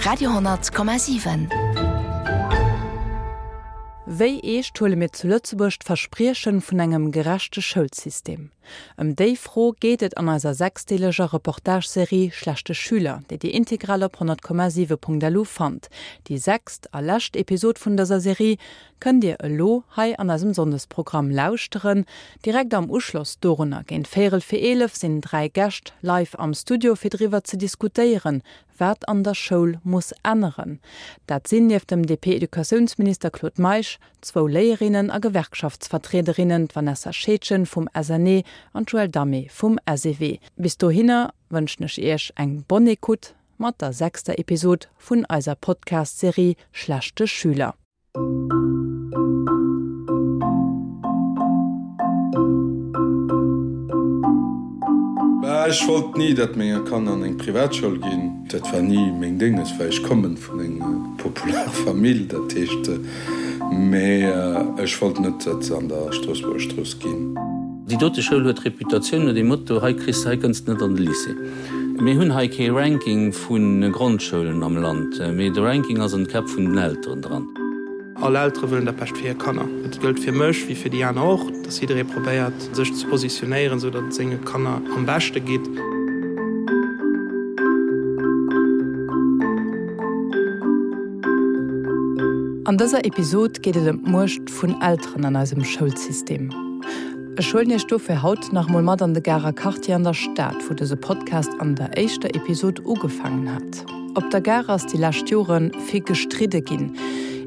Radio,7. Wéi eescht huele mir zu Lëtzebuerg d'Verspriechen vun engem gerechte Schoulsystem? Ëm déi Fro geet et an eiser sechsdeeleger Reportage-Serie Schlechte Schüler, déi Dir integral op 100,7.lu fannt. Déi sechst a lescht Episod vun dëser Serie kënnt Dir elo hei an eisem Sonndesprogramm lauschteren. Direkt am Uschloss dorunner, géint véierel fir 11, sinn 3 Gäscht live am Studio fir driwwer ze diskutéieren, wat an der Schoul muss änneren. Dat sinn nieft dem DP-Educatiounsminister Claude Meisch zwou Léierinnen a Gewerkschaftsvertriederinnen, d'Vanessa Scheedgen vum SNE an d'Joëlle Damé vum SEW. Bis dohinner wënschen ech Iech eng bonne écoute mat der sechster Episod vun eiser Podcast-Serie Schlechte Schüler. Bah, ech wollt ni, datt menger Kanner an eng Privatschoul ginn. Dat war ni meng Dénges, well ech kommen vun enger popular Famill, dat heescht, mee ech wollt net, datt se an der Stroossbuerger Strooss ginn. Déi dote Schoul huet d'Reputatioun no dem Motto, hei kriss de, hei kënns de net an de Lycée. Mir hunn hei kee Ranking vu Grondschoulen am Land, mee de Ranking ass an de Käpp vun den Elteren dran. All Eltere wëllen dat Bescht fir hir Kanner. Dat gëllt fir mech wéi fir déi aner och, dass jidderee probéiert, sech ze positionéieren, esou datt et senge Kanner am beschte geet. An dëser Episod geet et ëm d'Muecht vun Elteren an eisem Schoulsystem. Ech huelen Iech dofir haut nach emol mat an de Garer Quartier an der Stad, wou dëse Podcast an der éischter Episod ugefaangen hat. Op der Gare ass déi lescht Jore vill gestridde ginn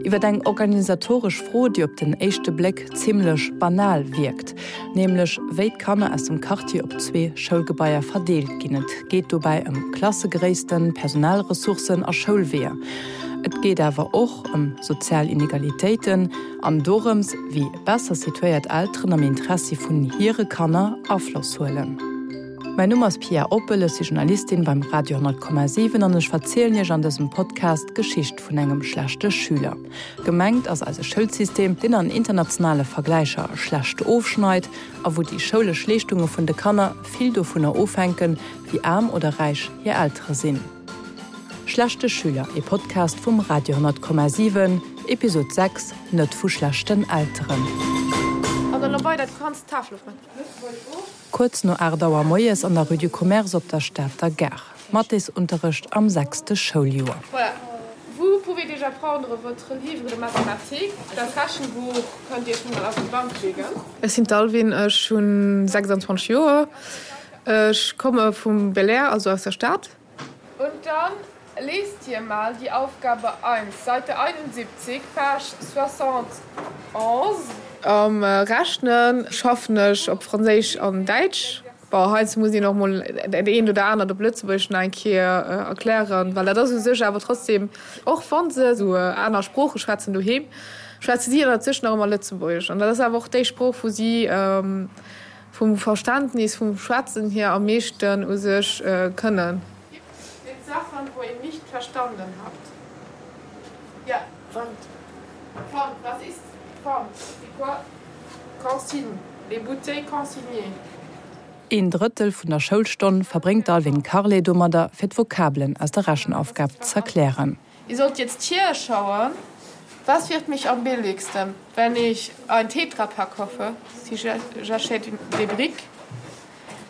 iwwer eng organisatoresch Fro, déi op den éischte Bléck zimmlech banal wierkt, nämlech wéi d'Kanner aus dem Quartier op zwee Schoulgebaier verdeelt ginn. Et geet dobäi ëm Klassegréissten, Personalressourcen a Schoulweeër. Et geet awer och ëm sozial Inegalitéiten an dorëms, wéi besser situéiert Elteren am Interessi vun hire Kanner Afloss huelen. Mäin Numm ass Pia Oppel, ech si Journalistin beim Radio 10,7 an ech verzielen Iech an dësem Podcast d'Geschicht vun engem schlechte Schüler. Gemengt ass eise Schoulsystem, deen an internationale Vergläicher schlecht ofschneit a wou déi schoulesch Leeschtunge vun de Kanner vill dovunner ofhänken, wéi aarm oder räich hir Eltere sinn. Schlechte Schüler, ee Podcast vum Radio 10,7, Episod 6, Net vu schlechten Elteren. Kuerz no 8 Auer moies an der Rue du Commerce op der Stater Gare. Mathesunterrecht am sechste Schouljoer. Voilà, vous pouvez déjà prendre votre livre de mathématiques, dat Rechenbuch kënnt Dir schon mol auf die Bank legen. Ech sinn d'Alwin, ech hunn 26 Joer, ech komme vum Belair, also aus der Stad. Und dann lest ihr mal die Aufgabe 1, Seite 71, Page 71. Am Rechne schaffen ech op Franséisch an Däitsch. Bon, heiansdo muss een och mol dat eent oder anert op Lëtzebuergesch nach eng Kéier erklären, well dat ass u sech awer trotzdem, och wa se esou aner Sprooche schwätzen doheem, schwätze si ënnert sech nach ëmmer Lëtzebuergesch. An dat ass awer och déi Sprooch, wou si vum Verständnis, vum Schwätzen hier am meeschten u sech kënnen. Gibt's jetzt Sachen wo ihr nicht verstanden habt? Ja. Pfand. Pfand, was ist Pfand? C'est quoi Consigne, les bouteilles consignées. Een Drëttel vun der Schoulstonn verbréngt d'Alwin Carlet domadder, fir d'Vokabelen aus der Rechenaufgab z'erklären. Ihr sollt jetzt hier schauen, was wird mich am billigsten, wenn ich ein Tetrapack hoffe, si j'achète des briques,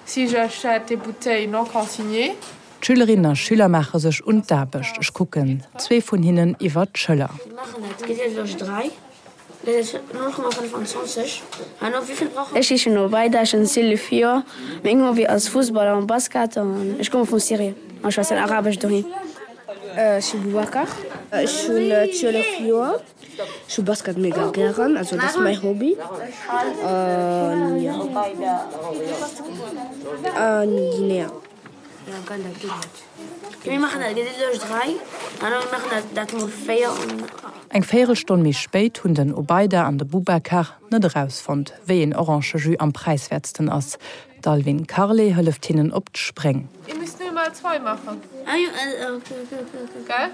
si j'achète des bouteilles non consignées. D'Schülerinnen a Schüler maache sech un d'Aarbecht. Ech kucken zwee vun hinnen iwwer d'Schëller. Ech heeschen Obaida, ech hunn 12 Joer. Meng Hobby ass Fussball an Basket an ech komme vu Syrien an schwätzen Arabesch doheem. Ech si Boubacar, ech hunn 12 Joer. Ech hu Basket mega gären, also dat ass mäi Hobby an jo. An Guinea. Eng Véierelstonn méi spéit hunn den Obaida an de Boubacar net erausfonnt, wéi een Orangejus am präiswäertsten ass. D'Alwin Carlet hëlleft hinnen op d'Spréng. Ihr müsst nur mal zwei machen. Gell?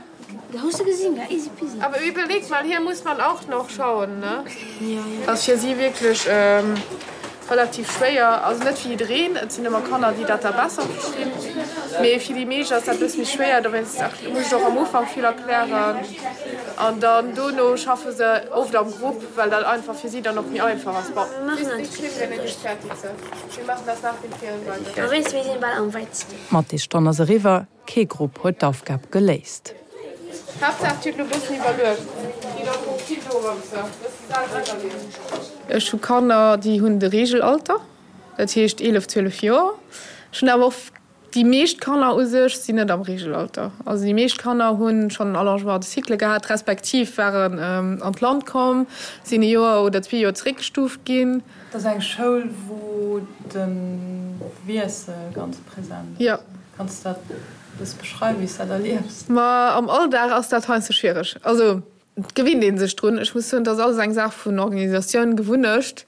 Aber überlegt mal, hier muss man auch noch schauen, ne? Ass fir si wierklech relativ schwéier, also net fir jiddereen, et sinn ëmmer Kanner, déi dat da besser verstinn. Mee fir déi meescht ass dat e bësse méi schwéier, dowéinst muss ech och am Ufank vill erklären an dann dono schaffe se oft am Grupp, well dat einfach fir si dann och méi einfach ass. Bon, D'Mathéstonn ass eriwwer, kee Grupp huet d'Aufgab geléist. Ech hu Kanner, déi hunn de Reegelalter, dat heescht 11, 12 Joer. Ech hunn awer och Déi meescht Kanner u sech sinn net am Reegelalter. Also déi meescht Kanner hu schonn en Allongement de cycle gehat, respektiv waren an d'Land komm, sinn e Joer oder zwee Joer zeréckgestuuft ginn. Et ass eng Schoul, wou de Wiessel ganz present ass. Jo. Kanns de dat e bësse beschreiwen, wéi s de dat erliefs? Ma am Alldag ass dat heiansdo schwiereg. Also Et gewinnt ee sech drun. Ech muss soen, et ass alles eng Saach vun Organisatioun, Gewunnecht.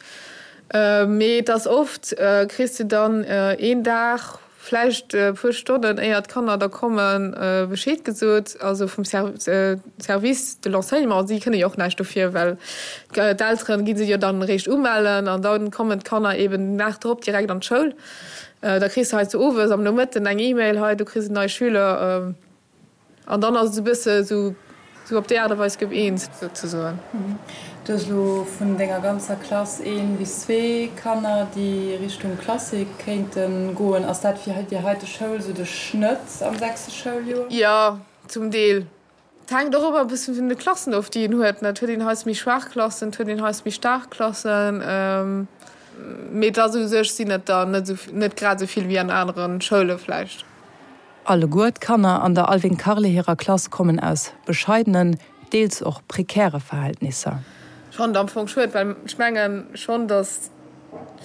Mee et ass oft, kriss de dann een Dag, vläicht e puer Stonnen éier d'Kanner da kommen, Bescheed gesot, also vum Service de l'enseignement. Si kënne jo och näischt dofir, well d'Eltere gi se jo dann eréischt umellen an da kommen d'Kanner eben den Dag drop direkt an d'Schoul. Da kriss de heiansdo owes am Nomëtten eng E-Mail, hei du kriss en neie Schüler. An dann ass et esou e bësse esou esou op déi Aart a Weis gouf eens souzesoen. Du hues elo vun denger ganzer Klass een bis zwee Kanner, déi Richtung Klassik kéinte goen. Ass dat fir déi heite Schoul esou de Schnëtt am sechste Schouljoer? Jo, zum Deel. Et hänkt och ëmmer e bëssen vun de Klassen of, déi een huet. Et huet een heiansdo méi schwaach Klassen, et huet een heiansdo méi staark Klassen. Mee et ass u sech sinn et der net esou, net grad esou vill wéi an anere Schoule vläicht. Alleguer d'Kanner an der Alwin Carle hirer Klass kommen aus bescheidenen, deels och prekäre Verhältnisser. Ech fannen et am Fong schued, well ech mengen schonn, datt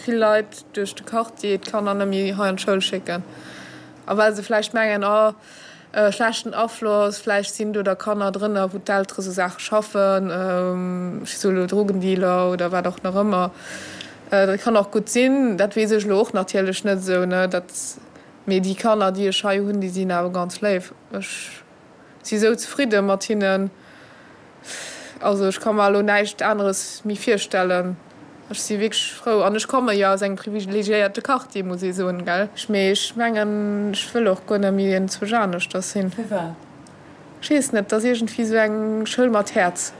vill Leit duerch de Quartier d'Kanner net méi hei an d'Schoul schécken a well se vläicht mengen, oh schlechten Afloss, vläicht sinn do da Kanner drënner, wou d'Eltere sou Saache schaffen, ech soe lo Drogendealer oder wat och nach ëmmer. Dat kann och gutt sinn, dat weess ech elo och natierlech net esou, ne, dat. Mee déi Kanner, déi ech hei hunn, déi sinn awer ganz léif. Ech si sou zefridde mat hinnen. Also ech ka mer elo näischt aneres méi virstellen. Ech si wierklech frou. An ech komme jo aus engem privilegiéierte Quartier, muss ee soen, gell. Mee ech mengen, ech wëll och guer net méi enzwousch aneschters sinn. Firwat? Ech weess net, et ass iergendwéi sou eng Schoul mat Häerz.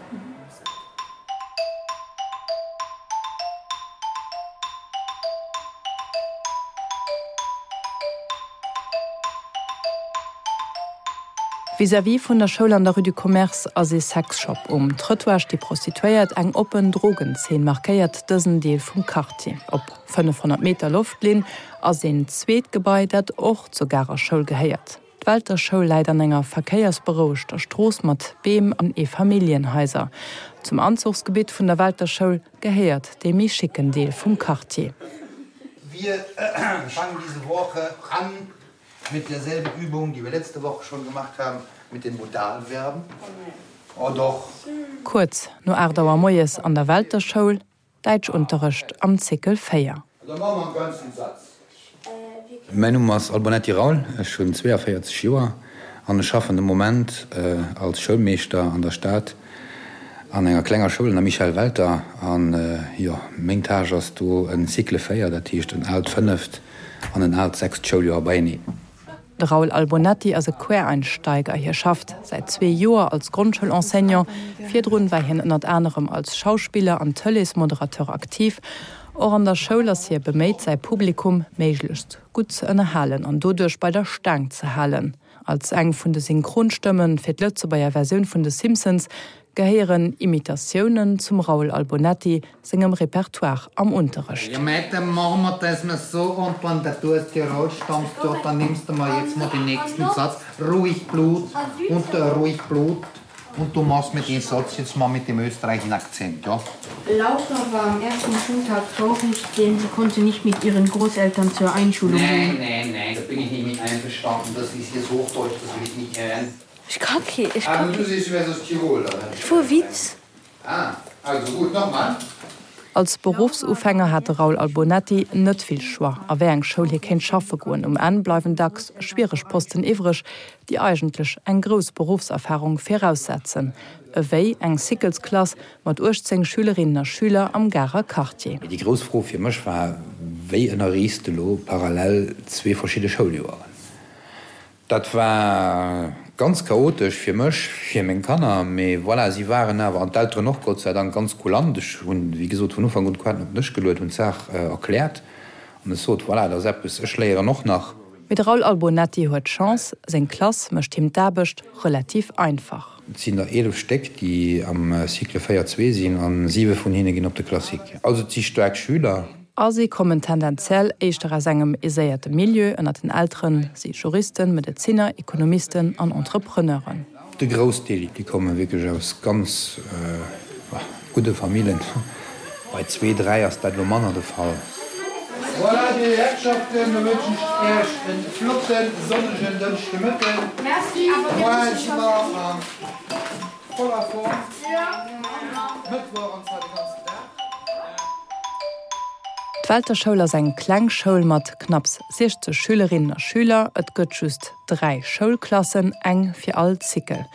Vis-à-vis vun der Schoul an der Rue du Commerce ass ee Sexshop. Um Trëttoir sti Prostituéiert. Eng oppen Drogenzeen markéiert dësen Deel vum Quartier. Op 500 Meter Loftlinn ass een zweet Gebai, dat och zur Garer Schoul gehéiert. D'Welter Schoul läit an enger verkéiersberouegter Strooss mat Beem an Eefamilljenhaiser. Zum Anzuchsgebitt vun der Welter Schoul gehéiert dee méi schicken Deel vum Quartier. Wir fangen diese Woche an mit derselben Übung, die wir letzte Woche schon gemacht haben, mit den Modalverben. Oh doch. Kuerz no 8 Auer moies an der Welter Schoul. Däitschunterrecht am Cycle 4. Mäin Numm ass Albonetti Raoul, ech hunn 42 Joer an ech schaffen de Moment als Schoulmeeschter an der Stad an enger klenger Schoul an der Michel Welter. An jo, meng Tâche ass do en Cycle 4, dat heescht en aalt fënneft an en aalt sechst Schouljoer beieneen. De Raoul Albonetti ass e Quereinsteiger. Hie schafft säit zwee Joer als Grondschoul-Enseignant. Virdrun war hien ënnert anerem als Schauspiller an Tëleesmoderateur aktiv. Och an der Schoul ass hie beméit, säi Publikum méiglechst gutt ze ënnerhalen an doduerch bei der Staang ze halen. Als eng vun de Synchronstëmme fir d'Lëtzebuerger Versioun vun de Simpsons gehéieren Imitatiounen zum Raoul Albonetti sengem Repertoire am Unterrecht. Ja mei, dann machen wir das mal so und wann der du aus Tirol stammst, ja, dann nimmst du mal jetzt mal den nächsten Satz, ruhig Blut und äh, ruhig Blut und du machst mir den Satz jetzt mal mit dem österreichischen Akzent, ja. Laura war am ersten Schultag traurig, denn sie konnte nicht mit ihren Großeltern zur Einschulung gehen. Nein, nein, nein, da bin ich nicht mit einverstanden. Das ist jetzt Hochdeutsch, das will ich nicht hören. Ech ka kee, ech ka kee. Vu Witz. Als Beruffsufänger hat de Raoul Albonetti net vill Choix, a wéi eng Schoul hie kéint schaffe goen. Um Enn bleiwen dacks schwiereg Posten iwwreg, déi eigentlech eng grouss Beruffserfarung viraussetzen, ewéi eng Cyclesklass mat 18 Schülerinnen a Schüler am Garer Quartier. Déi grouss Fro fir mech war, Wéi ënnerriichs de elo parallel zwee verschidde Schouljoeren? Dat war ganz chaotesch fir mech, fir meng Kanner, mee voilà, si waren awer, an d'Elteren och, Gott sei Dank, ganz kulant. Ech hunn, wéi gesot, vun Ufank un d'Quaten op den Dësch geluet, hunn d'Saach erkläert an ech sot, voilà, dat ass eppes, ech léieren och nach. Mee de Raoul Albonetti huet Chance, seng Klass mécht him d'Aarbecht relativ einfach. Et sinn der 11 Stéck, déi am Cycle 4, 2 sinn, a siwe vun hinne ginn op de Classique. Also et si staark Schüler. A si kommen tendenziell éischter aus engem aiséierte Milieu, ënnert den Eltere si Juristen, Medezinner, Ekonomisten an Entrepreneuren. De Groussdeel, déi komme wierklech aus ganz gudde Famillen. Bei zwee, dräi ass dat elo manner de Fall. Voilà, Dir Herrschaften, da wënschen ech Iech e flotten sonnegen Dënschdemëtten. Moien si mer a voller Form. Mëttwoch an zwar de ganzen Dag. D'Welter Schoul ass eng kleng Schoul mat knapps 60 Schülerinnen a Schüler. Et gëtt just 3 Schoulklassen, eng fir all Cycle.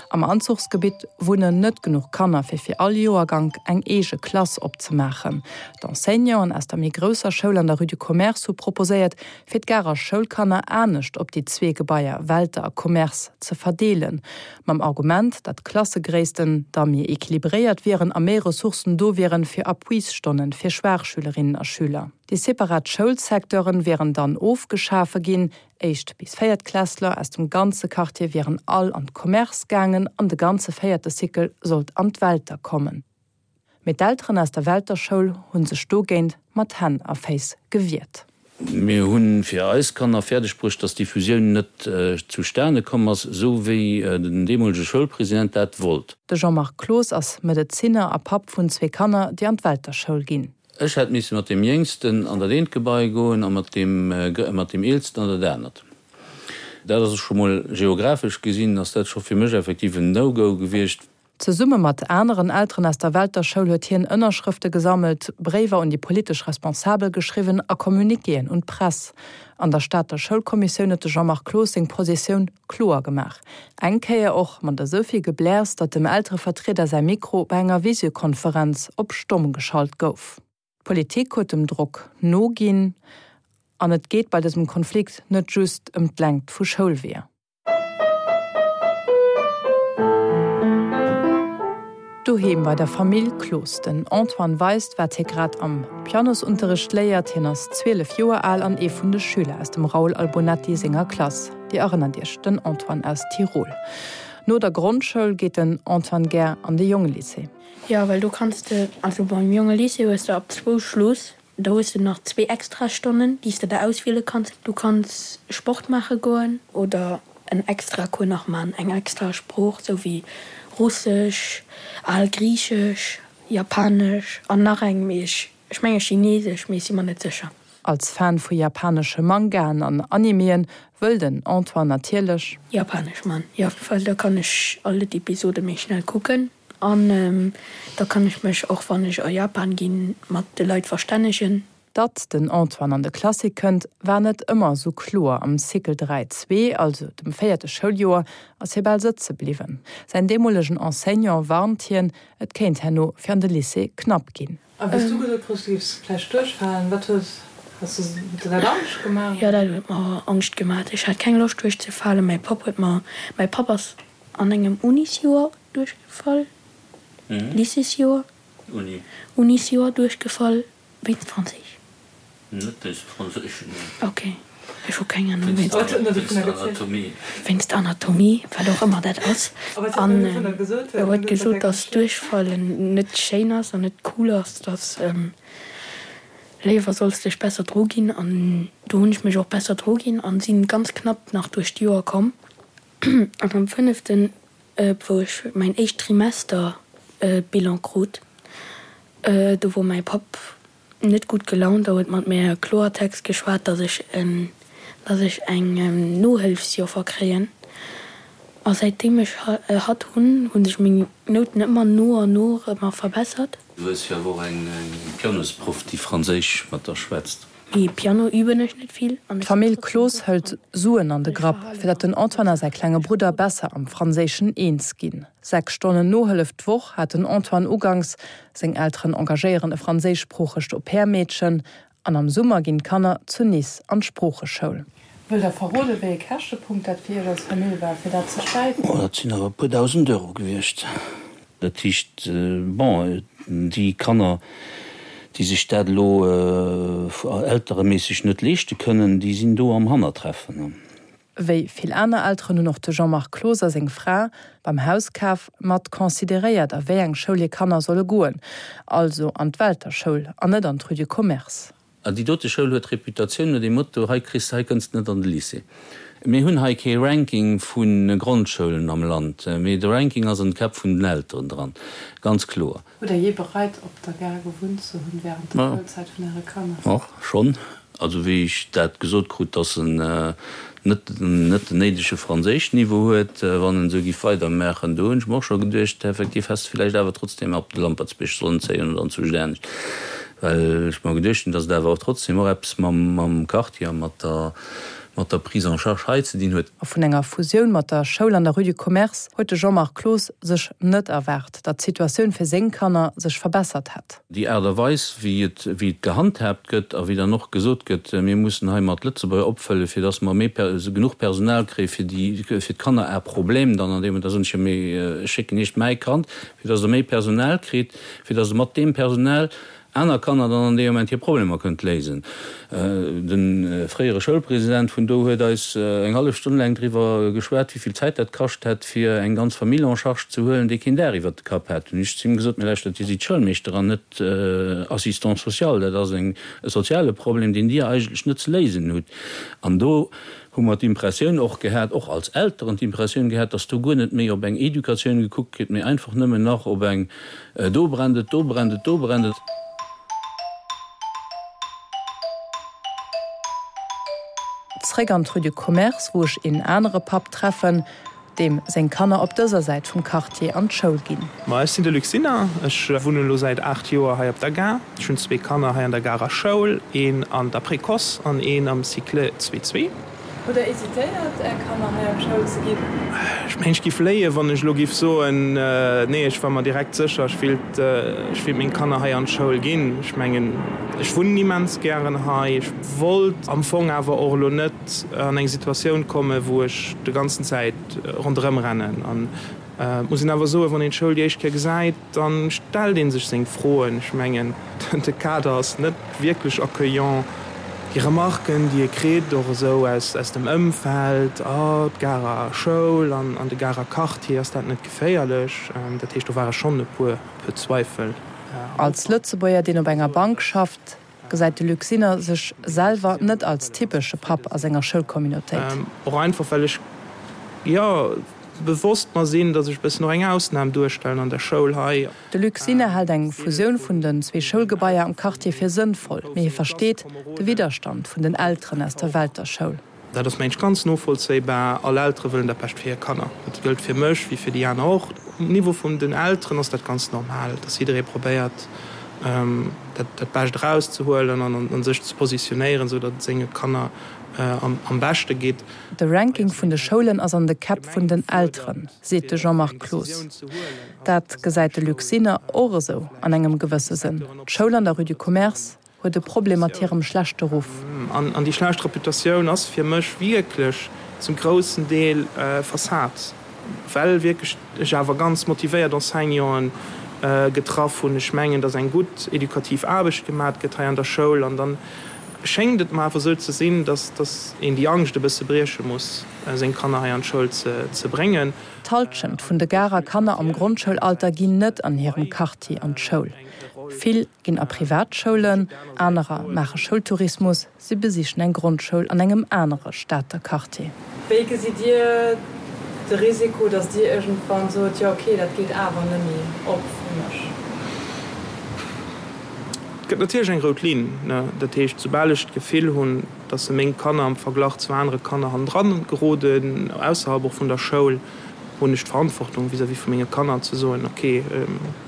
Am Anzuchsgebitt wunnen net genuch Kanner fir fir all Joergank eng eege Klass opzemaachen. D'Enseignanten aus der méi grousser Schoul an der Rue du Commerce hu proposéiert, fir d'Garer Schoulkanner anescht op déi zwee Gebaier Welter a Commerce ze verdeelen, mam Argument, datt d'Klassegréissten da méi equilibréiert wieren a méi Ressourcen do wieren fir Appuisstonnen fir schwaach Schülerinnen a Schüler. Déi separat Schoulsecteuren wieren dann ofgeschafe ginn, Éischt bis Véiertklässler aus dem ganze Quartier wieren all an d'Commerce gaangen an de ganze véierte Cycle sollt an d'Welter kommen. Mee d'Elteren aus der Welter Schoul hu sech dogéint mat Hänn a Féiss gewiert. Mir hu fir eis Kanner fäerdeg bruecht, dass déi Fusioun net zustane komm ass, esou wéi den deemolege Schoulpresident dat wollt. De Jean-Marc Cloos ass Medezinner a Papp vun zwee Kanner, déi an d'Welter Schoul ginn. Ech hätt misse mat deem Jéngsten an dat eent Gebai goen a mat deem, mat deem Eelsten an dat anert. Dat ass scho mol geographesch gesinn ass dat scho fir mech effektiv en No-Go gewiescht. Zesumme mat aneren Elteren aus der Welter Schoul huet hien Ënnerschrëfte gesammelt, Bréiwer un déi politesch Responsabel geschriwwen a Communiquéen un d'Press. An der Stater Schoulkommissioun huet de Jean-Marc Cloos seng Positioun kloer gemaach. Eng Kéier och mat esou vill Gebläers, datt dem Elterevertrieder säi Mikro bei enger Visiokonferenz op stomm geschalt gouf. D'Politik huet dem Drock noginn. An et geet bei dësem Konflikt net just ëm d'Längt vu Schoulweeër. Doheem bei der Famill Cloos. Den Antoine weist, wat hie grad am Pianosunterricht léiert. Hien ass 12 Joer al an ee vun de Schüler aus dem Raoul Albonetti senger Klass. Dir erënnert Iech, den Antoine aus Tirol. No der Grondschoul geet den Antoine gär an de Jongelycée. Jo, well do kanns de, also beim Jongelycée hues de ab zwou Schluss. Da hues de nach zwee Extrastonnen, déi s de der auswiele kanns. Du kanns Sport maache goen oder en extra Cours nach maachen, eng extra Sprooch, sou wéi Russesch, al Griichesch, Japanesch an nach eng, mee ech, ech menge Chinesesch, mee ech si mer net sécher. Als Fan vu japanesche Mangaen an Animeën wëll den Antoine natierlech. Japanesch man, jo, well da kann ech all d'Episode méi schnell kucken. An da kann ech mech och, wann ech a Japan ginn, mat de Leit verstännegen. Datt den Antoine an de Classique kënnt, war net ëmmer esou kloer. Am Cycle 3, 2, also dem véierte Schouljoer, ass hie bal sëtze bliwwen. Säin deemolegen Enseignant warnt hien, et kéint herno fir an de Lycée knapp ginn. A wéi s du gesot krus, du géifs vläicht duerchfalen, wat hues hues du huet der dat Angscht gemaach? Jo, dat huet mer Angscht gemaach. Ech hat keng Loscht duerchzefalen. Mäi Papp huet mer, mäi Papp ass an engem Unisjoer duerchgefall, Lycéesjoer, Unisjoer duerchgefall wéinst Franséisch. Net wéinst Franséisch, nee. Ok, ech hu keng Anung wéinst. Anatomie. Wéinst Anatomie, wat och ëmmer dat ass. An e huet gesot, datt duerchfallen net schéin ass an net cool ass, datt léiwer solls dech besser dru ginn. An do hunn ech mech och besser dru ginn an sinn ganz knapp nach duerch d'Joer komm. An am fënneften, wou ech mäin éischt Trimester-Bilan krut, do wor mäi Papp net gutt gelaunt a huet mat mir Kloertext geschwat, dass ech en, dass ech eng Nohëlfsjoffer kréien. A säitdeem ech hatt hunn, hu sech meng Nouten ëmmer no an no ëmmer verbessert. Du hues jo awer och eng Pianosproff, déi Franséisch mat der schwätzt. Mee Piano üben ech net vill an ech sinn D'Famill trotzdem Cloos gutt hëlt dran. Suen an de Grapp, fir datt den Antoine a säi klenge Brudder besser am Franséischen eens ginn. 6 Stonnen Nohëllef d'Woch hat den Antoine uganks, seng Elteren engagéieren e franséischsproochegt Au-pair-Meedchen an am Summer ginn d'Kanner zu Nice an d'Sproocheschoul. Wëllt Der verroden, wéi ee Käschtepunkt dat fir Iech als Famill war, fir dat ze stäipen? Oh, dat sinn awer e puer dausend Euro gewiescht. Dat heescht, bon, déi Kanner, déi sech dat elo eltereméisseg net leeschte kënnen, déi sinn do am Hannertreffen. Wéi vill aner Elteren hunn och de Jean-Marc Cloos a seng Fra beim Hauskaf mat consideréiert, a wéi eng Schoul hir Kanner solle goen, also an d'Welter Schoul an net an d'Rue du Commerce. An déi dote Schoul huet d'Reputatioun no dem Motto, hei kriss de, hei kënns de net an de Lycée. Mir hunn hei kee Ranking vu Grondschoulen am Land, mee de Ranking ass an de Käpp vun den Elteren dran, ganz kloer. Hutt Der jee bereit, op der Gare gewunnt ze hunn während der Schoulzäit vun Äre Kanner? Och schonn. Also wéi ech dat gesot krut, dass en net net den néidege Franséischniveau huet, wann en esou giff weidermaachen, do hunn ech mer och scho geduecht, effektiv häss de villäicht awer trotzdem op de Lampertsbierg sollen zéien oder anzwousch anescht, well ech mer geduecht hunn, dass et awer och trotzdem och eppes mam mam Quartier a mat der mat der Prise en charge hei ze dinn huet. A vun enger Fusioun mat der Schoul an der Rue du Commerce huet de Jean-Marc Cloos sech net erwaart, datt d'Situatioun fir seng Kanner sech verbessert hätt. Déi Aart a Weis, wéi et, wéi et gehandhaabt gëtt a wéi dann och gesot gëtt, mir mussen hei mat Lëtzebuerger opfëllen, fir datt mer méi, genuch Personal kréie fir déi, fir d'Kanner à problème dann an deem, da soen ech jo, mee ech schécken Iech mäi Kand, fir datt Der méi Personal kritt, fir datt Der mat deem Personal aner Kanner dann an deem Moment hir Problemer kënnt léisen. De fréiere Schoulpresident vun do huet eis eng hallef Stonn laang driwwer geschwat, wéi vill Zäit dat kascht hätt, fir eng ganz Famill en charge ze huelen, déi keen Daach iwwert de Kapp hat. Hunn ech zu him gesot, Mä lauschtert, Dir sidd Schoulmeeschter an net Assistant social. Dat ass e soziale Problem, deen Dir eigentlech net ze léisen hutt. An do hu mer d'Impressioun och gehat, och als Elteren d'Impressioun gehat, dass do guer net méi op eng Educatioun gekuckt gëtt, mee einfach nëmmen nach op eng do brennt et, do brennt et, do brennt et. Zréck an d'Rue du Commerce, wou ech een anere Papp treffen, deem seng Kanner op dëser Säit vum Quartier an d'Schoul ginn. Ma ech sinn de Luc Sinner, ech wunnen elo säit 8 Joer hei op der Gare. Ech hunn zwee Kanner hei an der Garer Schoul, een an der Précoce an een am Cycle 2 2. Hutt Der hésitéiert, Är Kanner hei an d'Schoul ze ginn? Ech mengen, ech giff léien, wann ech elo giff soen, nee, ech war mer direkt sécher, ech willt, ech willt meng Kanner hei an d'Schoul ginn. Ech mengen, ech wunnen immens gären hei. Ech wollt am Fong awer och elo net an eng Situatioun kommen, wou ech de ganzen Zäit ronderëm rennen. An et muss een awer soen, wann een d'Schoul déi éischt Kéier gesäit, da stellt ee sech seng Froen. Ech mengen, de Kader ass net wierklech accueillant. Déi Remarken, déi ee kritt, och esou aus dem Ëmfeld, Oh, d'Garer Schoul an de Garer Quartier, ass dat net geféierlech? Dat heescht, do ware schonn e puer Zweifel am Ufank. Als Lëtzebuerger, deen op enger Bank schafft, gesäit de Luc Sinner sech selwer net als typesche Papp a senger Schoulcommunautéit. Och einfach, well ech, jo, bewosst mer sinn, datt ech e bëssen och eng Ausnam duerstellen an der Schoul hei. De Luc Sinner hält eng Fusioun vun den zwee Schoulgebaier am Quartier fir sënnvoll, mee hie versteet de Widderstand vun den Elteren aus der Welter Schoul. Dat ass mengen ech ganz novollzéibar. All Eltere wëllen dat Bescht fir hir Kanner. Dat gëllt fir mech wéi fir déi aner och. Um Niveau vun den Elteren ass dat ganz normal, dass jidderee probéiert, dat Bescht erauszehuelen an sech ze positionéieren, esou datt et senge Kanner am beschte geet. De Ranking vun de Schoulen ass an de Käpp vun den Elteren, seet de Jean-Marc Cloos. Dat gesäit de Luc Sinner och esou an engem gewësse Sënn. D'Schoul an der Rue du Commerce huet e Problem mat hirem schlechte Ruff. An déi schlecht Reputatioun ass fir mech wierklech zum groussen Deel Fassad, well wierklech ech awer ganz motivéiert Enseignanten getraff hunn. Ech mengen, datt eng gutt edukativ Aarbecht gemat gëtt hei an der Schoul. An dann schéngt et mer awer esou ze sinn, datt een déi Angscht e bësse brieche muss, seng Kanner hei an d'Schoul ze bréngen. D'Hallschent vun de Garer Kanner am Grondschoulalter ginn net an hirem Quartier an d'Schoul. Vill ginn a Privatschoulen, anerer maache Schoultourismus, si besichen eng Grondschoul an engem anere Stater Quartier. Wéi gesitt Dir de Risiko, datt Dir iergendwann sot, jo ok, dat geet awer nëmme op fir mech? Et gëtt natierlech eng rout Linn. Dat heescht, soubal ech d'Gefill hunn, datt se meng Kanner am Verglach zu anere Kanner hannendran geroden, ausserhalb och vun der Schoul, hunn ech d'Verantwortung vis-à-vis vu menge Kanner ze soen, ok,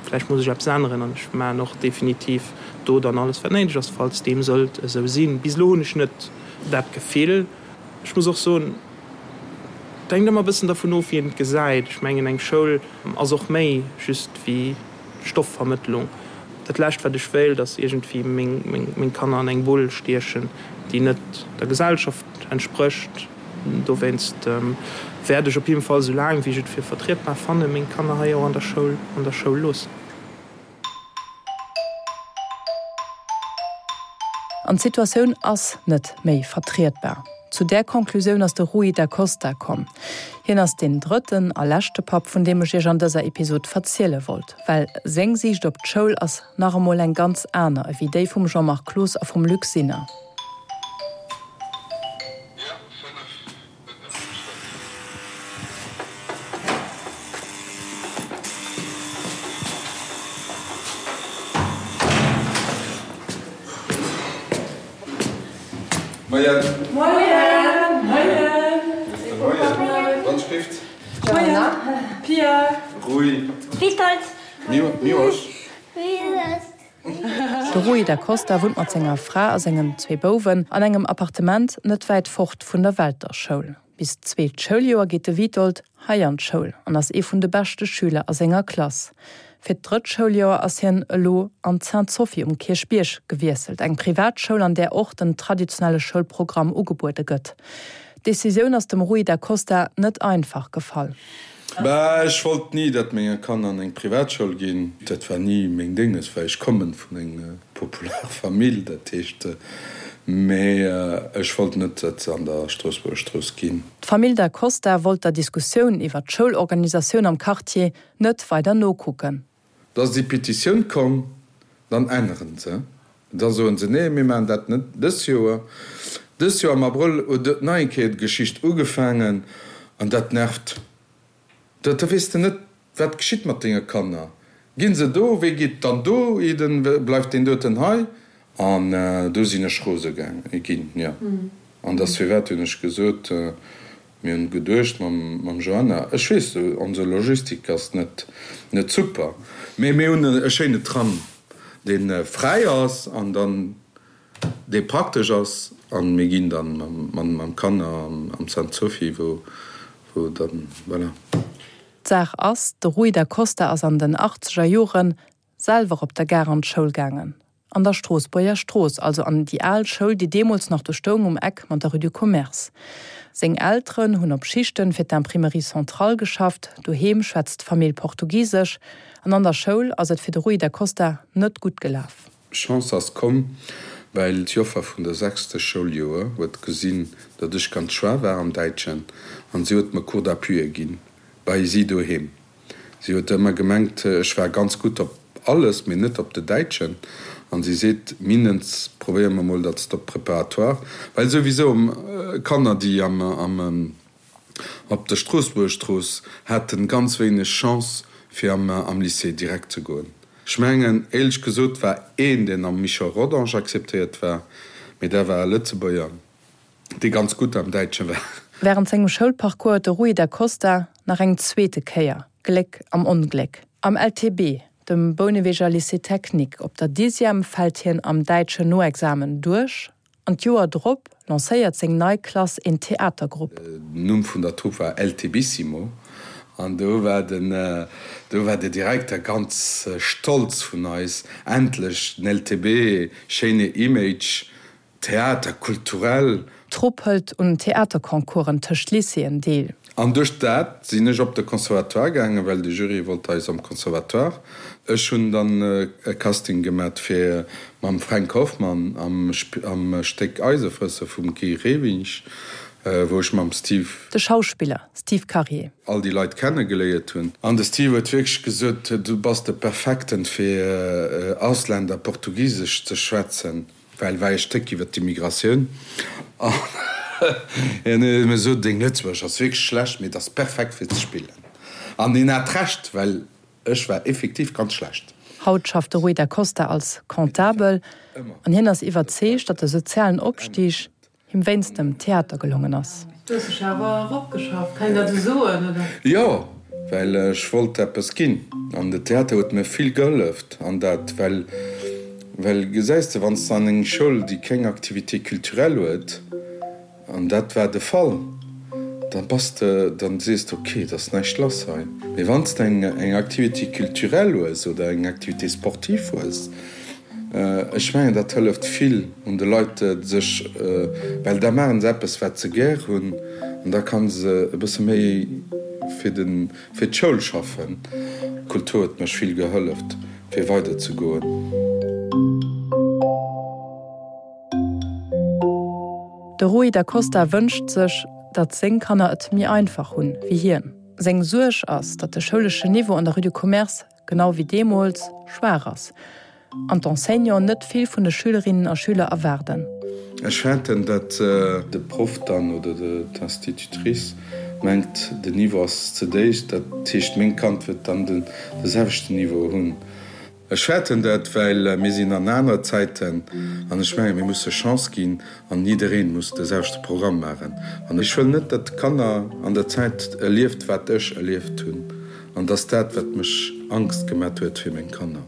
vläicht muss ech eppes änneren an ech maachen och definitiv do dann alles wat néideg ass, falls deem sollt esou sinn. Bis elo hunn ech net dat Gefill. Ech muss och soen, et hänkt ëmmer e bëssen dervun of, wéi een et gesäit. Ech mengen, eng Schoul ass och méi just wéi Stoffvermëttlung. Dat lescht wat ech wéilt, ass iergendwéi meng Kanner an eng Bull stiechen, déi net der Gesellschaft. entsprécht. Dowéinst wäert ech op jidde Fall, esou laang wéi ech et fir vertrietbar fannen, meng Kanner hei och an der Schoul an der Schoul loossen. An d'Situatioun ass net méi vertrietbar. Zu där Conclusioun ass de Rui da Costa komm. Hien ass deen drëtten a leschte Papp, vun deem ech iech an dëser Episod verziele wollt. Well seng Siicht op d'Schoul ass nach emol eng ganz aner ewéi déi vum Jean-Marc Cloos a vum Luc Sinner. Moien. Moien. Moien. Moien. Wann schrift. Moien. Pia. Rui. Witold. Miłosz. De Rui da Costa wunnt mat senger Fra a sengen zwee Bouwen an engem Appartement net wäit fort vun der Welter-Schoul. Bis d'zweet Schouljoer geet de Witold hei an d'Schoul an ass ee vun de beschte Schüler a senger Klass. Fir d'drëtt Schouljoer ass hien elo an d'Sainte-Sophie um Kierchbierg gewiesselt, eng Privatschoul, an där och den traditionelle Schoulprogramm ugebuede gëtt. D'Decisioun ass dem Rui da Costa net einfach gefall. Bah, ech wollt ni, datt menge Kanner an eng Privatschoul ginn. Dat war ni meng Dénges, well ech kommen vun eng popular Famill, dat heescht, mee ech wollt net, datt se an der Stroossbuerger Strooss ginn. D'Famill Da Costa wollt der Diskussioun iwwer d'Schoulorganisatioun am Quartier net weider nokucken. Da ass déi Petitioun komm, dann änneren se, da soen se, nee, mir maachen dat net dës Joer. Dës Joer am Abrëll huet et nach eng Kéier d'Geschicht ugefaangen an dat nervt. Da weess de net, wat geschitt mat denge Kanner. Ginn se do, wee geet dann do hidden, bleift deen doten hei? An do sinn ech rose ginn, jo. An dass firwat hunn ech gesot, Mir hunn geduecht mam Joanna, ech weess, onse Logistik ass net net super, mee mir hunn e schéine Tram, dee fräi ass an dann dee praktesch ass an mir ginn dann mam Kanner am Sainte Sophie, wou wou dann, voilà. D'Saach ass, de Rui da Costa ass an den achtzeger Joren selwer op der Gare an d'Schoul gaangen, an der Stroossbuerger Strooss, also an déi al Schoul, déi deemools nach do stoung um Eck mat der Rue du Commerce. Seng Elteren hunn op Schichten fir d'Imprimerie Centrale geschafft, doheem schwätzt d'Famill Portugisesch an an der Schoul ass et fir de Rui da Costa net gutt gelaf. Chance ass komm, well d'Joffer vun der sechste Schouljoer huet gesinn, datt ech ganz schwaach war am Däitschen an si huet mer Cours d'appui ginn bei si doheem. Si huet ëmmer gemengt, ech war ganz gutt op alles, mee net op de Däitschen. An si seet, Mindens probéiere mer mol, datt s de op Préparatoire, well souwisou Kanner, déi am, am, op der Stroossbuergerstrooss haten ganz wéineg Chance, fir am, am Lycée direkt ze goen. Ech mengen, éierlech gesot, war een, deen am Michel Rodange acceptéiert war, mee dat war e Lëtzebuerger. dee ganz gutt am Däitsche war. Wärend sengem Schoulparcours huet de Rui da Costa nach eng zweete Kéier Gléck am Ongléck. Am LTB, dem Bouneweger Lycée Technique, op der Dixième fält hien am däitschen Noexamen duerch an d'Joer drop lancéiert seng nei Klass een Theatergrupp. Den Numm vun der Trupp war LTBissimo an do war den, do war de Direkter ganz stolz vun eis, endlech den LTB, schéine Image, Theater culturel. D'Trupp hëlt un Theaterconcoursen tëscht Lycéeën deel. An duerch dat sinn ech op de Conservatoire gaangen, well de Jury wollt eis am Conservatoire. Ech hunn dann e Casting gemat fir mam Fränk Hoffmann am am Stéck Eisefrësser vum Guy Rewinsch, wou ech mam Steve. De Schauspiller Steve Karier. All déi Leit kenne geléiert hunn. An de Steve huet wierklech gesot, Du bass de Perfekten fir Ausländer Portugisesch ze schwätzen. Well war ee Stéck iwwer d'Immigratioun an hien huet mir gesot, deng Lëtzebuergesch ass wierklech schlecht, mee et ass perfekt fir ze spillen. An hien hat Recht, well ech war effektiv ganz schlecht. Haut schafft de Rui da Costa als Comptabel an hien ass iwwerzeegt, datt de sozialen Opstig Him wéinst dem Theater gelongen ass. Du hues dech awer eropgeschafft, kann een dat esou soen, oder? Jo, well ech wollt eppes ginn an de Theater huet mir vill geholleft an dat, well, well gesäis de, wann s de an eng Schoul, déi keng Activité culturelle huet, an dat war de Fall, dann bass de, dann sees de, ok, et ass näischt lass hei. Mee wann s de eng, eng Activité culturelle hues oder eng Activité sportive hues. Ech mengen, dat hëlleft vill un de Leit, sech, well da maachen se eppes, wat se gär hunn, an da kann se e bësse méi fir de, fir d'Schoul schaffen. D'Kultur huet mech vill gehëlleft, fir weider ze goen. De Rui da Costa wënscht sech, datt seng Kanner et méi einfach hunn, wéi hien. Seng Suerg ass, datt de schouleschen Niveau an der Rue du Commerce, genau wéi deemools, schwaach ass an d'Enseignanten net vill vun de Schülerinnen a Schüler erwaarden. Ech fäerten, datt de Proff dann oder d'Institutrice mengt, den Niveau ass ze déif, dat heescht, meng Kand wëllt dann de selwechten Niveau hunn. Ech fäerten dat, well mir sinn an aner Zäiten an ech mengen, mir musse Chance ginn an jiddereen muss de selwechte Programm maachen. An ech wëll net, datt d'Kanner an der Zäit erlieft, wat ech erlieft hunn. An dass dat, wat mech Angst gemat huet fir meng Kanner.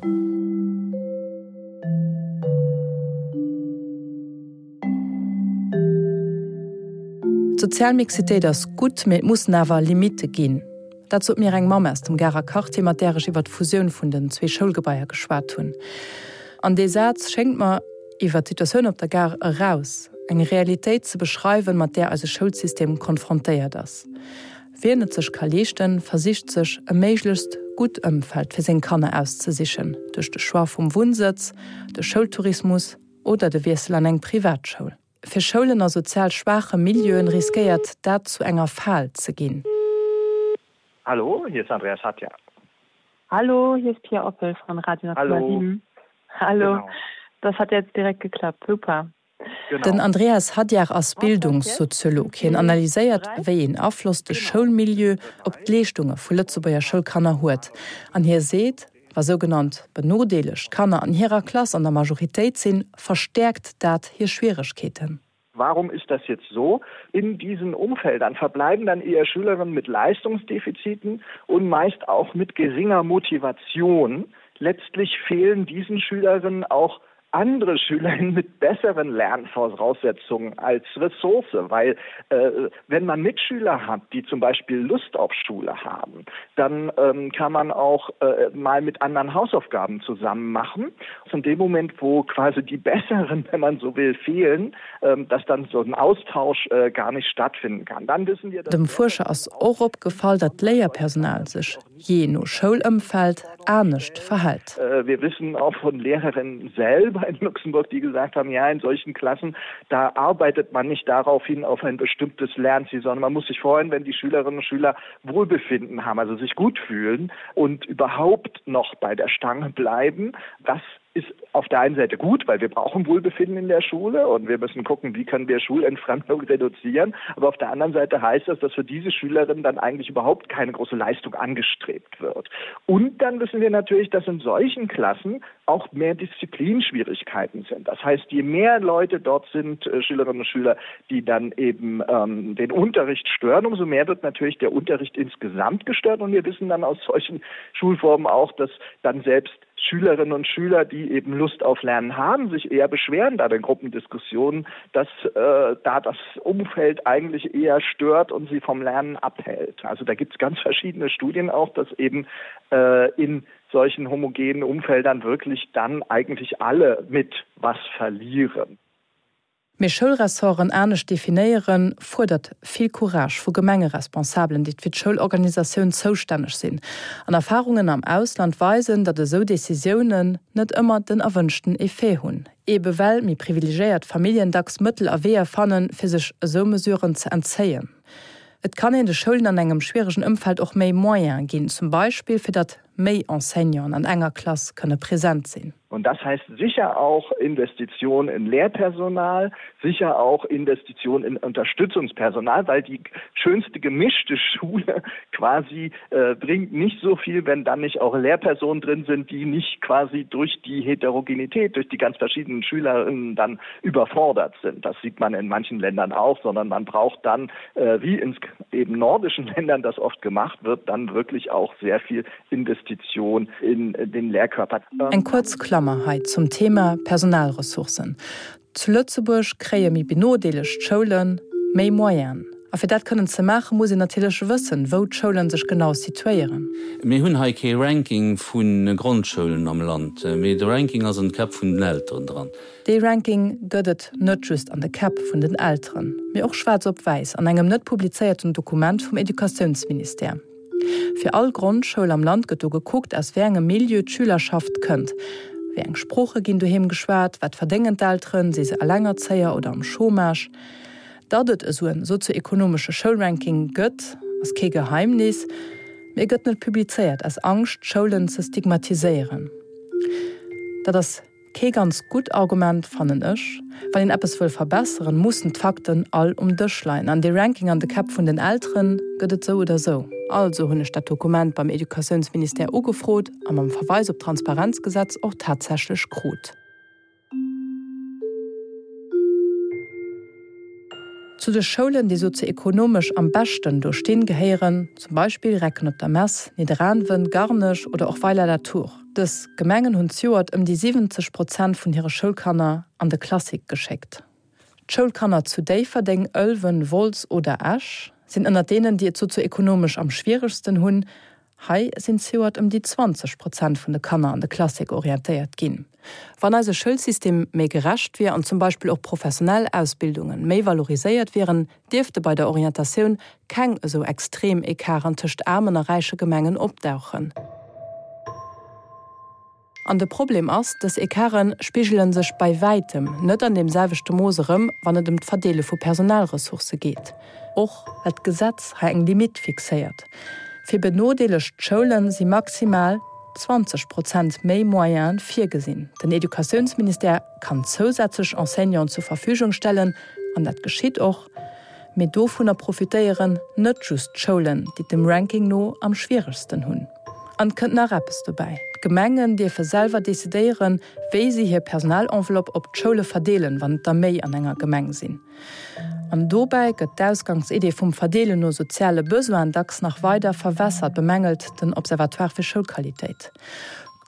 D'sozial Mixitéit ass gutt, mee et mussen awer Limitte ginn. Dat sot mir eng Mamm aus dem Garer Quartier, mat där ech iwwer d'Fusioun vun den zwee Schoulgebaier geschwat hunn. An dee Saz schéngt mer, iwwer d'Situatioun op der Gare eraus, eng Realitéit ze beschreiwen, mat där eise Schoulsystem konfrontéiert ass. Wien et sech ka leeschten, versicht sech e méiglechst gutt Ëmfeld fir seng Kanner auszesichen, duerch de Choix vum Wunnsëtz, de Schoultourismus oder de Wiessel an eng Privatschoul. Fir Schoulen a sozial schwaache Milieuen riskéiert dat zu enger Fal ze ginn. Hallo, hier ist Andreas Hatja. Hallo, hier ist Pia Oppel von Radio 10,7. Hallo. Genau. Das hat jetzt direkt geklappt. Super. Den Andreas Hadjar ass Bildungssoziolog. Hien analyséiert, wéi een Afloss de Schoulmilieu op d'Leeschtunge vu Lëtzebuerger Schoulkanner huet. An hie seet, wa sougenannt benodeelegt Kanner an hirer Klass an der Majoritéit sinn, verstäerkt dat hir Schwieregkeeten. Warum ist das jetzt so? In diesen Umfeldern verbleiben dann eher Schülerinnen mit Leistungsdefiziten und meist auch mit geringer Motivation. Letztlich fehlen diesen Schülerinnen auch andere Schülerinnen mit besseren Lernvoraussetzungen als Ressource, weil äh, wenn man Mitschüler hat, die zum Beispiel Lust auf Schule haben, dann ähm, kann man auch äh, mal mit anderen Hausaufgaben zusammen machen. Von dem Moment, wo quasi die besseren, wenn man so will, fehlen, ähm, dass dann so ein Austausch äh, gar nicht stattfinden kann. Dann wissen wir, Dem Fuerscher ass och opgefall, datt d'Léierpersonal sech jee no Schoulëmfeld anescht verhält. Wir wissen auch von Lehrerinnen selber in Luxemburg, die gesagt haben, ja in solchen Klassen, da arbeitet man nicht darauf hin auf ein bestimmtes Lernziel, sondern man muss sich freuen, wenn die Schülerinnen und Schüler Wohlbefinden haben, also sich gut fühlen und überhaupt noch bei der Stange bleiben. Das ist auf der einen Seite gut, weil wir brauchen Wohlbefinden in der Schule und wir müssen gucken, wie können wir Schulentfremdung reduzieren. Aber auf der anderen Seite heißt das, dass für diese Schülerinnen dann eigentlich überhaupt keine große Leistung angestrebt wird. Und dann wissen wir natürlich, dass in solchen Klassen auch mehr Disziplinschwierigkeiten sind. Das heißt, je mehr Leute dort sind, äh, Schülerinnen und Schüler, die dann eben ähm, den Unterricht stören, umso mehr wird natürlich der Unterricht insgesamt gestört. Und wir wissen dann aus solchen Schulformen auch, dass dann selbst Schülerinnen und Schüler, die eben Lust auf Lernen haben, sich eher beschweren da den Gruppendiskussionen, dass äh, da das Umfeld eigentlich eher stört und sie vom Lernen abhält. Also da gibt es ganz verschiedene Studien auch, dass eben äh, in solchen homogenen Umfeldern wirklich dann eigentlich alle mit was verlieren. Mee Schoulressorten anescht definéieren, fuerdert vill Courage vu Gemengeresponsabelen, déi fir d'Schoulorganisatioun zoustänneg sinn. An Erfarungen am Ausland weisen, datt esou Decisiounen net ëmmer den erwënschten Effet hunn, ebe well méi privilegéiert Familljen dacks Mëttel a Weeër fannen, fir sech esou Mesuren ze entzéien. Et kann een de Schoulen an engem schwieregen Ëmfeld och méi Moyene ginn, zum Beispill fir datt méi Enseignanten an enger Klass kënne present sinn. Und das heißt sicher auch Investitionen in Lehrpersonal, sicher auch Investitionen in Unterstützungspersonal, weil die schönste gemischte Schule quasi äh, bringt nicht so viel, wenn dann nicht auch Lehrpersonen drin sind, die nicht quasi durch die Heterogenität, durch die ganz verschiedenen Schülerinnen dann überfordert sind. Das sieht man in manchen Ländern auch, sondern man braucht dann, äh, wie in eben nordischen Ländern das oft gemacht wird, dann wirklich auch sehr viel Investition in den Lehrkörper. Eng kuerz Klammer hei zum Thema Personalressourcen. Zu Lëtzebuerg kréie méi benodeelegt Schoule méi Moyenen. A fir dat kënnen ze maachen, muss een natierlech wëssen, wou d'Schoulen sech genau situéieren. Mir hunn hei kee Ranking vu Grondschoulen am Land, mee de Ranking ass an de Käpp vun den Elteren dran. Dee Ranking gëtt et net just an de Käpp vun den Elteren, mee och schwaarz op wäiss an engem net publizéierten Dokument vum Educatiounsministère. Fir all Grondschoul am Land gëtt do gekuckt, aus wéi engem Milieu d'Schülerschaft kënnt, wéi eng Sprooche ginn doheem geschwat, wat verdéngen d'Elteren, si se Elengerzéier oder am Chômage. Datt et esou en sozioekonomesche Schoulranking gëtt, ass kee Geheimnis, mee e gëtt net publizéiert, aus Angscht, d'Schoulen ze stigmatiséieren. Dat ass. Kee ganz gutt Argument, fannen ech. Wann een eppes wëll verbesseren, mussen d'Fakten all um Dësch leien. An dee Ranking an de Käpp vun den Elteren gëtt et sou oder sou. Also hunn ech dat Dokument beim Educatiounsministère ugefrot a mam Verweis op d'Transparenzgesetz och tatsächlech krut. Zu de Schoulen, déi sozioekonomesch am beschten do stinn, gehéieren zum Beispill Recken op der Mess, Nidderaanwen, Garnech oder och Weiler-la-Tour. Dës Gemengen hunn zejoert ëm déi 70 Prozent vun hire Schoulkanner an de Classique geschéckt. D'Schoulkanner zu Déifferdeng, Ëlwen, Wolz oder Esch sinn ënnert deenen, déi et sozioekonomesch am schwieregsten hunn. Hei sinn zejoert ëm déi 20 Prozent vun de Kanner an de Classique orientéiert ginn. Wann eise Schoulsystem méi gerecht wier an zum Beispill och professionell Ausbildunge méi valoriséiert wieren, dierfte bei der Orientatioun keng esou extrem Ecarten tëscht aarmen a räiche Gemengen opdauchen. An de Problem ass, dës Ecarte spigele sech bei wäitem net an deem selwechte Mooss erëm, wann et ëm d'Verdeele vu Personalressourcë geet, och well d'Gesetz hei eng Limitt fixéiert. Fir benodeelegt Schoule si maximal 20 Prozent méi Moyene virgesinn. Den Educatiounsministère kann zousätzlech Enseignanten zur Verfügung stellen, an dat geschitt och, mee dovunner profitéieren net just d'Schoulen, déi et dem Ranking no am schwieregsten hunn. An et kënnt nach eppes dobäi, D'Gemengen dierfe selwer decidéieren, wéi si hir Personalenveloppe op d'Schoule verdeelen, wann et der méi an enger Gemeng sinn. An dobäi gëtt d'Ausgangsidee vum Verdeelen no soziale Besoinen dacks nach weider verwässert, bemängelt den Observatoire fir Schoulqualitéit.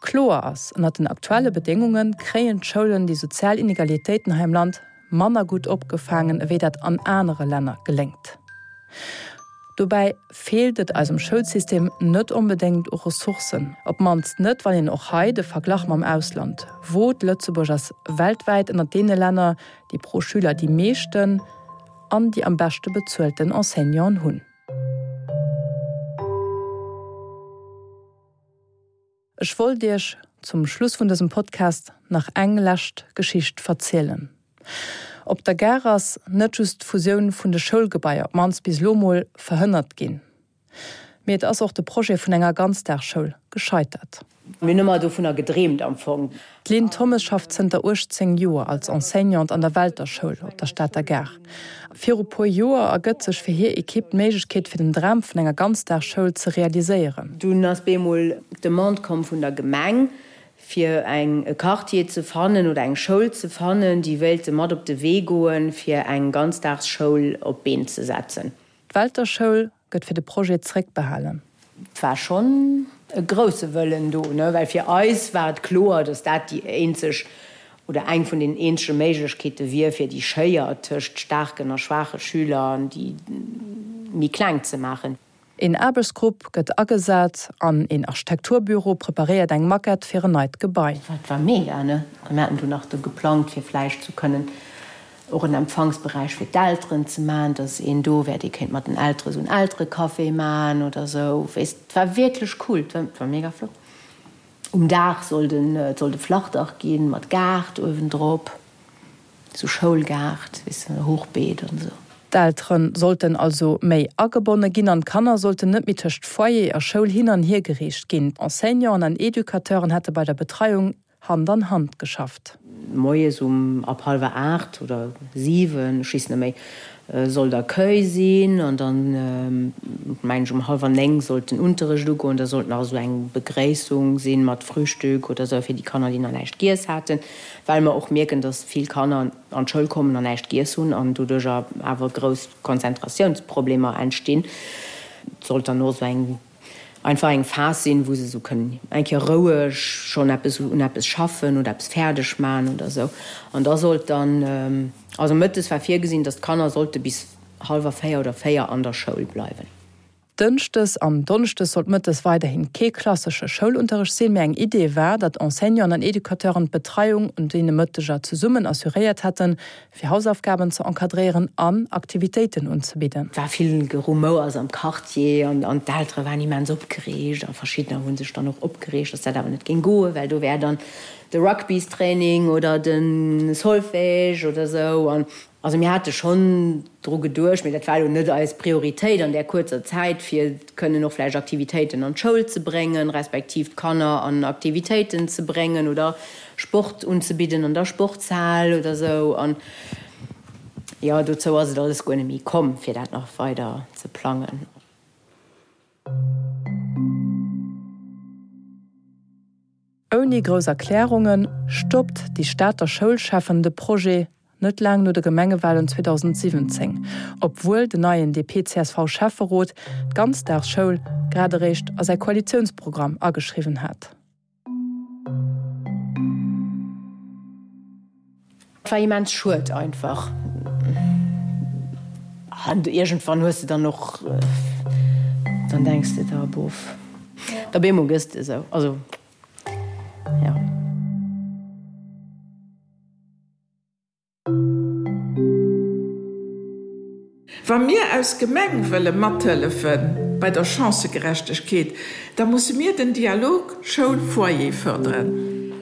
Kloer ass, Ënnert den aktuelle Bedéngunge kréien d'Schoulen déi sozial Inegalitéiten hei am Land manner gutt opgefaangen, ewéi dat an anere Länner geléngt. Dobäi feelt et eisem Schoulsystem net onbedéngt u Ressourcen, op d'mannst net, wann een och hei de Verglach mam Ausland wot. Lëtzebuerg ass weltwäit ënnert deene Länner, déi pro Schüler déi meeschten an déi am beschte bezuelten Enseignanten hunn. Ech wollt Iech zum Schluss vun dësem Podcast nach eng lescht Geschicht verzielen. Op der Gare ass net just d'Fusioun vun de Schoulgebaier, op d'mannst bis elo mol, verhënnert ginn, mee et ass och de Projet vun enger Ganzdagsschoul gescheitert. Mir hunn ëmmer dovunner gedreemt am Fong. D'Lynn Thommes schafft zënter 18 Joer als Enseignante an der Welter Schoul op der Stater Gare. Viru puer Joer ergëtt sech fir hir Ekipp d'Méiglechkeet fir den Dram vun enger Ganzdagsschoul ze realiséieren. Dunn ass bemol d'Demande komm vun der Gemeng, fir eng e Quartier ze fannen oder eng Schoul ze fannen, déi wéilte mat op de Wee goen, fir eng Ganzdagsschoul op d'Been ze setzen. D'Welter Schoul gëtt fir de Projet zréckbehalen. Et war schonn e grousse Wëllen do, ne, well fir eis war et kloer, datt dat déi eenzeg oder eng vun den eenzege Méiglechkeete wier, fir déi Schéier tëscht staarken a schwaache Schüler an déi méi kleng ze maachen. Een Aarbechtsgrupp gëtt agesat an een Architekturbüro preparéiert eng Maquette fir en neit Gebai. Dat war mega, ne? A mir haten du nach do geplangt, fir vläicht zu kënnen och en Empfangsberäich fir d'Elteren ze man, dass een do wär, dee kéint mat den Eltere sou en Elterecafé man oder sou, weess. Et war wierklech cool, et war mega flott. Um Daach sollt en, et sollt e Flachdach ginn, mat Gaart uewendrop, sou Schoulgaart, weess de, Hochbeet an sou. D'Eltere sollten also méi agebonne ginn an d'Kanner sollten net méi tëscht Foyer a Schoul hin an hier gereecht ginn. Enseignanten an Educateuren hätte bei der Betreiung Hand an Hand geschafft. Moies um ab hallwer 8 oder 7, ech weess net méi, sollt Accueil sinn an dann, mengen ech, um hallwer 9 sollt den Unterrecht ugoen. Da sollt nach esou eng Begréissung sinn mat Frühstück oder esou fir déi Kanner, déi nach näischt giess haten, well mer och mierken, dass vill Kanner an d'Schoul kommen an näischt giess hunn an doduercher awer grouss Konzentratiounsproblemer entstinn. Et sollt dann och esou eng Einfach eng Phas sinn, wou se esou kënnen eng Kéier roueg schonn eppes un eppes schaffen oder eppes fäerdeg maachen oder esou. An da sollt dann, also mëttes war virgesinn, datt d'Kanner sollte bis. hallwer 4 oder 4 an der Schoul bleiwen. Dënschdes an Donneschdes sollt mëttes weiderhin kee klassesche Schoulunterrecht sinn, mee eng Idee war, datt Enseignanten an Educateuren d'Betreiung un deene Mëtteger zesummen assuréiert hätten, fir Hausaufgaben ze encadréieren an Aktivitéiten unzebidden. Et war vill Gerumouers am Quartier an d'Eltere waren immens opgereegt a verschiddener hu sech dann och opgereegt, datt dat awer net géing goen, well do wär dann de Rugbystraining oder de Solfège oder sou. Also mir hate schonn dru geduecht, mee dat war elo net eis Prioritéit an där kuerzer Zäit, fir kënnen och vläicht Aktivitéiten an d'Schoul ze bréngen, respektiv d'Kanner an Aktivitéiten ze bréngen oder Sport unzebidden an der Sportshal oder esou. An jo, dozou ass et alles guer net méi komm, fir dat nach weider ze plangen. Ouni grouss Erklärunge stoppt déi Stater Schoulschäffen de Projet net laang no de Gemengewalen 2017, obwuel den neien DP-CSV-Schäfferot d'Ganzdagsschoul grad eréischt a säi Koalitiounsprogramm ageschriwwen hat. Et war immens schued einfach. An iergendwann hues de dann och, dann denks de der, bof, op eemol gëss de esou. Also, jo. Wa mir aus Gemeng wëlle mathëllefe bei der Chancëgerechtegkeet, da musse mir den Dialog Schoul-Foyer fërderen.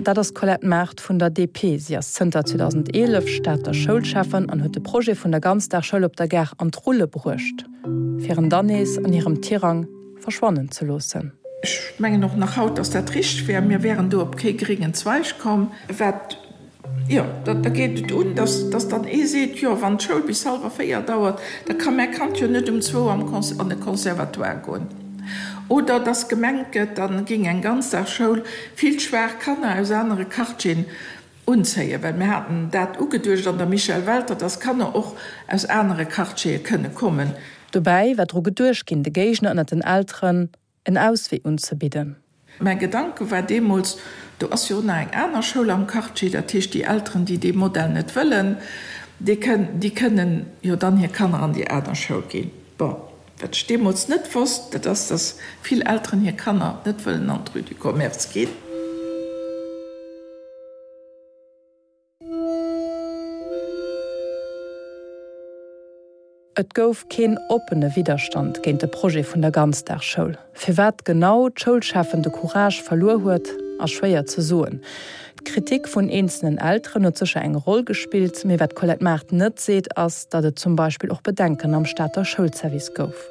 Dat ass d'Colette Mart vun der DP. Si ass zënter 2011 Stater Schoulschäffen an huet de Projet vun der Ganzdagsschoul op der Gare an d'Rulle bruecht, fir en dann nees an hirem Tirang verschwannen ze loossen. Ech mengen och nach haut, dass dat richteg wär. Mir wären do op kee gréngen Zweig komm. Wat Jo, da geet et un, dass dass dann ee seet, jo, wann d'Schoul bis hallwer 4 dauert, da ka mäi Kand jo net um zwou am an de Conservatoire goen. Oder dass gemengt gëtt, da géing eng Ganzdagsschoul vill schwaach Kanner aus anere Quartieren unzéien, well mir haten dat ugeduecht an der Michèle Welter, dass Kanner och aus anere Quartiere kënne kommen. Dobäi war dru geduecht ginn, de Géigner ënnert den Elteren en Auswee unzebidden. Mäi Gedanke war deemools, do ass jo och nach eng aner Schoul am Quartier, dat heescht déi Elteren, déi dee Modell net wëllen, déi kënnen jo dann hir Kanner an déi aner Schoul ginn. Bon, wat ech deemools net wosst, dat ass, datt vill Elteren hir Kanner net wëllen an d'Rue du Commerce ginn. Et gouf keen oppene Widderstand géint de Projet vun der Ganzdagsschoul. Firwat genau d'Schoulschäffen de Courage verluer huet, ass schwéier ze soen. D'Kritik vun eenzelnen Elteren huet sécher eng Roll gespillt, mee wat d'Colette Mart net seet, ass, datt et zum Beispill och Bedenken am Stater Schoulservice gouf.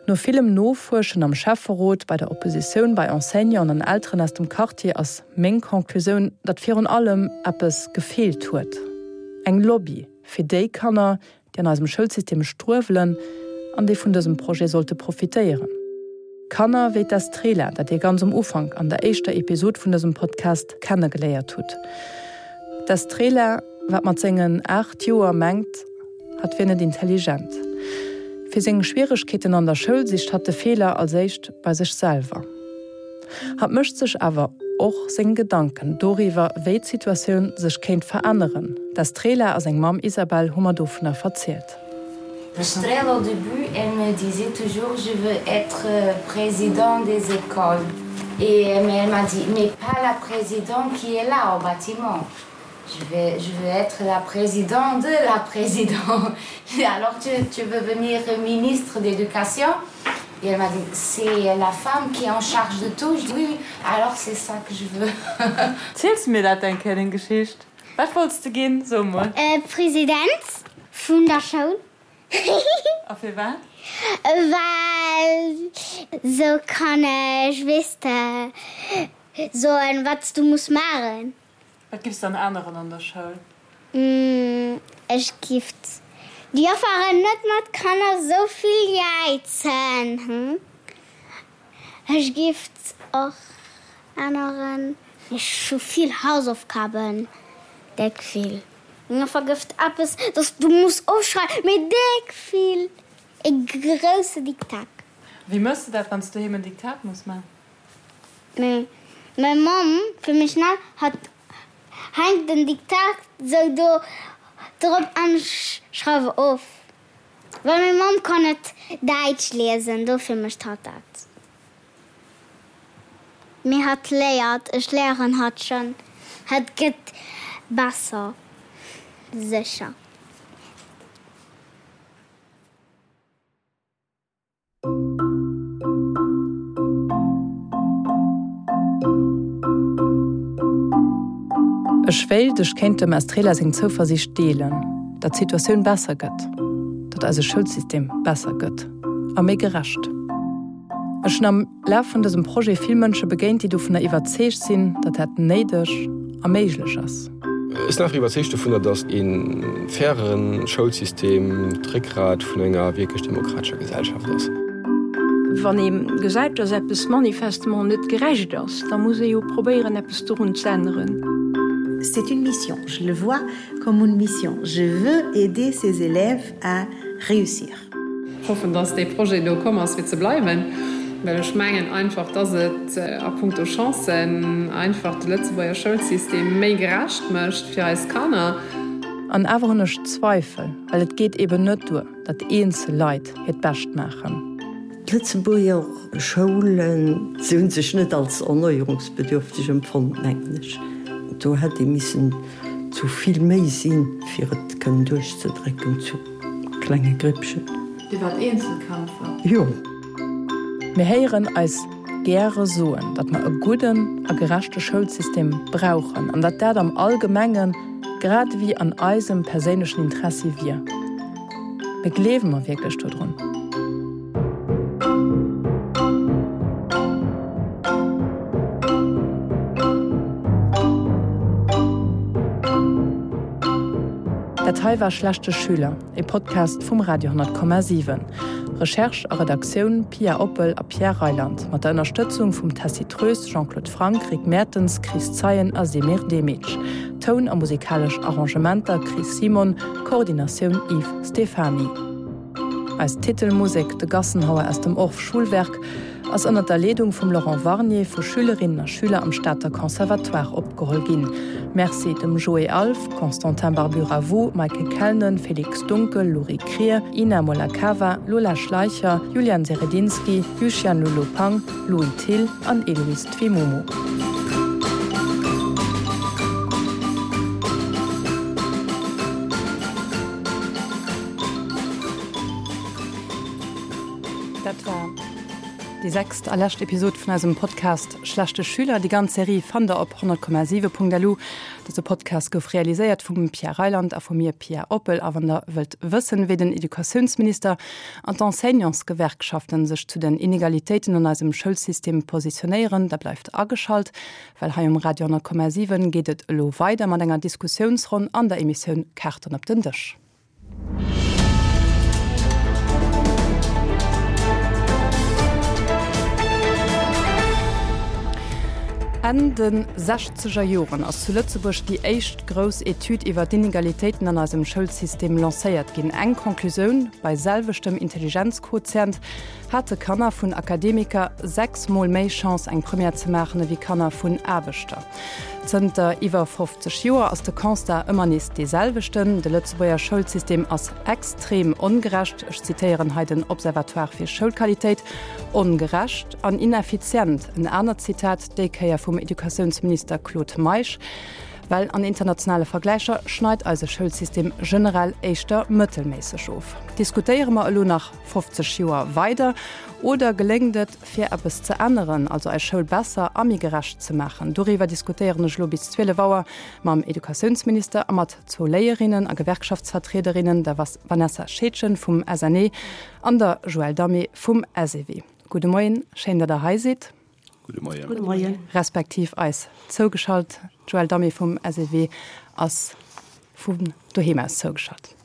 No villem Nofuerschen am Schäfferot, bei der Oppositioun, bei Enseignanten an Elteren aus dem Quartier ass meng Conclusioun, datt virun allem eppes gefeelt huet, eng Lobby fir déi Kanner, déi an eisem Schoulsystem struewelen an déi vun dësem Projet sollte profitéieren. Kanner wéi d'Estrela, dat Dir ganz um Ufank an der éischter Episod vun dësem Podcast kennegeléiert hutt. D'Estrela, wat mat sengen 8 Joer mengt, hatt wier net intelligent. Fir seng Schwieregkeeten an der Schoul sicht hatt de Feeler als éischt bei sech selwer. Hatt mécht sech awer och seng Gedanken doriwwer, wéi d'Situatioun sech kéint veränneren. D'Estrela a seng Mamm Isabel hu mer dovunner verzielt. Estrela au début elle me disait toujours je veux être président des écoles et mais elle m'a dit mais pas la présidente qui est là au bâtiment je vais je veux être la présidente de la présidente alors tu, tu veux venir ministre d'éducation et elle m'a dit c'est la femme qui est en charge de tout je dis oui alors c'est ça que je veux Ziels mir dat eng Kéier deng Geschicht? Wat wollts de ginn? So mol. President vun der Schoul. A firwat? Well sou kann ech, weess de, soen wat s du muss maachen. Wat giffs de dann änneren an der Schoul? Ech giff d'Jofferen net mat Kanner sou vill jäizen. Ech giff och änneren. Ech hu vill Hausaufgaben, déck vill. Meng Joffer gëfft eppes, dass du muss ofschreiwen, mee déck vill, e grousse Diktat. Wéi mëss de dat, wann s du doheem en Diktat muss man? Mee meng Mamm, fir méi schnell, hat hänkt den Diktat sou do drop an ech schreiwe of. Well meng Mamm kann net Däitsch liesen, dofir mécht hatt dat. Mee hatt léiert, ech léieren hatt schonn, hatt gëtt besser, sécher. Ech wéilt, ech kéint dem Estrela seng Zouversiicht deelen, datt d'Situatioun besser gëtt, datt eise Schoulsystem besser gëtt a méi gerecht. Ech hunn am Laf vun dësem Projet vill Mënsche begéint, déi dovunner iwwerzeegt sinn, datt dat néideg a méiglech ass. Ech sinn einfach iwwerzeegt dovunner, datt e faire Schoulsystem d'Réckgrat vun enger wierklech demokratescher Gesellschaft ass. Wann ee gesäit, datt eppes manifestement net gerecht ass, da muss ee jo probéieren, eppes dorun z'änneren. C'est une mission, je le vois comme une mission, je veux aider ces élèves à réussir. Hoffen, dass dee Projet do komm ass fir ze bleiwen, well ech mengen einfach, dass et a puncto Chancen einfach de Lëtzebuerger Schoulsystem méi gerecht mécht fir eis Kanner. An awer hunn ech Zweifel, well et geet eben net duer, datt eenzel Leit hiert Bescht maachen. D'Lëtzebuerger Schoulen, se hu sech net als erneuerungsbedürfteg empfonnt, mengen ech. Do hätt ee missen zu vill méi sinn, fir et kënnen duerchzedrécken zu klenge Grippchen. Dir waart Eenzelkämpfer? Jo. Mir héieren eis gäre soen, datt mer e gudden a gerechte Schoulsystem brauchen an datt dat am Allgemenge grad ewéi an eisem perséinlechen Interessi wier. Mee gleewe mer wierklech dodrun? Dat hei war Schlechte Schüler, e Podcast vum Radio 10,7. Recherche a Redaktioun, Pia Oppel a Pierre Reyland, mat der Ënnerstëtzung vum Tessy Troes, Jean-Claude Franck, Rick Mertens, Chris Zeien a Semir Demic. Toun a musikalesch Arrangementer, Chris Simon, Koordinatioun, Yves Stephany. Eis Titelmusek, De Gassenhauer aus dem Orff Schulwerk, ass ënner der Leedung vum Laurent Warnier vu Schülerinnen a Schüler am Stater Conservatoire opgeholl ginn. Merci dem Joé Alff, Constantin Barbu-Ravoux, Maike Kellnen, Félix Dunkel, Louri Krier, Ina Molakava, Lola Schleicher, Julian Seredinski, Yuxian Lulu Pang, Louis Thill an Eloïse Twimomo. Dat war déi sechst a lescht Episod vun eisem Podcast Schlechte Schüler. Déi ganz Serie fannt der op 100,7.lu. Dëse Podcast gouf realiséiert vum Pierre Reyland a vu mir, Pia Oppel. A wann der wëllt wëssen, wéi den Educatiounsminister an d'Enseignantsgewerkschaften sech zu den Inegalitéiten an eisem Schoulsystem positionéieren, da bleift ageschalt, well hei um Radio 100,7 geet et elo weider mat enger Diskussiounsronn an der Emissioun Kaarten op den Dësch. Enn de sechzeger Joren ass zu Lëtzebuerg déi éischt grouss Etüd iwwer d'Inegalitéiten an eisem Schoulsystem lancéiert ginn. Eng Conclusioun, Bei selweschtem Intelligenzquotient hate Kanner vun Akademiker 6 Mol méi Chance eng Première ze maachen ewéi Kanner vun Aarbechter. Zënter iwwer 50 Joer ass de Constat ëmmer nees dee selwechten, De Lëtzebuerger Schoulsystem ass extrem ongerecht, ech zitéieren hei den Observatoire fir Schoulqualitéit, ongerecht an ineffizient. En anert Zitat, déi Kéier vum Educatiounsminister Claude Meisch, Well an internationale Vergläicher schneit eise Schoulsystem generell éischter mëttelméisseg of. Diskutéiere mer elo nach 50 Joer weider oder geléngt et, fir eppes ze änneren, also eis Schoul besser a méi gerecht ze maachen? Doriwwer diskutéieren ech elo bis 12 Auer mam Educatiounsminister a mat zwou Léierinnen a Gewerkschaftsvertriederinnen, der Vanessa Scheedgen vum SNE an der Joëlle Damé vum SEW. Gudde Moien, schéin, datt Der hei sidd. Gudde Moien. Gudde Moien. Respektiv eis zougeschalt. D'Joëlle Damé vum SEW ass vun doheem aus zougeschalt.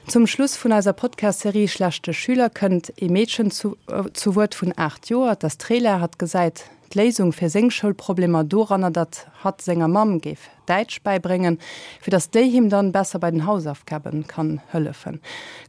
Zum Schluss vun eiser Podcast-Serie Schlechte Schüler kënnt ee Meedchen zu zu Wuert vun 8 Joer, d'Astrela. Hatt gesäit d'Léisung fir seng Schoulproblemer doranner, datt hatt senger Mamm géif. Däitsch bäibréngen, fir datt déi him dann besser bei den Hausaufgaben kann hëllefen.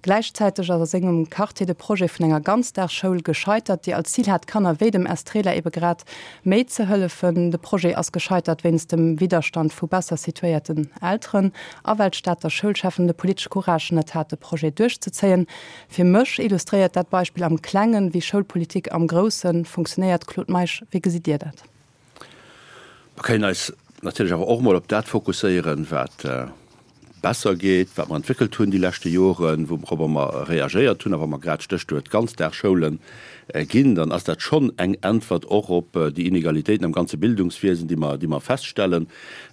Gläichzäiteg ass a sengem Quartier de Projet vun enger Ganzdagsschoul gescheitert, déi als Zil hat, Kanner wéi dem Estrela ebe grad méi ze hëllefen. De Projet ass gescheitert wéinst dem Widderstand vu besser situéierten Elteren a well d'Stater Schoulcheffen de politesche Courage net hat, de Projet duerchzezéien. Fir mech illustréiert dat Beispill am Klengen, wéi Schoulpolitik am Grousse funktionéiert. Claude Meisch, wéi gesitt Dir dat? Mer kënnen eis natierlech awer och emol op dat fokusséieren, wat besser geet, wat mer entwéckelt hunn déi leschte Joren, wouropper mer reagéiert hunn. A wa mer grad d'Stéchwuert Ganzdagsschoule ginn, dann ass dat schonn eng Äntwert och op déi Inegalitéiten am ganze Bildungswiesen, déi mer, déi mer feststellen,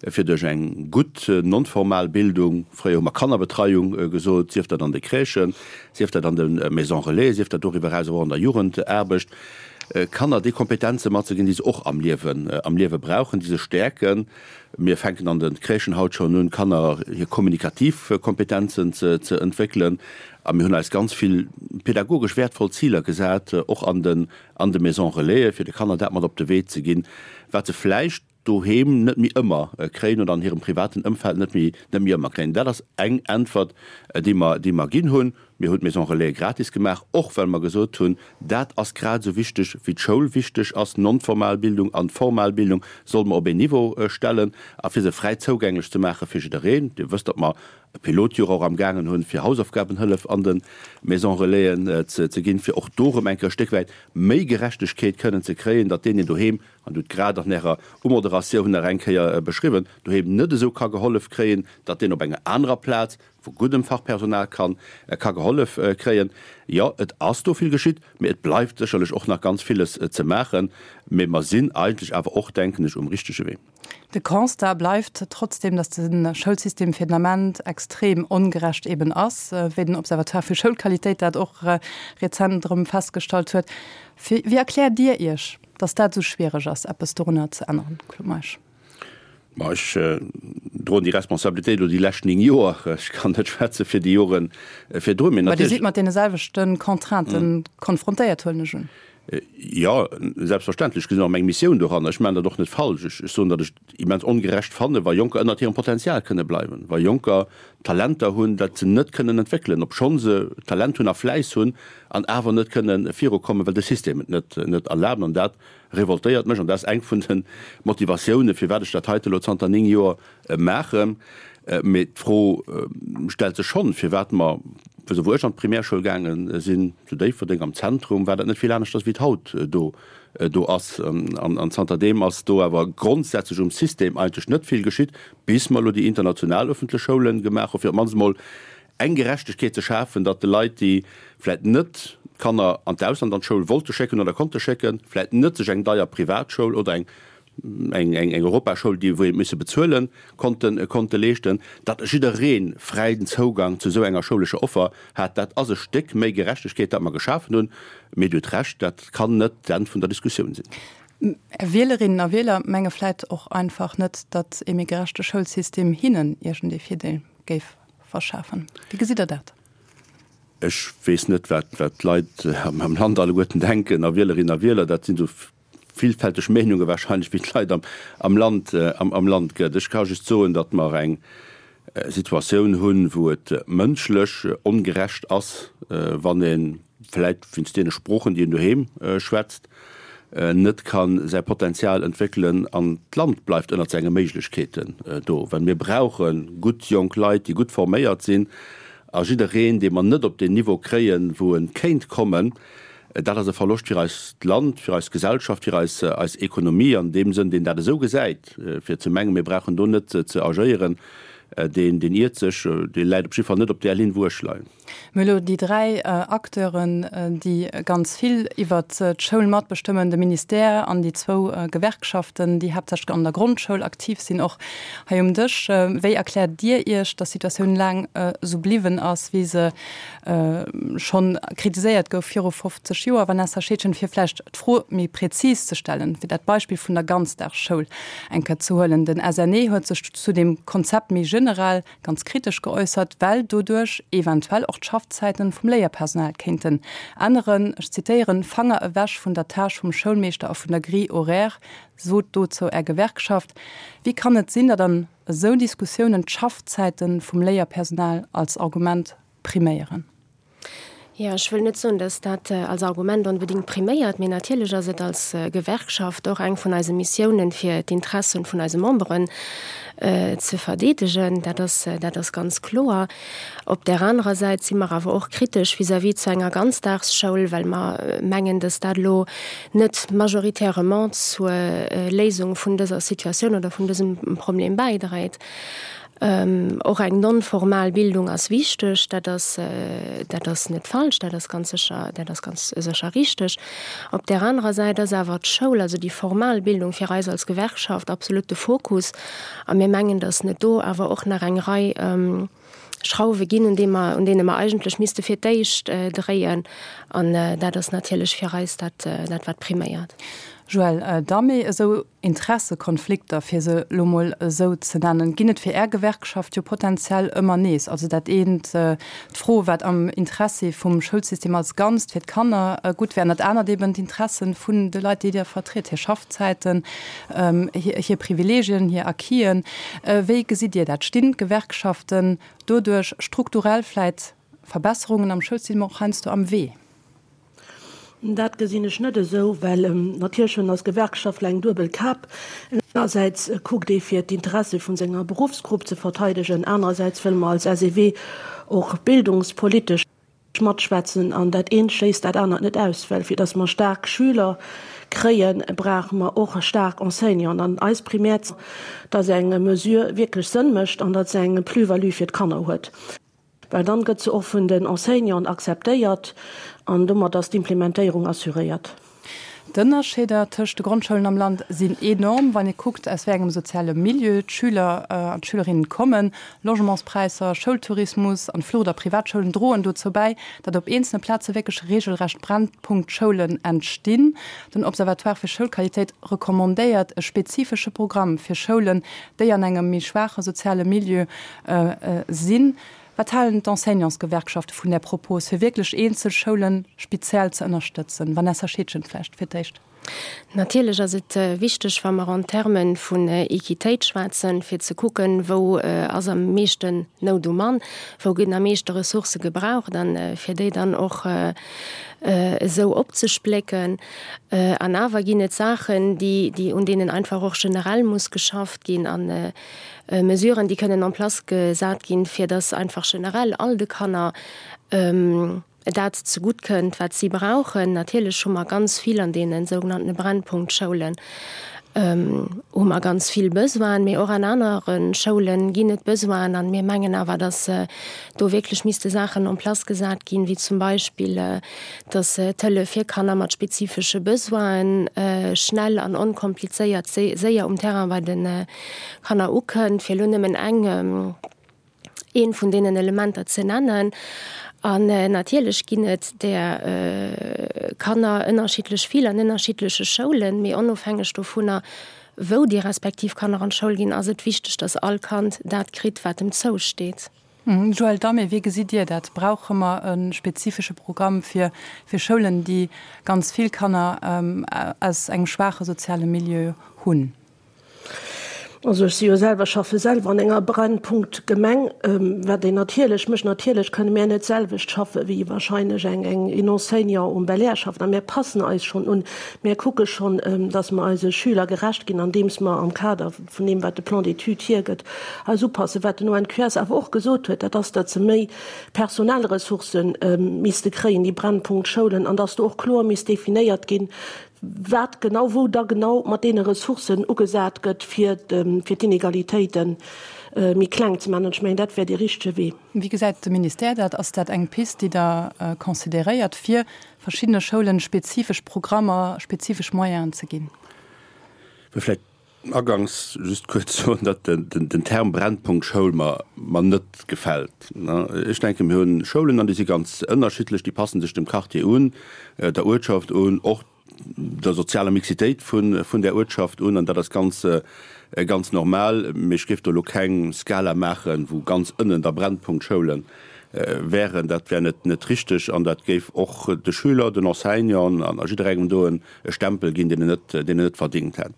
fir duerch eng gutt non-formal Bildung, fréier hu mer Kannerbetreiung gesot, sief dat an de Crèchen, sief dat an de Maisons relais, sief dat doriwwer eraus och an der Jugendaarbecht, Kanner déi Kompetenze matzeginn, déi se och am Liewen, am Liewe brauchen, déi se stäerken. Mir fänken an de Crèchen haut schonn un, Kanner hir kommunikativ Kompetenzen ze, ze entwéckelen. A mir hunn eis ganz vill pädagogesch wäertvoll Ziler gesat, och an den, an de Maisons Relaisen, fir de Kanner dat mat op de Wee ze ginn, wat se vläicht doheem net méi ëmmer kréien oder an hirem privaten Ëmfeld net méi net méi ëmmer kréien. Dat ass eng Äntwert, déi mer, déi mer ginn hunn. Mir hunn d'Maison Relais gratis gemaach, och well mer gesot hunn, dat ass grad esou wichteg wéi d'Schoul wichteg ass. Non-formal Bildung an formal Bildung solle mer op een Niveau stellen a fir se fräi zougänglech ze maache fir jiddereen. Dir wësst, datt mer e Pilotjoer och am gaangen hunn, fir Hausaufgabenhëllef an de Maison Relaisen ze ginn, fir och do erëm eng Kéier e Stéck wäit méi Gerechtegkeet kënnen ze kréien, datt deen, deen doheem an Dir hutt grad an Ärer Umoderatioun nach eng Kéier beschriwwen, doheem net esou ka gehollef kréien, datt deen op enger anerer Plaz vu guddem Fachpersonal kann ka gehollef kréien. Jo, et ass do vill geschitt, mee et bleift sécherlech och nach ganz villes ze maachen. Mee mer sinn eigentlech awer och, denken ech, um richtege Wee. De Constat bleift trotzdem, datt de Schoulsystem fir den Ament extrem ongerecht eben ass, wéi den Observatoire fir Schoulqualitéit dat och rezent erëm festgestallt huet. Wéi erkläert Dir Iech, datt dat esou schwiereg ass, eppes dorunner ze änneren, Claude Meisch? Ma ech droen déi Responsabilitéit elo déi lescht 9 Joer. Ech kann net schwätze fir déi Jore virdrun. Mee Mä Dir sidd mat deene selwechte Contrainten konfrontéiert, huelen ech un. Jo, selbstverständlech. Ech gesinn och meng Missioun doranner. Ech maachen dat och net falsch. Ech soen, datt ech et immens ongerecht fannen, wa Jonker ënnert hirem Potenzial kënne bleiwen, wa Jonker Talenter hunn, dat se net kënnen entwéckelen, obschonn se Talent hunn a Fläiss hunn, an awer net kënne virukommen, well de System et net net erlaabt. An dat revoltéiert mech an dat ass eng vun de Motivatiounen, firwat ech dat heite elo zanter 9 Joer maachen. Mee d'Fro stellt sech schonn, firwat mer, wou ech an d'Primärschoul gaange sinn, zu Déifferdeng am Zentrum, war dat net vill aneschters wéi et haut do do ass. An zanterdeem ass do awer grondsätzlech um System eigentlech net vill geschitt, bis mer elo déi international öffentlech Schoule gemaach hu fir op d'mannst emol eng Gerechtegkeet ze schafen, datt de Leit, déi vläit net d'Kanner an d'Ausland an d'Schoul wollte schécken oder konnte schécken, vläit net sech eng deier Privatschoul oder eng eng eng Europaschoul, déi wou een misse bezuelen, konnten konnte leeschten, datt jidderee fräien Zougang zu esou enger schoulescher Offer hat. Dat ass e Stéck méi Gerechtegkeet, dat mer geschafen hunn. Mee Dir hutt Recht, dat kann net d'Enn vun der Diskussioun sinn. Är Wielerinnen a Wieler menge vläit och einfach net, datt ee méi gerechte Schoulsystem hinnen iergendee Virdeel géif verschafen. Wéi gesitt Der dat? Ech weess net, wat d'Leit am Land alleguerten denken a Wielerinnen a Wieler. Dat sinn esou villfälteg Meenunge wahrscheinlech, wéi d'Leit am Land am Land gëtt. Ech ka just soen, datt mer eng Situatioun hunn, wou et mënschlech ongerecht ass, wann ee vläit wéinst deene Sproochen, déi een doheem schwätzt, net ka säi Potenzial entwéckelen an d'Land bleift ënnert senge Méiglechkeeten do. Well mir brauche gutt jonk Leit, déi gutt forméiert sinn a jiddereen, dee mer net op deen Niveau kréien, wou e kéint kommen, dat ass e Verloscht fir eist Land, fir eis Gesellschaft, fir eis eis Ekonomie. An deem Sënn, deen dat esou gesäit, fir ze mengen, mir brauchen do net ze agéieren, deen iert sech, dee läit op jidde Fall net op där Linn, wou ech leien. Mir hu elo déi 3 Acteuren, déi ganz vill iwwert d'Schoul matbestëmmen, de Ministère an déi zwou Gewerkschaften, déi haaptsächlech an der Grondschoul aktiv sinn, och hei um Dësch. Wéi erkläert Dir Iech, datt d'Situatioun laang esou bliwwen ass, wéi se schonn kritiséiert gouf viru 50 Joer? Vanessa Scheedgen, fir vläicht d'Fro méi prezis ze stellen, fir dat Beispill vun der Ganzdagsschoul eng Kéier ze huelen, Den SNE huet sech zu dem Konzept méi. generell ganz kritesch geäussert, well doduerch eventuell och d'Schaffzäiten vum Léierpersonal kéinten änneren. Ech zitéieren, Fanger ewech vun der Tâche vum Schoulmeeschter a vun der Grille horaire, sot dozou Är Gewerkschaft. Wéi kann et sinn, datt an esou Diskussiounen d'Schaffzäite vum Léierpersonal als Argument priméieren? Jo, ech wëll net soen, datt dat als Argument onbedéngt priméiert, mee natierlech ass et als Gewerkschaft och eng vun eise Missiounen, fir d'Interessen vun eise Memberen ze verdeedegen. Dat ass, dat ass ganz kloer. Op där anerer Säit si mer awer och kritesch vis-à-vis zu enger Ganzdagsschoul, well mer mengen, datt dat elo net majoritairement zur Léisung vun dëser Situatioun oder vun dësem Problem bäidréit. Och eng non-formal Bildung ass wichteg, dat ass, dat ass net falsch, dat ass ganz sécher, dat ass ganz sécher richteg. Op där anerer Säit ass awer d'Schoul, also déi formal Bildung fir eis als Gewerkschaft absolut de Fokus. A mir mengen, datt net do awer och nach eng Rei Schrauwe ginn, un deem mer, un deene mer eigentlech misste fir d'éischt dréien. An dat ass natierlech fir eis dat, dat wat priméiert. Joël Damé, Esou Interessekonflikter, fir se elo mol esou ze nennen, ginn et fir Är Gewerkschaft jo potenziell ëmmer nees. Also dat eent, d'Fro, wat am Interessi vum Schoulsystem als Ganzt fir d'Kanner gutt wär, an dat anert eben d'Interessen vun de Leit, déi Dir vertritt, hir Schaffzäiten, hir Privilegien, hir Acquisen. Wéi gesitt Dir dat? Stinn d'Gewerkschaften doduerch strukturell vläit Verbesserungen am Schoulsystem och heiansdo am Wee? Dat gesinn ech net esou, well natierlech hunn eis Gewerkschaftler eng duebel Kap. Engersäits kuckt ee fir d'Interesse vun senger Beruffsgrupp ze verteidegen, anerersäits wëlle mer als SEW och bildungspolitesch matschwätzen. An dat eent schléisst dat anert net aus, well fir datt mer staark Schüler kréien, brauche mer och staark Enseignanten. An eis Primär, datt eng Mesure wierklech Sënn mécht an datt se eng Plus-value fir d'Kanner huet. Well dann gëtt se och vun den Enseignanten akzeptéiert an domat ass d'Implementéierung assuréiert. D'Ënnerscheeder tëscht de Grondschoulen am Land sinn enorm, wann ee kuckt, aus wéi engem soziale Milieu d'Schüler an d'Schülerinnen kommen. Logementspräisser, Schoultourismus an d'Flucht a Privatschoulen droen dozou bäi, datt op eenzelne Plaze wierklech reegelrecht Brennpunktschoulen entstinn. Den Observatoire fir Schoulqualitéit recommandéiert e spezifesche Programm fir Schoulen, déi an engem méi schwaache soziale Milieu Sinn. Wat halen d'Enseignantsgewerkschafte vun där Propos, fir wierklech eenzel Schoule speziell ze ënnerstëtzen? Vanessa Scheedgen vläicht fir d'éischt. Natierlech ass et wichteg, wa mer en Terme vun Equitéit schwätzen, fir ze kucken, wou ass am meeschten Nout um Mann, wou ginn am meeschte Ressourcë gebraucht, a fir déi dann och esou opzesplécken. An awer ginn et Saachen, déi, un deenen einfach och generell muss geschafft ginn. Mesuren, déi kënnen en place gesat ginn, fir dass einfach generell all de Kanner dat zegutt kënnt, wat si brauchen. Natierlech hu mer ganz vill an deene sougenannte Brennpunktschoulen hu mer ganz vill Besoinen, mee och an anere Schoule ginn et Besoinen. A mir mengen awer, dass do wierklech misste Saachen en place gesat ginn, wéi zum Beispill, dass d'Hëllef fir Kanner mat spezifesche Besoinen schnell an onkomplizéiert séier um Terrain bei de Kanner ukënnt, fir elo nëmmen eng, eent vun deenen Elementer ze nennen. An natierlech ginn et där Kanner ënnerschiddlech vill an ënnerschiddleche Schoulen, mee onofhängeg dovunner, wou déi respektiv Kanner an d'Schoul ginn, ass et wichteg, dass all Kand dat kritt, wat em zousteet. Joël Damé, Wéi gesitt Dir dat? Brauche mer e spezifesche Programm fir fir Schoulen, déi ganz vill Kanner aus engem schwaache soziale Milieu hunn? Also ech si jo selwer, schaffe selwer an enger Brennpunkt-Gemeng, wat een natierlech mécht. Natierlech kënne mär net d'selwecht schaffe wéi wahrscheinlech eng eng een Enseignant um Belair schafft. A mär passen eis schonn un. Mär kucke schonn, datt mer eise Schüler gerecht ginn, andeems mer am Kader vun deem wat de Plan d'études hiergëtt, eis upassen. Wat den ONQS awer och gesot huet, dat ass, datt se méi personell Ressourcë misste kréien, déi Brennpunkt-Schoulen, an datt do och kloer misst definéiert ginn, wat genau, wou da genau mat deene Ressourcen ugesat gëtt, fir d'Inegalitéite méi kleng ze maachen. An ech mengen, dat wär dee richtege Wee. Wéi gesäit de Ministère dat? Ass dat eng Pist, déi Der consideréiert, fir verschiddene Schoulen spezifesch Programmer, spezifesch Moyenen ze ginn? Vläicht agangs just kuerz soen, datt den Term Brennpunkt Schoul mer mer net gefält. Ech denken, mir hunn Schoulen an déi si ganz ënnerschiddlech, déi passen sech dem Quartier un, der Uertschaft un, och. der sozialer Mixitéit vun där Uertschaft un, an dat ass ganz, ganz normal. Mee ech géif do elo keng Skala maachen, wou ganz ënnen da Brennpunktschoule wären. Dat wär net, net richteg an dat géif och de Schüler, den Enseignanten an a jidderengem do e Stempel ginn, deen en net, deen en net verdingt hätt.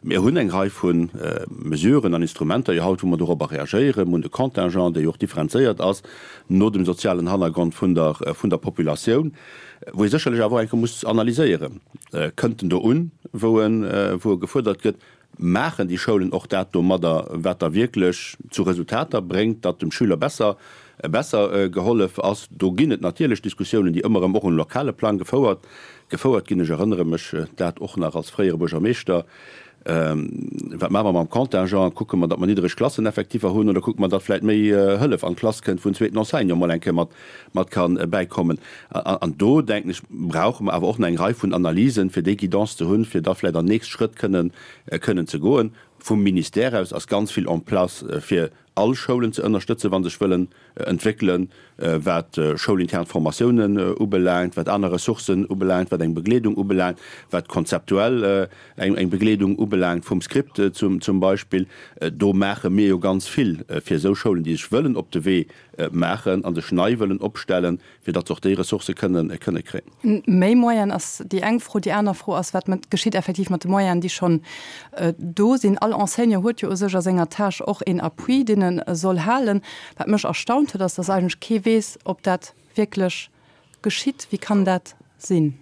Mir hunn eng Rei vu Mesuren an Instrumenter jo haut, wou mer dorobber reagéieren. Mir hunn de Contingent, dee jo och differenzéiert ass no dem sozialen Hannergrond vun der, vun der Populatioun. Wou ee sécherlech awer och eng Kéier muss analyséieren, Kënnt en do un, wou en, wou e gefuerdert gëtt? Maachen déi Schoulen och dat domadder, wat da wierklech zu Resultater bréngt, datt dem Schüler besser, besser gehollef ass? Do ginn et natierlech Diskussiounen, déi ëmmer erëm och um lokale Plang gefouert, gefouert ginn. Ech erënnere mech dat och nach als fréiere Buergermeeschter, Wat maache mer mam Contingent? Kucke mer, datt mer niddereg Klasseneffektiver hunn oder kucke mer, datt vläicht méi Hëllef an d'Klass kënnt, wou en zweeten Enseignant mol eng Kéier mat, mat ka bäikommen? An do, denken ech, brauche mer awer och nach eng Rei vun Analysen, fir déi Guidance ze hunn, fir da vläicht an nächst Schrëtt kënnen, kënnen ze goen. Vum Ministère aus ass ganz vill en place, fir all Schoulen ze ënnerstëtzen, wa sech wëllen entwéckelen, wat schoulintern Formatiounen ubelaangt, wat aner Ressourcen ubelaangt, wat eng Begleedung ubelaangt, wat konzeptuell eng Begleedung ubelaangt vum Script zum Beispill. Do maache mir jo ganz vill fir esou Schoulen, déi sech wëllen op de Wee maachen a sech nei wëllen opstellen, fir datt se och déi Ressourcë kënnen kréien. Méi Moyen ass déi eng Fro. Déi aner Fro ass, Wat geschitt effektiv mat de Moyenen, déi schonn do sinn? All Enseignant huet jo u sech a senger Tâche och een Appui, deen e soll halen. Wat mech erstaunt huet, ass, datt eigentlech kee weess, ob dat wierklech geschitt. Wéi kann dat sinn?